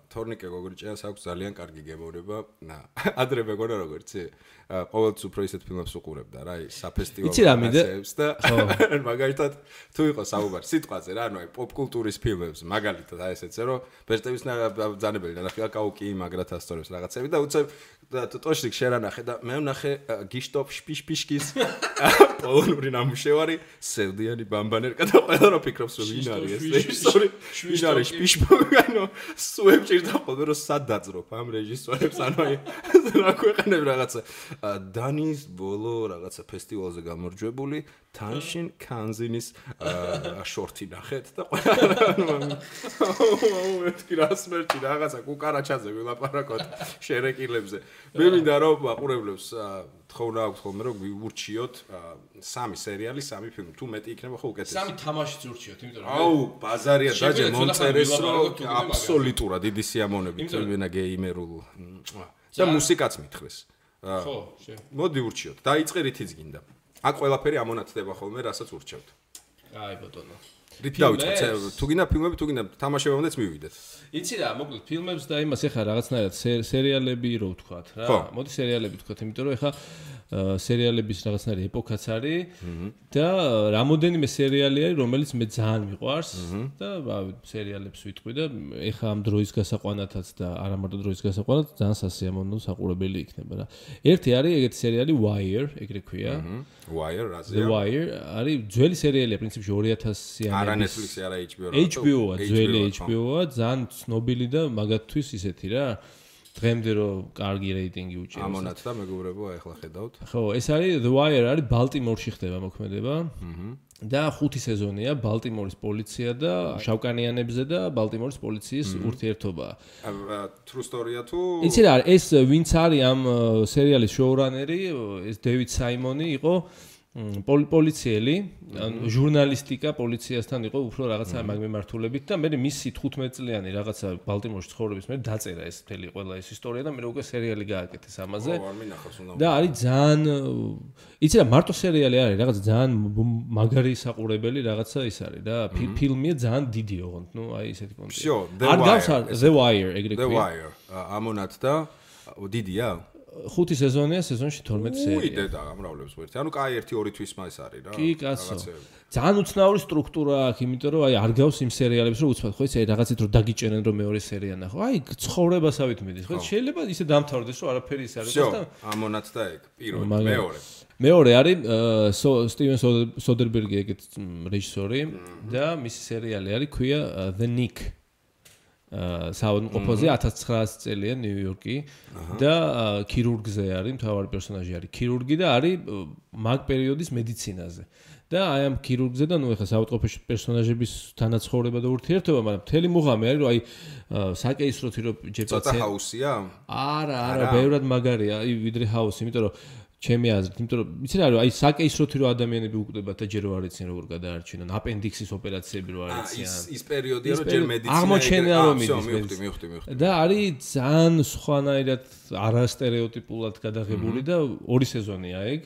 Speaker 1: თორნიკე გოგრიჭიანს აქვს ძალიან კარგი გემოვნება ადრე მეგონა როგორიცი ყოველთვის უფრო ისეთ ფილმებს უყურებდა რა საფესტივალო ფილმებს და მაგალითად თუ იყო საუბარი სიტყვაზე რა ანუ აი პოპ კულტურის ფილმებს მაგალითად აი ესეც რომ ბეჭდების ძანებელი ნახე კაუკი მაგრათ ასტორებს რაღაცები და უცებ ტოშრიკ შერანახე და მე ვნახე გიშტოპ შპიშპიშკის პოლონური ნამუშევარი სევდიანი ბამბანერკა და ყველა რო ფიქრობს რომ ვინ არის ეს რეჟისორი ვინ არის შპიშპოგანო სუებჭირდა ხოლმე რომ სად დაძრობ ამ რეჟისორებს ანუ აი რა ქვეყნებ რაღაცა დანის ბოლო რაღაცა ფესტივალზე გამარჯვებული თანშინ კანზინის შორტი ნახეთ და ყველა მეთქი რა სმერტი რაღაცა კუკარაჩაზე ვილაპარაკოთ შერეკილებზე მე მინდა რომ აყურებლებს თხოვნა აქვს ხოლმე რომ ვიურჩიოთ 3 სერიალი 3 ფილმი თუ მეტი იქნება ხო უკეთესი
Speaker 2: 3 თამაშიც ურჩიოთ იმიტომ რომ
Speaker 1: აუ ბაზარია დაჯე მომწერეს რომ აბსოლუტურად დიდი სიამოვნებით ვენა გეიმერულ და მუსიკაც მითხრეს
Speaker 2: ხო
Speaker 1: მოდი ურჩიოთ დაიწყე რითიც გინდა აქ ყველაფერი ამონათდება ხოლმე რასაც ურჩევთ
Speaker 2: აი ბატონო
Speaker 1: რით დავიწყეთ თუ გინდა ფილმები თუ გინდა თამაშებამდეც მივიდეთ
Speaker 2: იცი რა მოკლედ ფილმებს და იმას ეხა რაღაცნაირად სერიალები რო ვთქვათ რა მოდი სერიალები ვთქვათ იმიტომ რომ ეხა სერიალების რაღაცნაირი ეპოქაც არის და რამოდენიმე სერიალი არის, რომელიც მე ძალიან მიყვარს და სერიალებს ვიტყვი და ეხა ამ დროის გასაყვანათაც და არა მარტო დროის გასაყვანად ძალიან სასიამოვნო საყურებელი იქნება რა. ერთი არის ეგეთი სერიალი Wire, ეგრე ქვია.
Speaker 1: Wire, რაზეა?
Speaker 2: The Wire არის ძველი სერიალია, პრინციპში 2000-იანი.
Speaker 1: არა Netflix-ი, არა HBO-რა.
Speaker 2: HBO-ა, ძველი HBO-ა, ძალიან ცნობილი და მაგათთვის ისეთი რა. დღემდე რომ კარგი რეიტინგი უჭერს.
Speaker 1: ამონაც და მეგობრებო, ახლა ხედავთ.
Speaker 2: ხო, ეს არის The Wire არის ბალტიმორში ხდება მოქმედება. და 5 სეზონია ბალტიმორის პოლიცია და შავკანიანებზე და ბალტიმორის პოლიციის ურთიერთობა.
Speaker 1: True story-ა თუ
Speaker 2: იცი რა, ეს ვინც არის ამ სერიალის შოურანერი, ეს დევიდ საიმონი იყო პოლიციელი, ჟურნალისტიკა პოლიციასთან იყო უფრო რაღაცა მაგმემართულებით და მე მისი 15 წლიანი რაღაცა ბალტიმორში ცხოვრების მე დაწერა ეს მთელი ყველა ეს ისტორია და მე უკვე სერიალი გააკეთეს ამაზე. და არის ძალიან იცი რა, მარტო სერიალი არის, რაღაც ძალიან მაგარი საყურებელი რაღაცა ის არის რა, ფილმია ძალიან დიდი ოღონდ, ნუ აი ესეთი კონტექსტი. არ გავს The Wire ეგრე ქვია.
Speaker 1: The Wire, ამონაც და დიდია?
Speaker 2: 5 სეზონია, სეზონში 12 სერია.
Speaker 1: უი დედა გამრავლებს ვერთი. ანუ კაი 1-2 თვის მას არის რა.
Speaker 2: კი, კაცო. ძალიან უცნაური სტრუქტურა აქვს, იმიტომ რომ აი არ გავს იმ სერიალებს რომ უცბად, ხო იცი, აი რაღაცით რომ დაგიჭერენ რომ მეორე სერია ნახო. აი ცხოვრებასავით მიდის, ხო შეიძლება ისე დამთავრდეს რომ არაფერი ის არის
Speaker 1: და ამონაც და ეგ პირველი, მეორე.
Speaker 2: მეორე არის სტივენ სოდერბერგი ეგეთ რეჟისორი და მისი სერიალი არის ქვია The Nick. საავადმყოფოზე 1900 წელია ნიუ-იორკი და ქირურგზე არის, მთავარი პერსონაჟი არის ქირურგი და არის მაგ პერიოდის მედიცინაზე. და აი ამ ქირურგზე და ნუ ეხლა საავადმყოფოში პერსონაჟების თანაცხოვრება და ურთიერთობა, მაგრამ მთელი მუღამი არის, რომ აი საკეისროთი რომ ჯერ
Speaker 1: ცოტა ჰაუსია?
Speaker 2: არა, ბევრად მაგარია, აი ვიდრე ჰაუსი, იმიტომ რომ ჩემი აზრით, იმიტომ რომ იცი რა, აი საკეისროთი რომ ადამიანები უკვდებათ და ჯერ რო არ იციან როგორ გადაარჩინონ, აპენდიქსის ოპერაციები რო არ იციან.
Speaker 1: ის პერიოდია რომ ჯერ მედიცინა
Speaker 2: აღმოჩენა რომ მიდის.
Speaker 1: მივხვდი.
Speaker 2: და არის ძალიან სხვანაირად არასტერეოტიპულად გადაღებული და 2 სეზონია ეგ.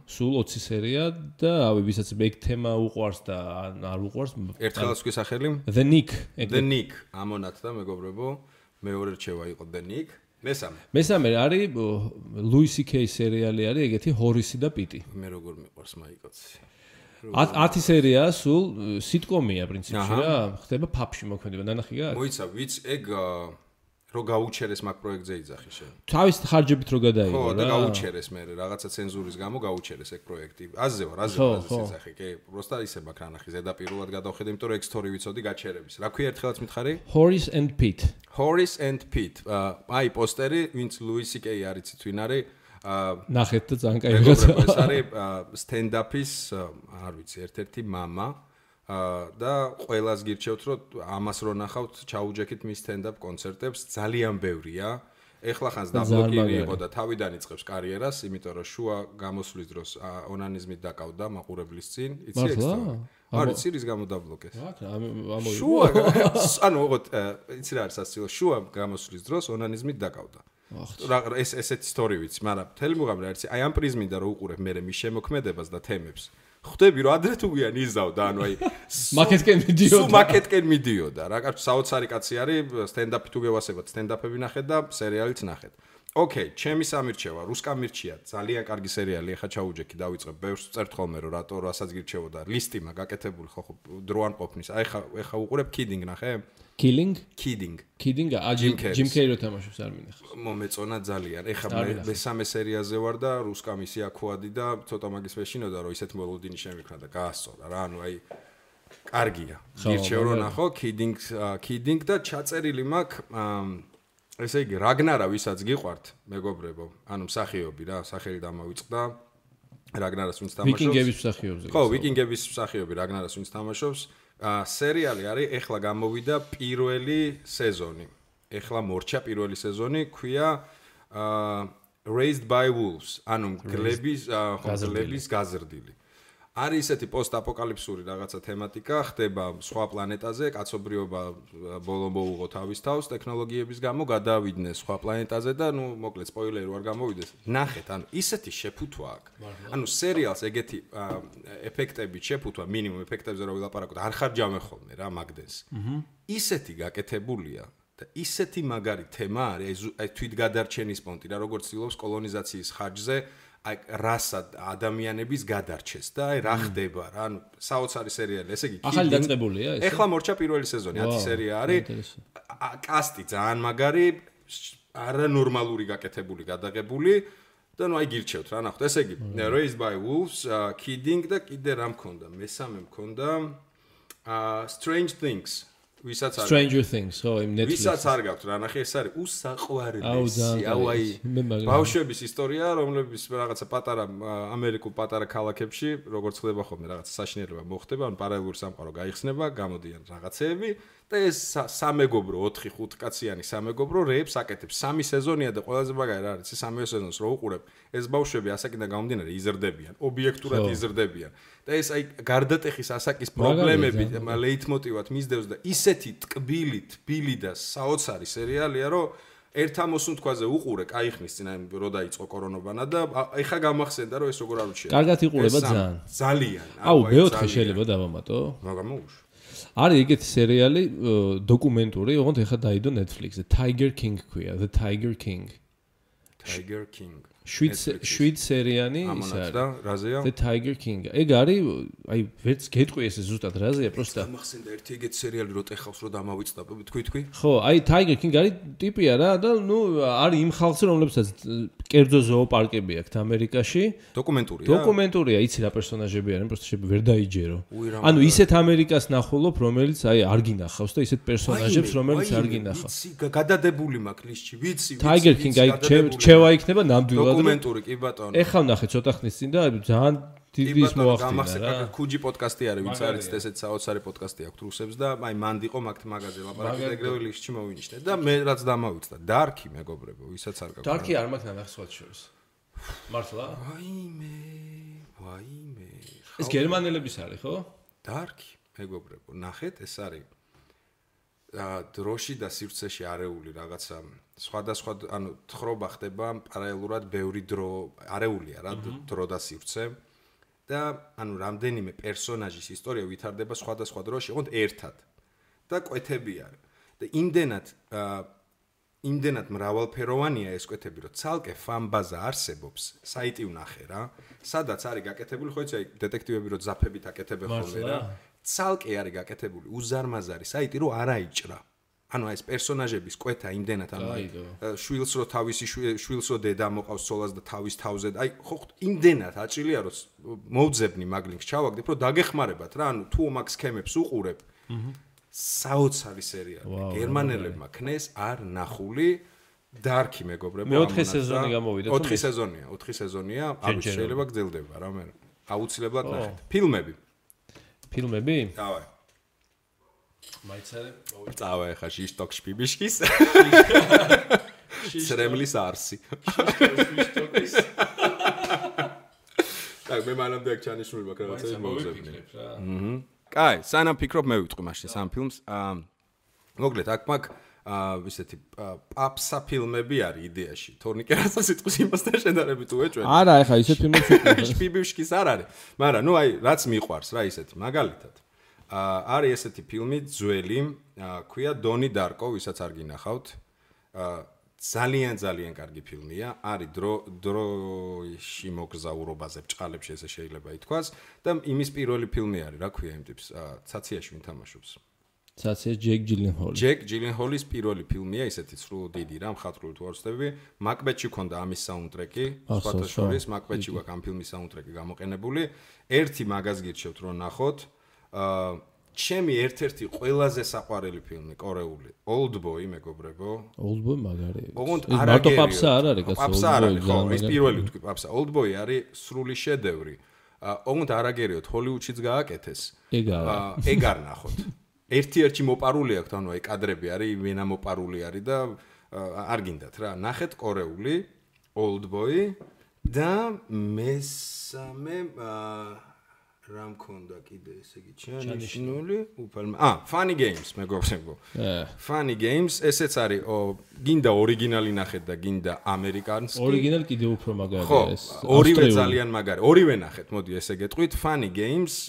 Speaker 2: სულ 20 სერია და რავი, ვისაც ეგ თემა უყვარს და არ უყვარს.
Speaker 1: ერთხელაც გვისახელი?
Speaker 2: The Nick.
Speaker 1: The Nick, ამონაც და მეგობრებო, მეორე რჩევა იყო The Nick.
Speaker 2: მესამე არის ლუისი კეის სერიალი არის ეგეთი ჰორისი და პიტი.
Speaker 1: მე როგორ მიყვარს მაიკოცი.
Speaker 2: 10 სერია სულ სიტკომია პრინციპში რა, ხდება ფაფში მოქმედება, ნანახი გაქვს?
Speaker 1: მოიცა, ვიც ეგ რო გაუჩერეს მაგ პროექტზე იძახი შენ.
Speaker 2: თავის ხარჯებით რო გადაიღო რა.
Speaker 1: ხო, და გაუჩერეს მე რაღაცა ცენზურის გამო გაუჩერეს ეგ პროექტი. აზზე ვარ იძახი, კი, პროსტა ისე მაგ რანახი ზედაპირულად გადავხედე, იმიტომ რომ ეგ სტორი ვიცოდი გაჩერების. რა ქვია ერთხელაც მითხარი?
Speaker 2: Horace and Pete.
Speaker 1: Horace and Pete. აი პოსტერი, ვინც ლუისი კეი არიცით ვინ არის?
Speaker 2: ნახეთ და ძალიან კაი რაღაცა.
Speaker 1: ეს არის სტენდაპის, არ ვიცი, ერთ-ერთი მამა. და ყველას გირჩევთ რომ ამას რო ნახავთ ჩაუჯექით მის სტენდაპ კონცერტებს ძალიან ბევრია. ეხლა ხანს დაბლოკილი იყო და თავიდან იწყებს კარიერას, იმიტომ რომ შუა გამოსვლის დროს ონანიზმით დაკავდა მაყურებლის წინ, იცი ეს? არის რის გამო დაბლოკეს? შუა, ანუ ოღონდ იცი რა არის სასწავლო, შუა გამოსვლის დროს ონანიზმით დაკავდა. ეს ესეთი ისტორია ვიცი, მაგრამ მთელი მუღამი რა არის, აი ამ პრიზმიდან რო უყურებ მე მის შემოქმედებას და თემებს. ხვდები რომ ადრე თუ გვიან იზავდა, ანუ აი
Speaker 2: მაკეტკენ მიდიოდა.
Speaker 1: სულ მაკეტკენ მიდიოდა რა, კაცო საოცარი კაცი არის, სტენდაპი თუ გევასებათ, სტენდაპები ნახეთ და სერიალიც ნახეთ. ოკეი, ჩემი სამირჩევა, რუსკა მირჩია, ძალიან კარგი სერიალი, ახლა ჩაუჯექი დავიწყებ, ბევრს წერთ ხოლმე რომ რატო რასაც გირჩევოდა, ლისტი მაგ გაკეთებული ხო დრო არ ყოფნის. აი ხა უყურებ Kidding ნახე?
Speaker 2: Kidding?
Speaker 1: Kidding,
Speaker 2: Jim Carrey რო თამაშობს არ მინახავს.
Speaker 1: მომეწონა ძალიან. ეხლა მესამე სერიაზე ვარ და რუსკა მისი აქუადი და ცოტა მაგის ვეშინოდა რომ ისეთ მელოდინი შემიქნა და გაასწორა რა, ანუ აი კარგია. გირჩევ რომ ნახო Kidding და ჩაწერილი მაქვს ესე იგი რაგნარა ვისაც გიყვართ მეგობრებო, ანუ მსახიობი რა, სახელი დამავიწყდა. რაგნარას ვინც თამაშობს?
Speaker 2: ვიკინგების მსახიობზე.
Speaker 1: ხო, ვიკინგების მსახიობი რაგნარას ვინც თამაშობს. სერიალი არის ეხლა გამოვიდა პირველი სეზონი. ეხლა მორჩა პირველი სეზონი, ქვია Raised by Wolves, ანუ გლების გაზრდილი. არის ესეთი პოსტ-აპოკალიფსური რაღაცა თემატიკა, ხდება სხვა პლანეტაზე, კაცობრიობა ბოლო მოუღო თავის თავს ტექნოლოგიების გამო, გადავიდნენ სხვა პლანეტაზე და ნუ მოკლედ სპოილერი არ გამოვიდეს. ნახეთ, ანუ ისეთი შეფუთვა აქვს. ანუ სერიალს ეგეთი ეფექტებით შეფუთვა, მინიმუმ ეფექტებზე რო ვილაპარაკოთ, არ ხარჯავენ ხოლმე რა მაგდენს. ისეთი გაკეთებულია და ისეთი მაგარი თემა არის, აი თვითგადარჩენის პონტი რა, როგორც ცდილობს კოლონიზაციის ხარჯზე აი რასა ადამიანების გადარჩეს და აი რა ხდება რა ანუ საოცარი სერიალი ესე იგი
Speaker 2: ახალი დაწყებულია ეს
Speaker 1: ეხლა მორჩა პირველი სეზონი 10 სერია არის კასტი ძალიან მაგარი არანორმალური გაკეთებული გადაღებული და ნუ აი გირჩევთ რა ნახოთ ესე იგი Raised by Wolves Kidding და კიდე რა მქონდა მესამე მქონდა Strange Things ვისაც არ
Speaker 2: Stranger Things ხო იმ Netflix
Speaker 1: ვისაც არ გაქვთ რა ნახე ეს არის უსაყვარლესი აუ აი ბავშვების ისტორია რომლებიც რაღაცა პატარა ამერიკულ პატარა ქალაქებში როგორც ხდება ხოლმე რაღაცა საშინელება მოხდება ან პარალელური სამყარო გაიხსნება გამოდიან რაღაცეები და ეს სამეგობრო 4-5 კაციანი სამეგობრო რეებს აკეთებს 3 სეზონია და ყველაზე მაგარი რა არის 3 სეზონს რო უყურებ ეს ბავშვები ასაკიდან გამომდინარე იზრდებიან ობიექტურად იზრდებიან და ეს აი გარდატეხის ასაკის პრობლემები ლეიტმოტივად მისდევს და ისეთი ტკბილი თბილი და საოცარი სერიალია რომ ერთ ამოსუნ თქვაზე უყურე кайხნის წინ აი რო დაიწყო კორონოვანა და ეხა გამახსენდა რომ ეს როგორ არ უჩია
Speaker 2: კარგად იყურება
Speaker 1: ძალიან
Speaker 2: აუ მეოთხე შეიძლება დავამატო
Speaker 1: მაგამოუშ
Speaker 2: არის ეგეთი სერიალი დოკუმენტური ოღონდ ეხა დაიდო Netflix-ზე Tiger King ქვია The Tiger King შვიდ სერიანი ის არის
Speaker 1: და რაზეა
Speaker 2: The Tiger King ეგ არის აი ვერც გეტყვი ესე ზუსტად რაზეა პროსტა
Speaker 1: გამახსენდა ერთი ეგეთი სერიალი რო ტეხავს რო დამავიწყდა თქვი
Speaker 2: ხო აი Tiger King არის ტიპია რა და ნუ არის იმ ხალხზე რომლებსაც კერძო ზოოპარკები აქვს ამერიკაში დოკუმენტურია იცი რა პერსონაჟები არიან პროსტა შეიძლება ვერ დაიჯერო ანუ ისეთ ამერიკას ნახულობ რომელიც აი არ გინახავს და ისეთ პერსონაჟებს რომელიც არ გინახავს
Speaker 1: ვიცი გადადებული მაქვს ლისტში ვიცი
Speaker 2: Tiger King აი რჩევა იქნება ნამდვილად
Speaker 1: დოკუმენტური კი ბატონო
Speaker 2: ეხლა ვნახე ცოტა ხნის წინ და ძალიან დიდი ის მოახდინა რა
Speaker 1: ქუჯი პოდკასტი არის ვინც არის ესეთ საოცარი პოდკასტი აქვს რუსებს და აი მანდიყო მაგთ მაგაზე ლაპარაკი ეგრევე ლისტში მოვინიშნე და მე რაც დამავიწყდა დარკი მეგობრებო ვისაც არ გაქვს
Speaker 2: დარკი არ მაქვს ნახე სხვა შორის მართლა
Speaker 1: ვაიმე
Speaker 2: ეს გერმანელების არის ხო
Speaker 1: დარკი მეგობრებო ნახეთ ეს არის დროში და სივრცეში არეული რაღაცა სხვადასხვა ანუ თხრობა ხდება პარალელურად ბევრი დრო არეულია რა დრო და სივრცე და ანუ რამდენიმე პერსონაჟის ისტორია ვითარდება სხვადასხვა დროში ოღონდ ერთად და კვეთები არის და იმდენად მრავალფეროვანია ეს კვეთები რომ ცალკე ფანბაზა არსებობს საიტი ვნახე რა სადაც არის გაკეთებული ხო იცი აი დეტექტივები რო ზაფებით აკეთებენ ხოლმე რა ცალკე არის გაკეთებული უზარმაზარი საიტი რომ არ აიჭრა ანუ ეს პერსონაჟების კვეთა იმდენად ანუ შვილს რო თავისი შვილს რო დედა მოყავს ცოლას და თავის თავზე აი ხო იმდენად აჭრილია რომ მოვძებნი მაგ ლინკს ჩავაგდებ რომ დაგეხმარებათ რა ანუ თუ მაგ სქემებს უყურებ საოცარი სერიალი გერმანელებმა ქნეს არ ნახული დარკი მეგობრებო
Speaker 2: მეოთხე სეზონი გამოვიდა
Speaker 1: 4 სეზონია ანუ შეიძლება გძელდება რა მე აუცილებლად ნახეთ ფილმები დავაი
Speaker 2: მაიცარე
Speaker 1: წავა ხა შიშტოკ შპიბიშკის სრემლის არსი შიშტოკის так მე მანამდე აქ ჩანიშნული მაქვს რაღაცა მოვზებნი კაი სანამ ფიქრობ მე ვიტყვი მაშინ სამ ფილმს მოგლეთ აქ მაგ ისეთი პაპსა ფილმები არის იდეაში თორნიკე რასაც სიტყვის იმასთან შედარებით უეჭვენ
Speaker 2: არა ეხა ისეთ ფილმებს ვიტყვი
Speaker 1: შპიბიშკის არ არის მაგრამ ნუ აი რაც მიყვარს რა ისეთი მაგალითად არის ესეთი ფილმი ძველი ქვია დონი დარკო ვისაც არ გინახავთ ძალიან კარგი ფილმია არის დროში მოგზაურობაზე ბჭყალებში ესე შეიძლება ითქვას და იმის პირველი ფილმი არის რა ქვია იმ ტიპს ცაციაში ვინ თამაშობს
Speaker 2: ცაცია ჯეკ
Speaker 1: ჯილენჰოლის პირველი ფილმია ისეთი სრულ დიდი რა მხატვრული თუ არ ვცდები მაკბეტში ქონდა ამის საუნდტრეკი სხვათა შორის მაკბეტში გვაქვს ამ ფილმის საუნდტრეკი გამოყენებული ერთი მაგას გირჩევთ რომ ნახოთ ჩემი ერთ-ერთი ყველაზე საყვარელი ფილმი კორეული Oldboy მეგობრებო
Speaker 2: Oldboy მაგარი
Speaker 1: ოღონდ
Speaker 2: მარტო პაპსა არ არის კაცო
Speaker 1: პაპსა არ არის ხო ეს პირველი ვთქვი პაპსა Oldboy არის სრული შედევრი ოღონდ არაგერიოთ ჰოლივუდშიც გააკეთეს ეგ არ ნახოთ ერთ-ერთი მოპარული აქვს ანუ აი კადრები არის ვენა მოპარული არის და არ გინდათ რა ნახეთ კორეული Oldboy და მესამე რა მქონდა კიდე ესე იგი ჩანიშნული უფალმა Funny Games მეგობრებო Funny Games ესეც არის გინდა ორიგინალი ნახეთ და გინდა ამერიკანსკი
Speaker 2: ორიგინალი კიდე უფრო მაგარია ეს
Speaker 1: ორივე ძალიან მაგარი ორივე ნახეთ მოდი ესე გეტყვით Funny Games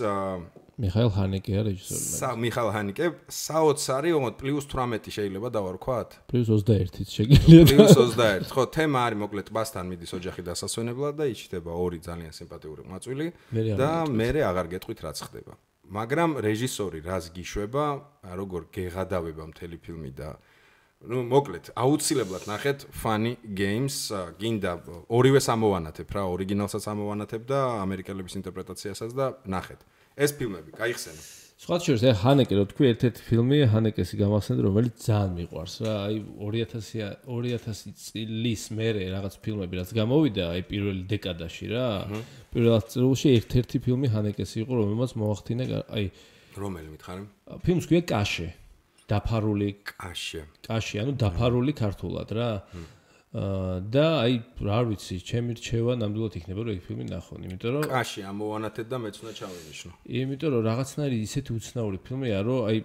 Speaker 2: მიხაილ ჰანეკეა რეჟისორი.
Speaker 1: მიხაილ ჰანეკე საოცარი, ოღონდ +18 შეიძლება დავარქვათ?
Speaker 2: +21-ით შეგიძლიათ.
Speaker 1: +21. ხო, თემა არის მოკლედ ტბასთან მიდის ოჯახი დასასვენებლად და იჭდება ორი ძალიან სიმპათიური მაწვილი და მერე აღარ გეტყვით რაც ხდება. მაგრამ რეჟისორი რას გიშვება, როგორ გეღადავება მთელი ფილმი და მოკლედ აუცილებლად ნახეთ Funny Games, გინდა ორივეს ამოვანათებ რა, ორიგინალსაც ამოვანათებ და ამერიკელების ინტერპრეტაციასაც და ნახეთ. ეს ფილმები გაიხსენო.
Speaker 2: სხვა შორის ჰანეკე რო თქვი ერთ-ერთი ფილმი ჰანეკესი გამახსენდა რომელიც ძალიან მიყვარს რა აი 2000 წლის მერე რაღაც ფილმები რაც გამოვიდა აი პირველი დეკადაში რა პირველ წელში ერთ-ერთი ფილმი ჰანეკესი იყო რომელმაც მოახდინა აი
Speaker 1: რომელი მითხარი
Speaker 2: ფილმს ქვია კაშე დაფარული კაში ანუ დაფარული ქართულად რა და აი რა ვიცი ჩემი რჩევა ნამდვილად იქნება რომ ეს ფილმი ნახონ იმიტომ რომ
Speaker 1: კაში ამოვანათეთ და მეც უნდა ჩავინიშნო
Speaker 2: იმიტომ რომ რაღაცნაირი ისეთი უცნაური ფილმია რომ აი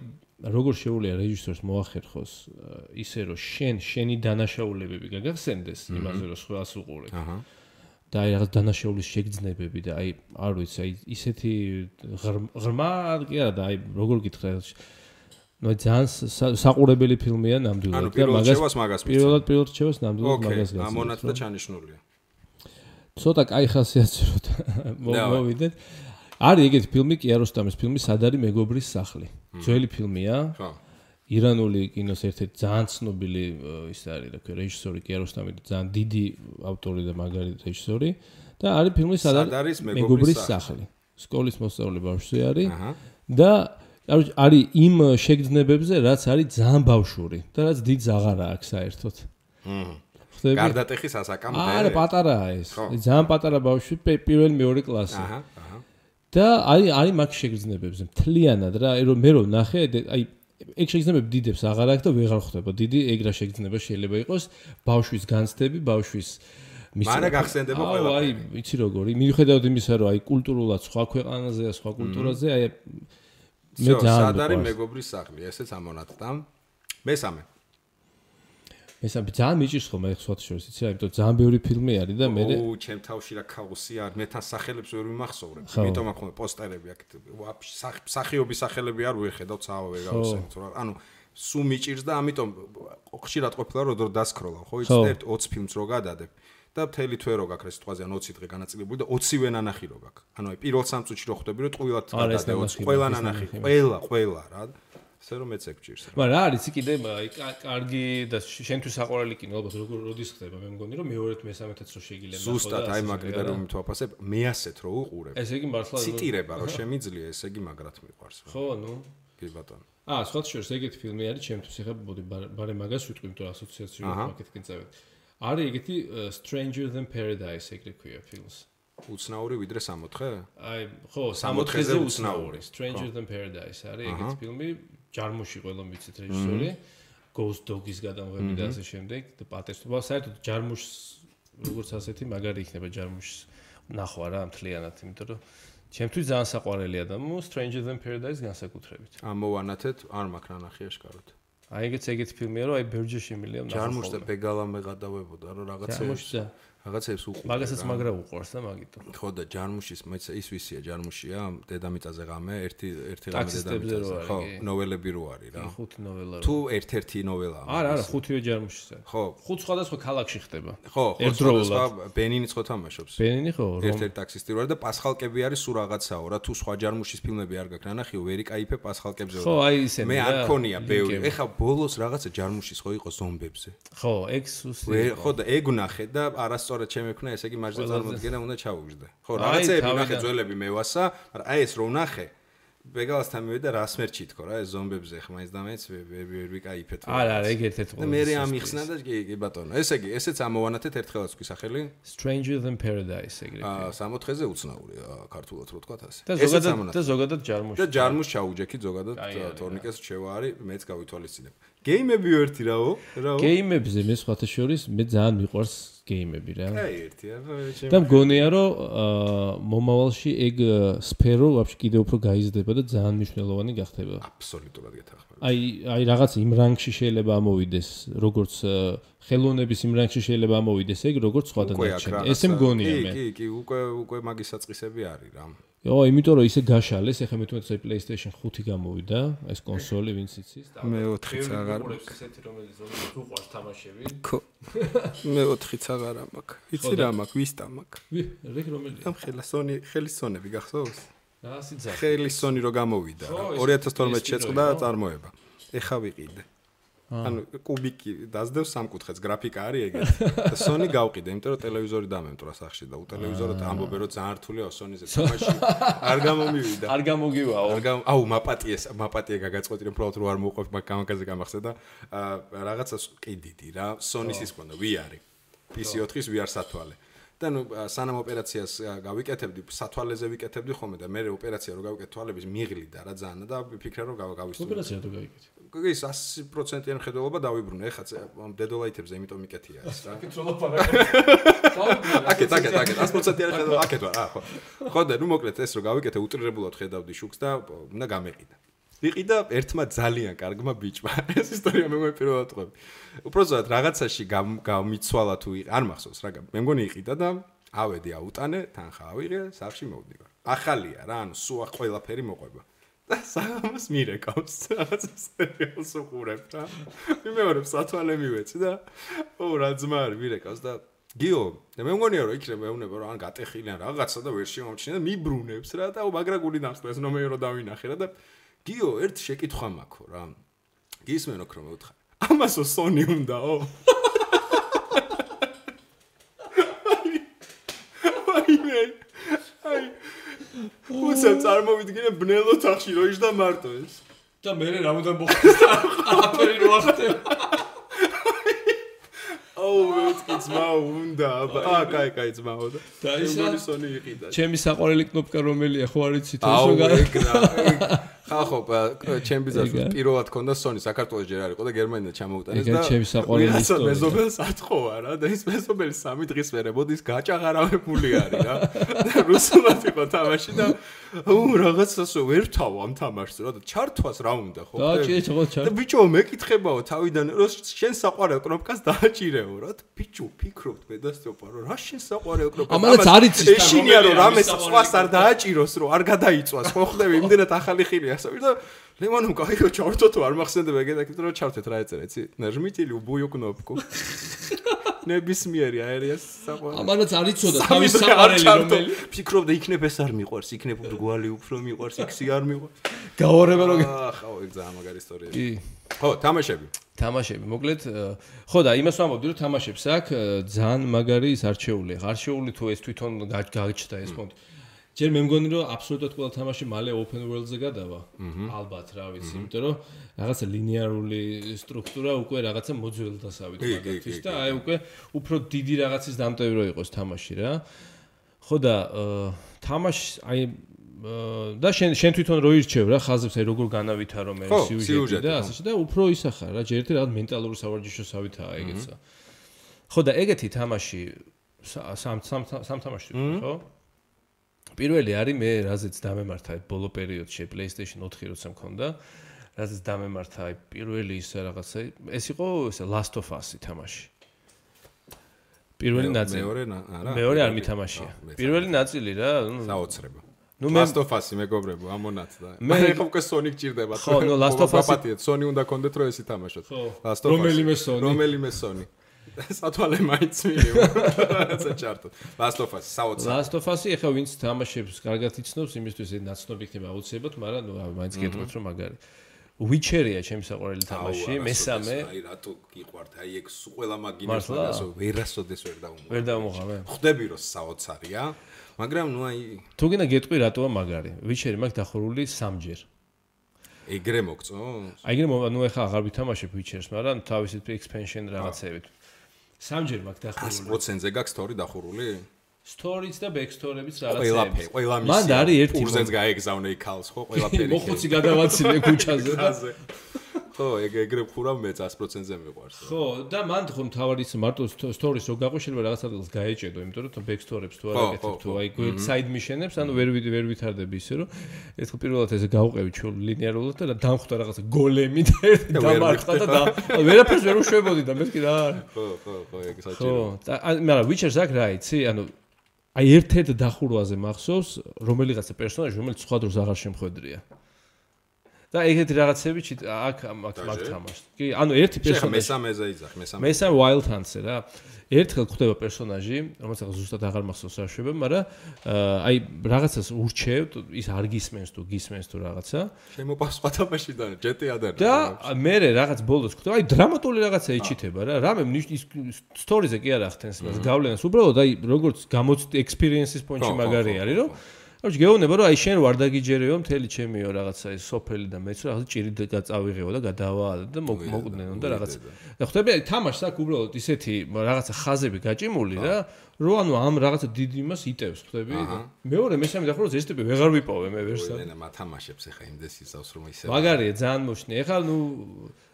Speaker 2: როგორ შეუძლია რეჟისორს მოახერხოს ისე რომ შენი დანაშაულებები გაგახსენდეს იმაზე რომ სხვას უყურებ და აი რაღაც დანაშაულის შეგრძნებები და აი არ ვიცი აი ისეთი ღრმა კი არა და აი როგორ გითხრა ნუ ძალიან საყურებელი ფილმია ნამდვილად
Speaker 1: და მაგას
Speaker 2: პირველად რჩევას ნამდვილად მაგას გასცემ.
Speaker 1: ამონათდა ჩანიშნულია.
Speaker 2: ცოტა კაი ხასიათი რომ მოვიდეთ. არის ეგეთი ფილმი კიაროსტამის ფილმი სადარი მეგობრის სახლი. ძველი ფილმია. ხო. ირანული კინოს ერთ-ერთი ძალიან ცნობილი ის არის რა ქვია რეჟისორი კიაროსტამი ძალიან დიდი ავტორი და მაგარი რეჟისორი და არის ფილმი სადარი მეგობრის სახლი. სკოლის მოსწავლე ბავშვი არის და არის იმ შეგრძნებებზე, რაც არის ძალიან ბავშვური და რაც დიდს აღარ აქვს საერთოდ.
Speaker 1: ხდები? გარდატეხის ასაკამდე.
Speaker 2: არა, პატარაა ეს. ძალიან პატარა ბავშვი, პირველი მეორე კლასი. და არის მაგ შეგრძნებებზე მთლიანად რა, მე რომ ნახე, აი ეგ შეგრძნებები დიდებს აღარ აქვს და ვეღარ ხვდება. დიდი ეგრა შეგრძნება შეიძლება იყოს ბავშვის განცდები, ბავშვის
Speaker 1: მარა გახსენდება ყველაფერი.
Speaker 2: აი, იცი როგორი, მიუხედავად იმისა, რომ აი კულტურულად სხვა ქვეყანაზეა, სხვა კულტურაზე, აი
Speaker 1: მე ძალიან სადარი მეგობრის სახლი, ესეც ამონათდა. მესამე
Speaker 2: ძალიან მიჭირს ხოლმე სხვა შორის, იცი რა, იმიტომ ძალიან ბევრი ფილმი არის და მე
Speaker 1: ჩემ თავში რა ქაოსი არის, მე თან სახელებს ვერ ვიმახსოვრებ. იმიტომ აქ ხოლმე პოსტერები აქ სახიობის სახელები არ ვეხედავ, ცავა ვერ გავუსენთ რა. ანუ სულ მიჭირს და ამიტომ ხშირად ყოფილა რომ დასკროლავ, ხო, იცი 20 ფილმს რო გადადებ. და მთელი თვე რო გაქვს სიტყვაზე ან 20 დღე განაწილებული და 20-ვე ნანახი რო გაქვს. ანუ აი პირველ 3 წუთში რო ხვდები რომ ტყუილად გადადე 20 ყველა ნანახი, ყველა რა. ასე რომ მეც ეგჭირს.
Speaker 2: მაგრამ რა არის კიდე აი კარგი და შენთვის საყვარელი კინო ალბათ როდის ხდება მე მგონი რომ მეორედ მესამეთაც რო შეგიძლია ნახო და
Speaker 1: ზუსტად აი მაგ კრიტერიუმით ვაფასებ მე ასეთ რო უყურებ.
Speaker 2: ესე იგი მართლა
Speaker 1: ციტირება რო შემიძლია ესე იგი მაგრად მიყვარს.
Speaker 2: ხო, ნუ
Speaker 1: კი ბატონო.
Speaker 2: სხვა შორის ეგეთი ფილმი არის ჩემთვის ეხლა ბოდი ბარე მაგას ვიტყვი იმიტომ ასოციაციურ მარკეტინგ წევით. არის ეგეთი Stranger Than Paradise ეგრე ქვია ფილმს.
Speaker 1: უცნაური ვიდრე 64?
Speaker 2: აი, ხო, 64-ზე უცნაური. Stranger Than Paradise არის ეგეთი ფილმი, ჯარმუში ყველა ვიცით რეჟისორი, Ghost Dog-ის გადამღები და ასე შემდეგ და პატერსტობა საერთოდ ჯარმუშს როგორც ასეთი მაგარი იქნება ჯარმუშს ნახვა რა მთლიანად, იმიტომ რომ ჩემთვის ძალიან საყვარელია და Stranger Than Paradise განსაკუთრებით.
Speaker 1: ამოვანათეთ, არ მაქვს ნანახი აშკარად.
Speaker 2: აი ეგეთი ფილმია რომ აი ბერჯე შემილია ნახო.
Speaker 1: ჯარმუშს და ბეგალამე გადავებოდა რომ რაღაცებს უყურე.
Speaker 2: მაგასაც მაგრა უყურს და მაგიტომ.
Speaker 1: ხო და ჯარმუშის მეც ის ვისია ჯარმუშია, დედამიწაზე ღამე, ერთი ღამე დედამიწაზე. ხო, ნოველები რო არის რა.
Speaker 2: ხუთი ნოველა.
Speaker 1: თუ ერთ-ერთი ნოველაა.
Speaker 2: არა, ხუთივე ჯარმუშისა.
Speaker 1: ხო.
Speaker 2: ხუთ სხვადასხვა ქალაქში ხდება.
Speaker 1: ხო, სხვადასხვა ბენინიც ხო თამაშობს.
Speaker 2: ბენინი ხო?
Speaker 1: ერთ-ერთი ტაქსისტი რო არის და პასხალკები არის სულ რაღაცაო რა, თუ სხვა ჯარმუშის ფილმები არ გაქვს ნანახიო, ვერ იკაიფე პასხალკებზე.
Speaker 2: ხო, აი ისენი.
Speaker 1: მე არ ქონია ბევრი. ეხა ბოლოს რაღაცა ჯარმუშის ხო იყო ზომბებზე.
Speaker 2: ხო, ეგ სუსტი.
Speaker 1: ხო და ეგ ნახე და არასწორად შემექნა, ესე იგი მაჟზე წარმოდგენა უნდა ჩაუგზდე. ხო, რაღაცეები ნახე ძველები მევასა, მაგრამ აი ეს რო ნახე, ბეგალასთან მივიდა და რასმერჩი თქო რა, ეს ზომბებზე ხა მაინც და მაინც ვერ ვიკაიფეთ.
Speaker 2: არა, ეგ ერთ-ერთი
Speaker 1: და მე ამიხსნა და კი ბატონო. ესე იგი, ესეც ამოვანათეთ ერთხელაც თქვი სახელი?
Speaker 2: Stranger Than Paradise ეგრე.
Speaker 1: 60-ზე უცნაური ქართულად რო თქვა ასე.
Speaker 2: და ზოგადად ჯარმუში.
Speaker 1: და ჯარმუშ ჩაუჯექი ზოგადად თორნიკეს რჩევა არის, მეც გავითვალისწინებ. გეიმები ერთი რაო?
Speaker 2: გეიმებზე მე სხვათა შორის მე ძალიან მიყვარს გეიმები რა.
Speaker 1: აი ერთია.
Speaker 2: და მგონია რომ მომავალში ეგ სფერო ვაფშე კიდე უფრო გაიზრდება და ძალიან მნიშვნელოვანი გახდება.
Speaker 1: აბსოლუტურად გეთახმები.
Speaker 2: აი რაღაც იმ რანგში შეიძლება ამოვიდეს, როგორც ხელოვნების იმ რანგში შეიძლება ამოვიდეს ეგ როგორც სხვა დანარჩენი. ესე მგონია მე.
Speaker 1: კი, უკვე მაგის საწყისები არის რა.
Speaker 2: იო, იმიტომ რომ ისე გაშალეს, ეხლა მე თვითონ PlayStation 5 გამოვიდა, ეს კონსოლი ვინც იცის.
Speaker 3: მე 4-იც აღარ
Speaker 2: მაქვს. ესეთი რომელიც უყვარს თამაშები.
Speaker 3: მე 4-იც აღარ მაქვს. იცი რა მაქვს, ვისტა მაქვს.
Speaker 2: რეგ რომელია?
Speaker 3: ამ ხელის სონები გახსოვს?
Speaker 2: სიძახი.
Speaker 3: ხელის სონი რო გამოვიდა. 2012 შეწყდა წარმოება. ეხა ვიყიდე. ანუ კუბიკი დაძდევს სამკუთხედს, გრაფიკა არის ეგეთი. და სონი გავყიდე, იმიტომ რომ ტელევიზორი დამემტრა სახში და უტელევიზორად ამბობენ რომ ძალიან რთულია სონიზე თამაში. არ გამომივიდა.
Speaker 2: არ გამოგივაო.
Speaker 3: აუ მაპატია გაგაწყვეტი რომ უბრალოდ რო არ მოუყვებ მაგაზე გამახსენდა რაღაცას ყიდიდი რა. სონის ის ყონდა VR. PC4-ის VR სათვალე. და ნუ სანამ ოპერაციას გავიკეთებდი, სათვალეზე ვიკეთებდი ხოლმე და მე ოპერაცია რო გავიკეთე თვალების მიღლიდა რა ძალიან და ვიფიქრე რომ გავისწორე.
Speaker 2: ოპერაცია თუ გავიკეთე.
Speaker 3: ის 100%-იან ხედველობა დავიბრუნე, ეხლა დედოლაითებზე იმიტომ მიკეთია ეს რა. აკეთ 100%-იან ხედველობა აკეთ ვარ, ხო. ხო და ნუ მოკლედ ეს რო გავიკეთე უტრირებულად ხედავდი შუქს და უნდა გამეყიდა. ვიყიდა ერთმა ძალიან კარგმა ბიჭმა. ეს ისტორია მე პირველად ვყვები. უბრალოდ რაღაცაში გამიცვალა თუ არ მახსოვს რა, მე მგონი იყიდა და ავედი აუტანე, თანხა ავიღე, სახში მოვდივარ. ახალია რა, ანუ სულ ყველაფერი მოყვება. და საღამოს მირეკავს, რაღაც სერიალს უყურებ რა. მიმეორებ სათვალე მივეცი და რა ძმა არის მირეკავს და გიო, და მე მგონია რომ იქნებ მეუნება რომ ან გატეხილიან რაღაცა და ვერ შემომჩნია და მიბრუნებს რა და მაგრაგული დამსწრეს ნომერი რო დავინახე რა და გიო, ერთ შეკითხვა მაქვს რა. გისმენო რომ მეუთხარ. ამასო სონი უნდაო? აი. უსამ წარმოვიდგინე ბნელო თახში რო იჯდა მარტო ეს.
Speaker 2: და მე რამოდან მოხდეს და აფერი რო ახტება.
Speaker 3: მეთქი ძმა უნდა კაი ძმაო და სონი იყიდა.
Speaker 2: ჩემი საყვარელი კნოპკა რომელია ხო არ იცით
Speaker 3: όσο ხახო ჩემი ბიზნესი პირველად ქონდა სონი საქართველოს ჯერ არ იყო და გერმანიიდან ჩამოუტანეს და
Speaker 2: ჩემი საყვარელი ისტორია.
Speaker 3: მეზობელს ათხოვა რა და ის მეზობელი 3 დღის მერე მოდის გაჭაღარავებული არის რა. და რუსულად იყო თამაში და რაღაცასო ვერ თავ ამ თამაშს რა და ჩართვას რა უნდა ხო? და ბიჭო მეკითხებაო თავიდან რომ შენ საყვარელ კნოპკას დააჭირეო რა. ბიჭო ფიქრობთ მედასწროპა რომ რა შენ საყვარელ კნოპკას
Speaker 2: ამანაც არ იცის
Speaker 3: ეშინია რომ რამეს სხვას არ დააჭიროს რომ არ გადაიწვას ხო ხდები იმდენად ახალი ხილია და ლემონო კაიო ჩავერთო თუ არ მახსენდება ეგეთაკეთ რომ ჩავთეთ რა ეწერა იცი ნაჟმიტილი უბუიო კნოპკუ ნებისმიერი აერიას საყვარელი
Speaker 2: ამანაც არ იცოდა თავის საყვარელი რომელი
Speaker 3: ფიქრობდა იქნებ ეს არ მიყვარს იქნებ ბრგვალი უფრო მიყვარს იქსი არ მიყვარს
Speaker 2: გაორება რომ
Speaker 3: ხო ეგ ძალიან მაგარი ისტორია კი ხო თამაშები
Speaker 2: მოკლედ ხო და იმას ვამბობდი რომ თამაშებს აქვს ძალიან მაგარი ის არჩეული არჩეული თუ ეს თვითონ გაჩნდა ეს ფონდი ჯერ მე მგონი რომ აბსოლუტურად ყველა თამაში მალე open world-ზე გადავა. ალბათ რა ვიცი, იმიტომ რომ რაღაცა ლინეარული სტრუქტურა უკვე რაღაცა მოძველდასავით მაგათთვის და აი უკვე უფრო დიდი რაღაცის დამტევი რო იყოს თამაში რა. ხო და თამაში აი და შენ თვითონ რო ირჩევ რა ხაზებს აი როგორ განავითარო მე სიუჟეტი და ასე და უფრო ისახარ რა ჯერ ერთი რაღაც მენტალური სავარჯიშოსავითაა ეგეცა. ხო და ეგეთი თამაში სამ თამაში ხო? პირველი არის მე რაზეც დამემართა ბოლო პერიოდში PlayStation 4 როცა მქონდა რაზეც დამემართა პირველი ის რაღაცა ეს იყო ესე Last of Us თამაში პირველი ნაწილი მეორე არ მითამაშია პირველი ნაწილი რა
Speaker 3: საოცრება Last of Us მეგობრებო ამონაც და მე ხო უკვე Sony გჭირდება
Speaker 2: ხო ნუ Last of Us
Speaker 3: Sony უნდა კონდეთ რომ ესი თამაშოთ
Speaker 2: Last of Us
Speaker 3: რომელიმე Sony სათვალე მაინც მივიღო რაცა ჩარტო Last of Us საოცარი
Speaker 2: Last of Us-ი ახლა ვინც თამაშებს კარგად იცნობს იმისთვის ეს ნაცნობი იქნება აუცილებლად მაგრამ ნუ მაინც გეტყვით რომ მაგარი Witcher-ია ჩემი საყვარელი თამაში მესამე
Speaker 3: აი რატო გიყვართ აი ეგ ყველა მაგინას მაგასო ვერასოდეს ვერ
Speaker 2: დავმოღავე
Speaker 3: ხვდები რომ საოცარია მაგრამ ნუ აი
Speaker 2: თუ გინდა გეტყვი რატოა მაგარი Witcher-ი მაგ დახურული 3-ჯერ
Speaker 3: ეგრე მოგწო
Speaker 2: აი ეგრე ნუ ახლა აღარ ვითამაშებ Witcher-ს მაგრამ თავისით expansion რაღაცებით 3-ჯერ მაგ დახურული
Speaker 3: 100%-ზე გაქვს story დახურული?
Speaker 2: Story-ც და backstory-იც რაღაცები.
Speaker 3: ყველა მისია.
Speaker 2: მან არის ერთი
Speaker 3: პურზენს გაეგზავნე იქალს ხო ყველაფერი.
Speaker 2: მოხუცი გადავაცილე ქუჩაზე და
Speaker 3: ხო, ეგრე ხურავ მე 100%-ზე მიყვარს.
Speaker 2: ხო, და მან ხო თავად ის მარტო story-ს რო გაყვე შეიძლება რაღაც ადგილს გაეჭედო, იმიტომ რომ backstory-ებს თუ არ აკეთებ თუ აი side mission-ებს, ანუ ვერ ვითარდები ისე რომ ეს ხო პირველად ესე გავყევი ჩულ ლინეარულად და დამხვდა რაღაცა გოლემი და ერთი დამარხდა და ვერაფერს ვერ უშვებოდი და მე კი რა.
Speaker 3: ხო, ეგ საჭირო.
Speaker 2: ხო, მაგრამ Witcher-ს აქ რა იცი, ანუ აი ერთ-ერთ დახურვაზე მახსოვს რომელიღაცა პერსონაჟი რომელიც სხვა დროს აღარ შემხვედრია და ეგეთი რაღაცები აქ თამაშს. კი, ანუ ერთი პერსონაჟი
Speaker 3: მესამეზე იძახ,
Speaker 2: მესამე Wild Hunt-ზე რა. ერთხელ ხდება პერსონაჟი, რომელსაც ზუსტად აღარ მახსოვს რა შვება, მაგრამ აი რაღაცას ურჩევთ, ის არ გისმენს თუ გისმენს თუ რაღაცა.
Speaker 3: შემოპასვა თამაშიდან, GTA-დან.
Speaker 2: და მე რაღაც ბოლოს ხდება, აი დრამატული რაღაცა იჩითება რა. რამე ის სტორიზე კი არ ახდენს მას გავლენას. უბრალოდ აი როგორც გამოწვი experience-ის პონჩი მაგარი არის, რომ ანუ გეუბნება რომ აი შენ ვარ დაგიჯერეო მთელი ჩემიო რაღაცა ის სოფელი და მეც რაღაცა ჭირი წავიღეო და გადავალ და მოკვდნენო და რაღაცა. და ხვდები აი თამაშს აქ უბრალოდ ისეთი რაღაცა ხაზები გაჭიმული რა რომ ანუ ამ რაღაცა დიდ იმას იტევს ხვდები და მეორე მესამე და ხოლმე ეს ტიპი ვეღარ ვიპოვე მე ვერსად.
Speaker 3: ენა მათამაშებს ახლა იმდეს ისავს რომ ისე
Speaker 2: მაგარია ძალიან მოშნი. ეხლა ნუ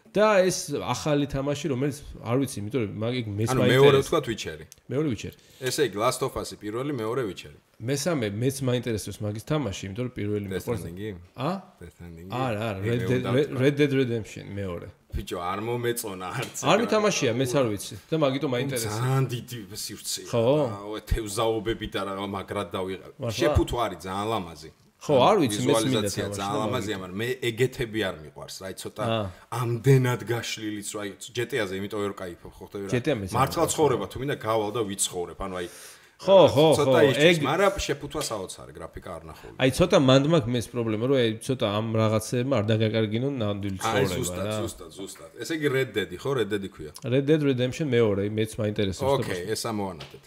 Speaker 2: და ეს ახალი თამაში რომელიც არ ვიცი იმიტომ რომ მაგ მეც
Speaker 3: მაინტერესებს. ანუ მეორე თქვა Witcher-ი.
Speaker 2: მეორე Witcher.
Speaker 3: ესე იგი Last of Us-ი პირველი, მეორე Witcher-ი.
Speaker 2: მესამე მეც მაინტერესებს მაგის თამაში, იმიტომ რომ პირველი მეყვარს.
Speaker 3: Death Stranding-ი?
Speaker 2: არა, Red Dead Redemption მეორე.
Speaker 3: ბიჭო, არ მომეწონა არც.
Speaker 2: არ მითამაშია, მეც არ ვიცი და მაგიტომ მაინტერესებს.
Speaker 3: ძალიან დიდი სივრცეა.
Speaker 2: ხო?
Speaker 3: თევზაობები და რა მაგრად დავიღებ. შეფუთო არის ძალიან ლამაზი.
Speaker 2: ხო, არ ვიცი, მე მინდა
Speaker 3: თამაში. ძალიან ლამაზია, მაგრამ მე ეგეთები არ მიყვარს, რა, ცოტა ამდენად გაშლილიც, რა, GTA-ზე იმიტომ ვერ кайფობ, ხო ხტები რა. მართლა ცხოვრება თუ მინდა გავალ და ვიცხოვრებ, ანუ აი
Speaker 2: ხო,
Speaker 3: ცოტა ის, მაგრამ შეფუთვა საოცარი გრაფიკა არ ნახული.
Speaker 2: აი ცოტა მანდ მაქვს პრობლემა, რომ აი ცოტა ამ რაღაცებმა არ დაგაკარგინონ ნამდვილი ცხოვრება რა.
Speaker 3: აი ზუსტად. ესე იგი Red Dead-ი, ხო, Red Dead-ი ქვია.
Speaker 2: Red Dead Redemption მეორე, მეც მაინტერესებს.
Speaker 3: ოკეი, ეს ამოვანათეთ.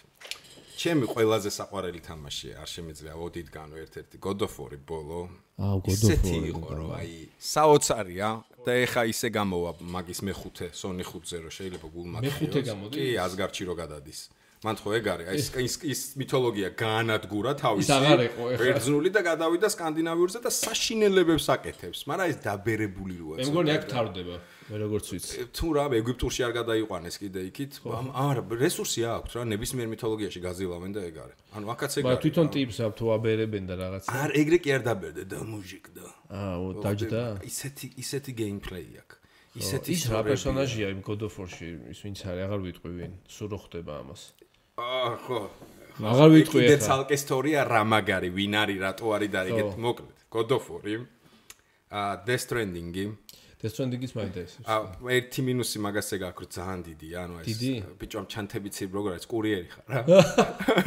Speaker 3: ჩემი ყველაზე საყვარელი თამაშია, არ შემიძლია ოდითგანო ერთ-ერთი God of War-ი ბოლო.
Speaker 2: God of War
Speaker 3: იყო რომ აი საოცარია და ეხა ისე გამოვა მაგის მეხუთე Sony 5-ზე რომ შეიძლება გულმაგდიოს.
Speaker 2: მეხუთე გამოდის?
Speaker 3: კი, Asgard-ში რო გადადის. მან ხო ეგ არის, აი ის მითოლოგია გაანადგურა თავისი.
Speaker 2: ის აღარ იყო ეხლა.
Speaker 3: ბერძნული და გადავიდა სკანდინავიურზე და საშინელებებს აკეთებს, მაგრამ ეს დაბერებული როა.
Speaker 2: მე მგონი აქ თავდება, მე როგორც ვიცი.
Speaker 3: თუ რა ეგვიპტურში არ გადაიყვანეს კიდე იქით, არა, რესურსი აქვს რა, ნებისმიერ მითოლოგიაში გაზილავენ და ეგ არის. ანუ აქაც ეგ არის.
Speaker 2: მაგრამ თვითონ ტიპს აქვს თუ აბერებენ და რაღაცა.
Speaker 3: არ ეგრე კი არ დაბერდე და მუჟიკდა.
Speaker 2: დაჯდა.
Speaker 3: ისეთი გეიმპლეი აქვს. ისეთი
Speaker 2: ის რა პერსონაჟია იმ God of War-ში, ის ვინც არის, აღარ ვიტყვი ვინ, სულ რო ხდება ამას.
Speaker 3: ხო.
Speaker 2: აღარ ვიტყვი
Speaker 3: ახლა. ეს ცალკე ისტორია რა მაგარი, ვინ არის, რატო არის და ეგეთ მოკლედ. God of War-ი, Death Stranding-ი.
Speaker 2: Death Stranding-ის მაინტერესებს.
Speaker 3: ერთი მინუსი მაგასე გაქვს, ძალიან დიდია, ანუ ეს ბიჭო ამ ჩანთებით როგორ არის, კურიერი ხარ რა.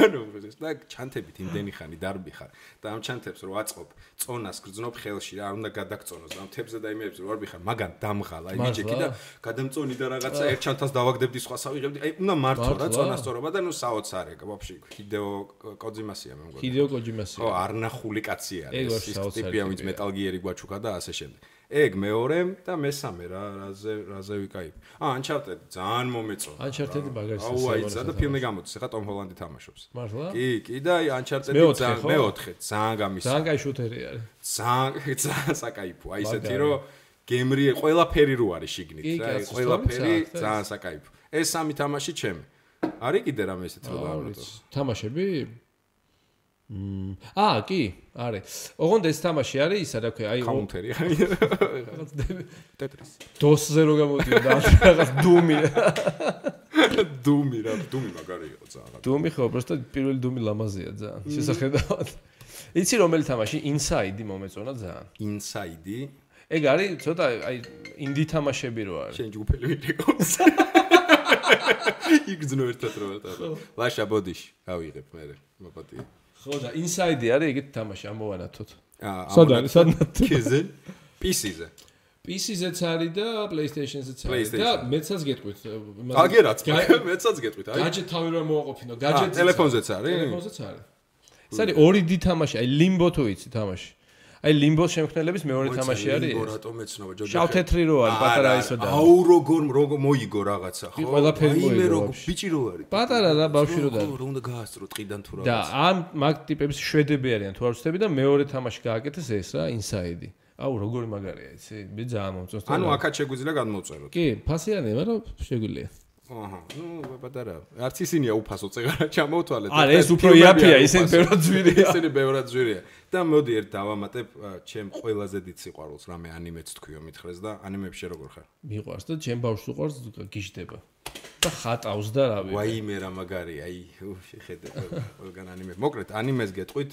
Speaker 3: ანუ ეს და ჩანთებით იმდენი ხანი დარბი ხარ და ამ ჩანთებს რო აწყობ, წონას გრძნობ ხელში რა, არ უნდა გადაგწონოს და ამ თებზე და იმებს რო არ ვიხარ, მაგან დამღალა, აი მიჭექი და გადამწონი და რაღაცა ერთ ჩანთას დავაგდებდი, სხვა ავიღებდი, აი უნდა მართო რა წონასწორობა და ნუ საოცარია, ვაფშე ჰიდეო კოძიმასია მე მგონი.
Speaker 2: ჰიდეო კოჯიმასია.
Speaker 3: ხო, არ ნახული კაცი არის, ის ტიპია, ვინც Metal Gear-ი გვაჩუქა და ასე შემდეგ. ეგ მეორე და მესამე რაზე ვიკაიფ. Uncharted ძალიან მომეწონა.
Speaker 2: Uncharted მაგარი
Speaker 3: საუბარია და ფილმი გამოდის, ახლა Tom Holland-ი თამაშობს.
Speaker 2: მართლა?
Speaker 3: კი და Uncharted-ი ძალიან მეოთხე, ძალიან გამის.
Speaker 2: ძალიან кай შუთერი არის.
Speaker 3: ძალიან საკაიფო. აი ესეთი რომ გემრი ყველაფერი რო არის შიგნით, რა, ყველაფერი ძალიან საკაიფო. ეს სამი თამაში ჩემი. არის კიდე რამე ესეთი რომ დავამატო.
Speaker 2: თამაშები? კი, არის. ოღონდ ეს თამაში არის ისა რა ქვია, აი
Speaker 3: კაუნტერი არის. Tetris.
Speaker 2: DOS-ზე რო გამოდიოდა რაღაც Doom-ი.
Speaker 3: Doom-ი მაგარი იყო ძალიან.
Speaker 2: Doom-ი ხო, просто პირველი Doom-ი ლამაზია ძალიან. შესახედავად. იცი რომელი თამაში? Inside-ი მომეწონა ძალიან.
Speaker 3: Inside-ი?
Speaker 2: ეგ არის ცოტა აი ინდი თამაშები რო არის.
Speaker 3: შენ ჯგუფელი ვიყავს. იგზნო ერთად რო ვატარო. ლაშა ბოდიში ავიღებ მე მოპატია.
Speaker 2: ხო და Inside-ი არის ეგეთი თამაში ამოვანათოთ. სადაც
Speaker 3: კიზე PC-ზე.
Speaker 2: PC-ზეც არის და PlayStation-ზეც არის და მეცაც გეტყვით.
Speaker 3: აგერაც მეცაც გეტყვით.
Speaker 2: აი გაჯეტ თავი რომ მოაყოფინო, გაჯეტ
Speaker 3: ტელეფონზეც არის?
Speaker 2: ტელეფონზეც არის. ეს არის ორი დი თამაში, აი Limbo თუ იცი თამაში. აი Limbo შემქმნელების მეორე თამაში არის.
Speaker 3: Limbo რატომ ეცნობა ჯოჯო?
Speaker 2: შავ-თეთრი რო არის, პატარა ისო და.
Speaker 3: აუ როგორ მოიგო რაღაცა, ხო?
Speaker 2: ყველაფერი მოიგო.
Speaker 3: მე როგორ ბიჭი რო არის.
Speaker 2: პატარა რა ბავშვი რო და.
Speaker 3: რო უნდა გაასწრო ტყიდან თუ რაღაცა.
Speaker 2: და ამ მაგ ტიპების შვედები არიან თუ არ ვცდები და მეორე თამაში გააკეთეს ეს რა, Inside-ი. აუ როგორი მაგარია, იცი? მე ძალიან მომწონს.
Speaker 3: ანუ აქაც შეგვიძლია გადმოვწეროთ.
Speaker 2: კი, ფასიანია, მაგრამ შეგვიძლია.
Speaker 3: აჰა, ნუ პატარა. არც ისინია უფასო წეგარა ჩამოვთვალეთ.
Speaker 2: არა, ეს უფრო იაფია, ისინი ბევრად ძვირია.
Speaker 3: ისინი ბევრად ძვირია. და მოდი ერთ დავამატებ ჩემ ყველაზე დიდ სიყვარულს, რამე ანიმეც თქვიო მითხრეს და ანიმეებში როგორ ხარ?
Speaker 2: მიყვარს და ჩემ ბავშვს უყვარს გიჟდება. და ხატავს და რავი.
Speaker 3: ვაიმე რა მაგარი, აი, შეხედე ყველგან ანიმე. მოკლედ, ანიმეს გეტყვით,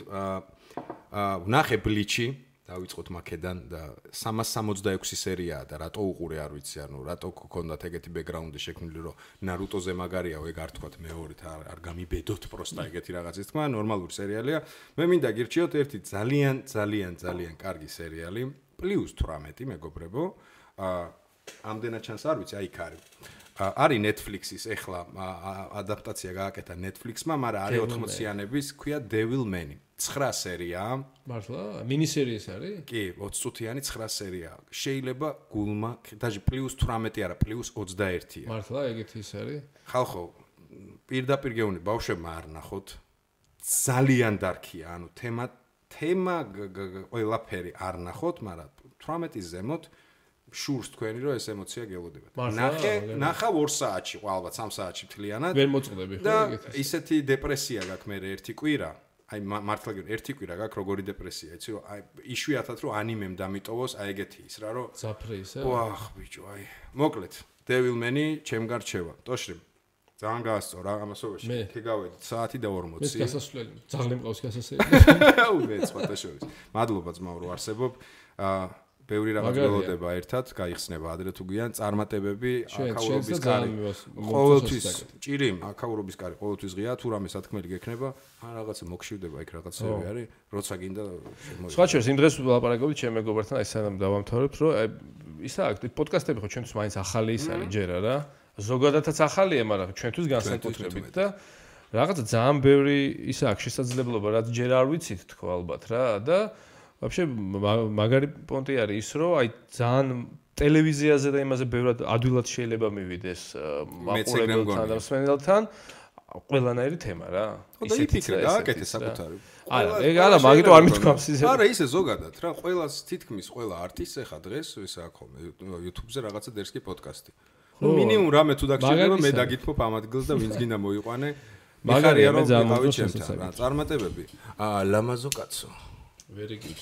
Speaker 3: ვნახე ბლიჩი, დავიწყოთ მაქედან და 366 სერიაა და რატო უყურე არ ვიცი, ანუ რატო გქონდათ ეგეთი ბექგრაუნდი შექმნილი, რომ ნარუტოზე მაგარია, ეგ არ თქვათ მეორით, არ გამიბედოთ პროსტა ეგეთი რაღაცის თქმა, ნორმალური სერიალია. მე მინდა გირჩიოთ ერთი ძალიან კარგი სერიალი, +18 მეგობრებო. ამდენად ჩანს არ ვიცი, აი იქ არის. არის Netflix-ის ეხლა ადაპტაცია გააკეთა Netflix-მა, მაგრამ არის 80-იანების, ქვია Devil Man. 9 სერიაა.
Speaker 2: მართლა? მინისერიას არის?
Speaker 3: კი, 20 წუთიანი 9 სერიაა. შეიძლება გულმა, დაჟე +18 არა, +21-ია.
Speaker 2: მართლა ეგეთი ის არის?
Speaker 3: ხალხო, პირდაპირ გეუბნები, ბავშვებმა არ ნახოთ. ძალიან დარქია, ანუ თემა ყველაფერი არ ნახოთ, მაგრამ 18-ის ზემოთ შურს თქვენი რომ ეს ემოცია გელოდებათ. ნახა 2 საათში, ალბათ 3 საათში მთლიანად.
Speaker 2: ვერ მოწყდები ხო
Speaker 3: ეგეთი. და ისეთი დეპრესია გაქვს მე ერთი კვირა. აი მართლა ერთი კვირა გაქვს როგორი დეპრესია, იცი რომ აი იშვიათად რომ ანიმემ დამიტოვოს, აი ეგეთი ის რა რომ
Speaker 2: ზაფრე ისე.
Speaker 3: ვახ ბიჭო, აი. მოკლედ, Devil Man-ი ჩემ გარჩევა. ტოშრი. ძალიან გაასწორა ამასობაში. ქეგავედით საათი და 40.
Speaker 2: მე გასასვლელი. ძაღლი მყავს გასასვლელი.
Speaker 3: უვეც ფოტოშოპის. მადლობა ძმაო რომ არსებობ. ბევრი რაღაც ველოდება ერთად, გაიხსნება ადრე თუ გვიან წარმატებები, აკაურობის კარი. ყოველთვის ჭირიმ, აკაურობის კარი ყოველთვის ღია, თუ რამე სათქმელი გექნება, რაღაცა მოგშივდება იქ რაღაცები არის, როცა გინდა შემოიღო.
Speaker 2: სხვა შეს იმ დღეს ვლაპარაკობთ ჩემ მეგობართან, აი სანამ დავამთავრებ, რომ ისა აქვს პოდკასტები ხო ჩვენთვის მაინც ახალი ის არის ჯერა რა. ზოგადადაც ახალია, მაგრამ ჩვენთვის განსაკუთრებით და რაღაცა ძალიან ბევრი ისა აქვს შესაძლებლობა, რაც ჯერ არ ვიცით თქო ალბათ რა და вообще მაგარი პონტი არის ის რომ აი ძალიან ტელევიზიაზე და იმაზე ბევრად ადვილად შეიძლება მივიდეს მაყურებელთან და მსმენელთან ყველანაირი თემა რა.
Speaker 3: და იფიქრე გააკეთე საკუთარი.
Speaker 2: არა, ეგ არა, მაგიტო არ მithქვამს ისე.
Speaker 3: არა, ისე ზოგადად რა, ყველას თითქმის ყველა არტისტს ეხა დღეს ის აქვს ხოლმე YouTube-ზე რაღაცა დერსკი პოდკასტი. ნუ მინიმუმ რამე თუ დაგჭირდება მე დაგითმობ ამ ადგილს და ვინც გინდა მოიყვანე.
Speaker 2: მაგარია რომ
Speaker 3: გავავი ჩემთან რა, წარმატებები. ლამაზო კაცო.
Speaker 2: Very good.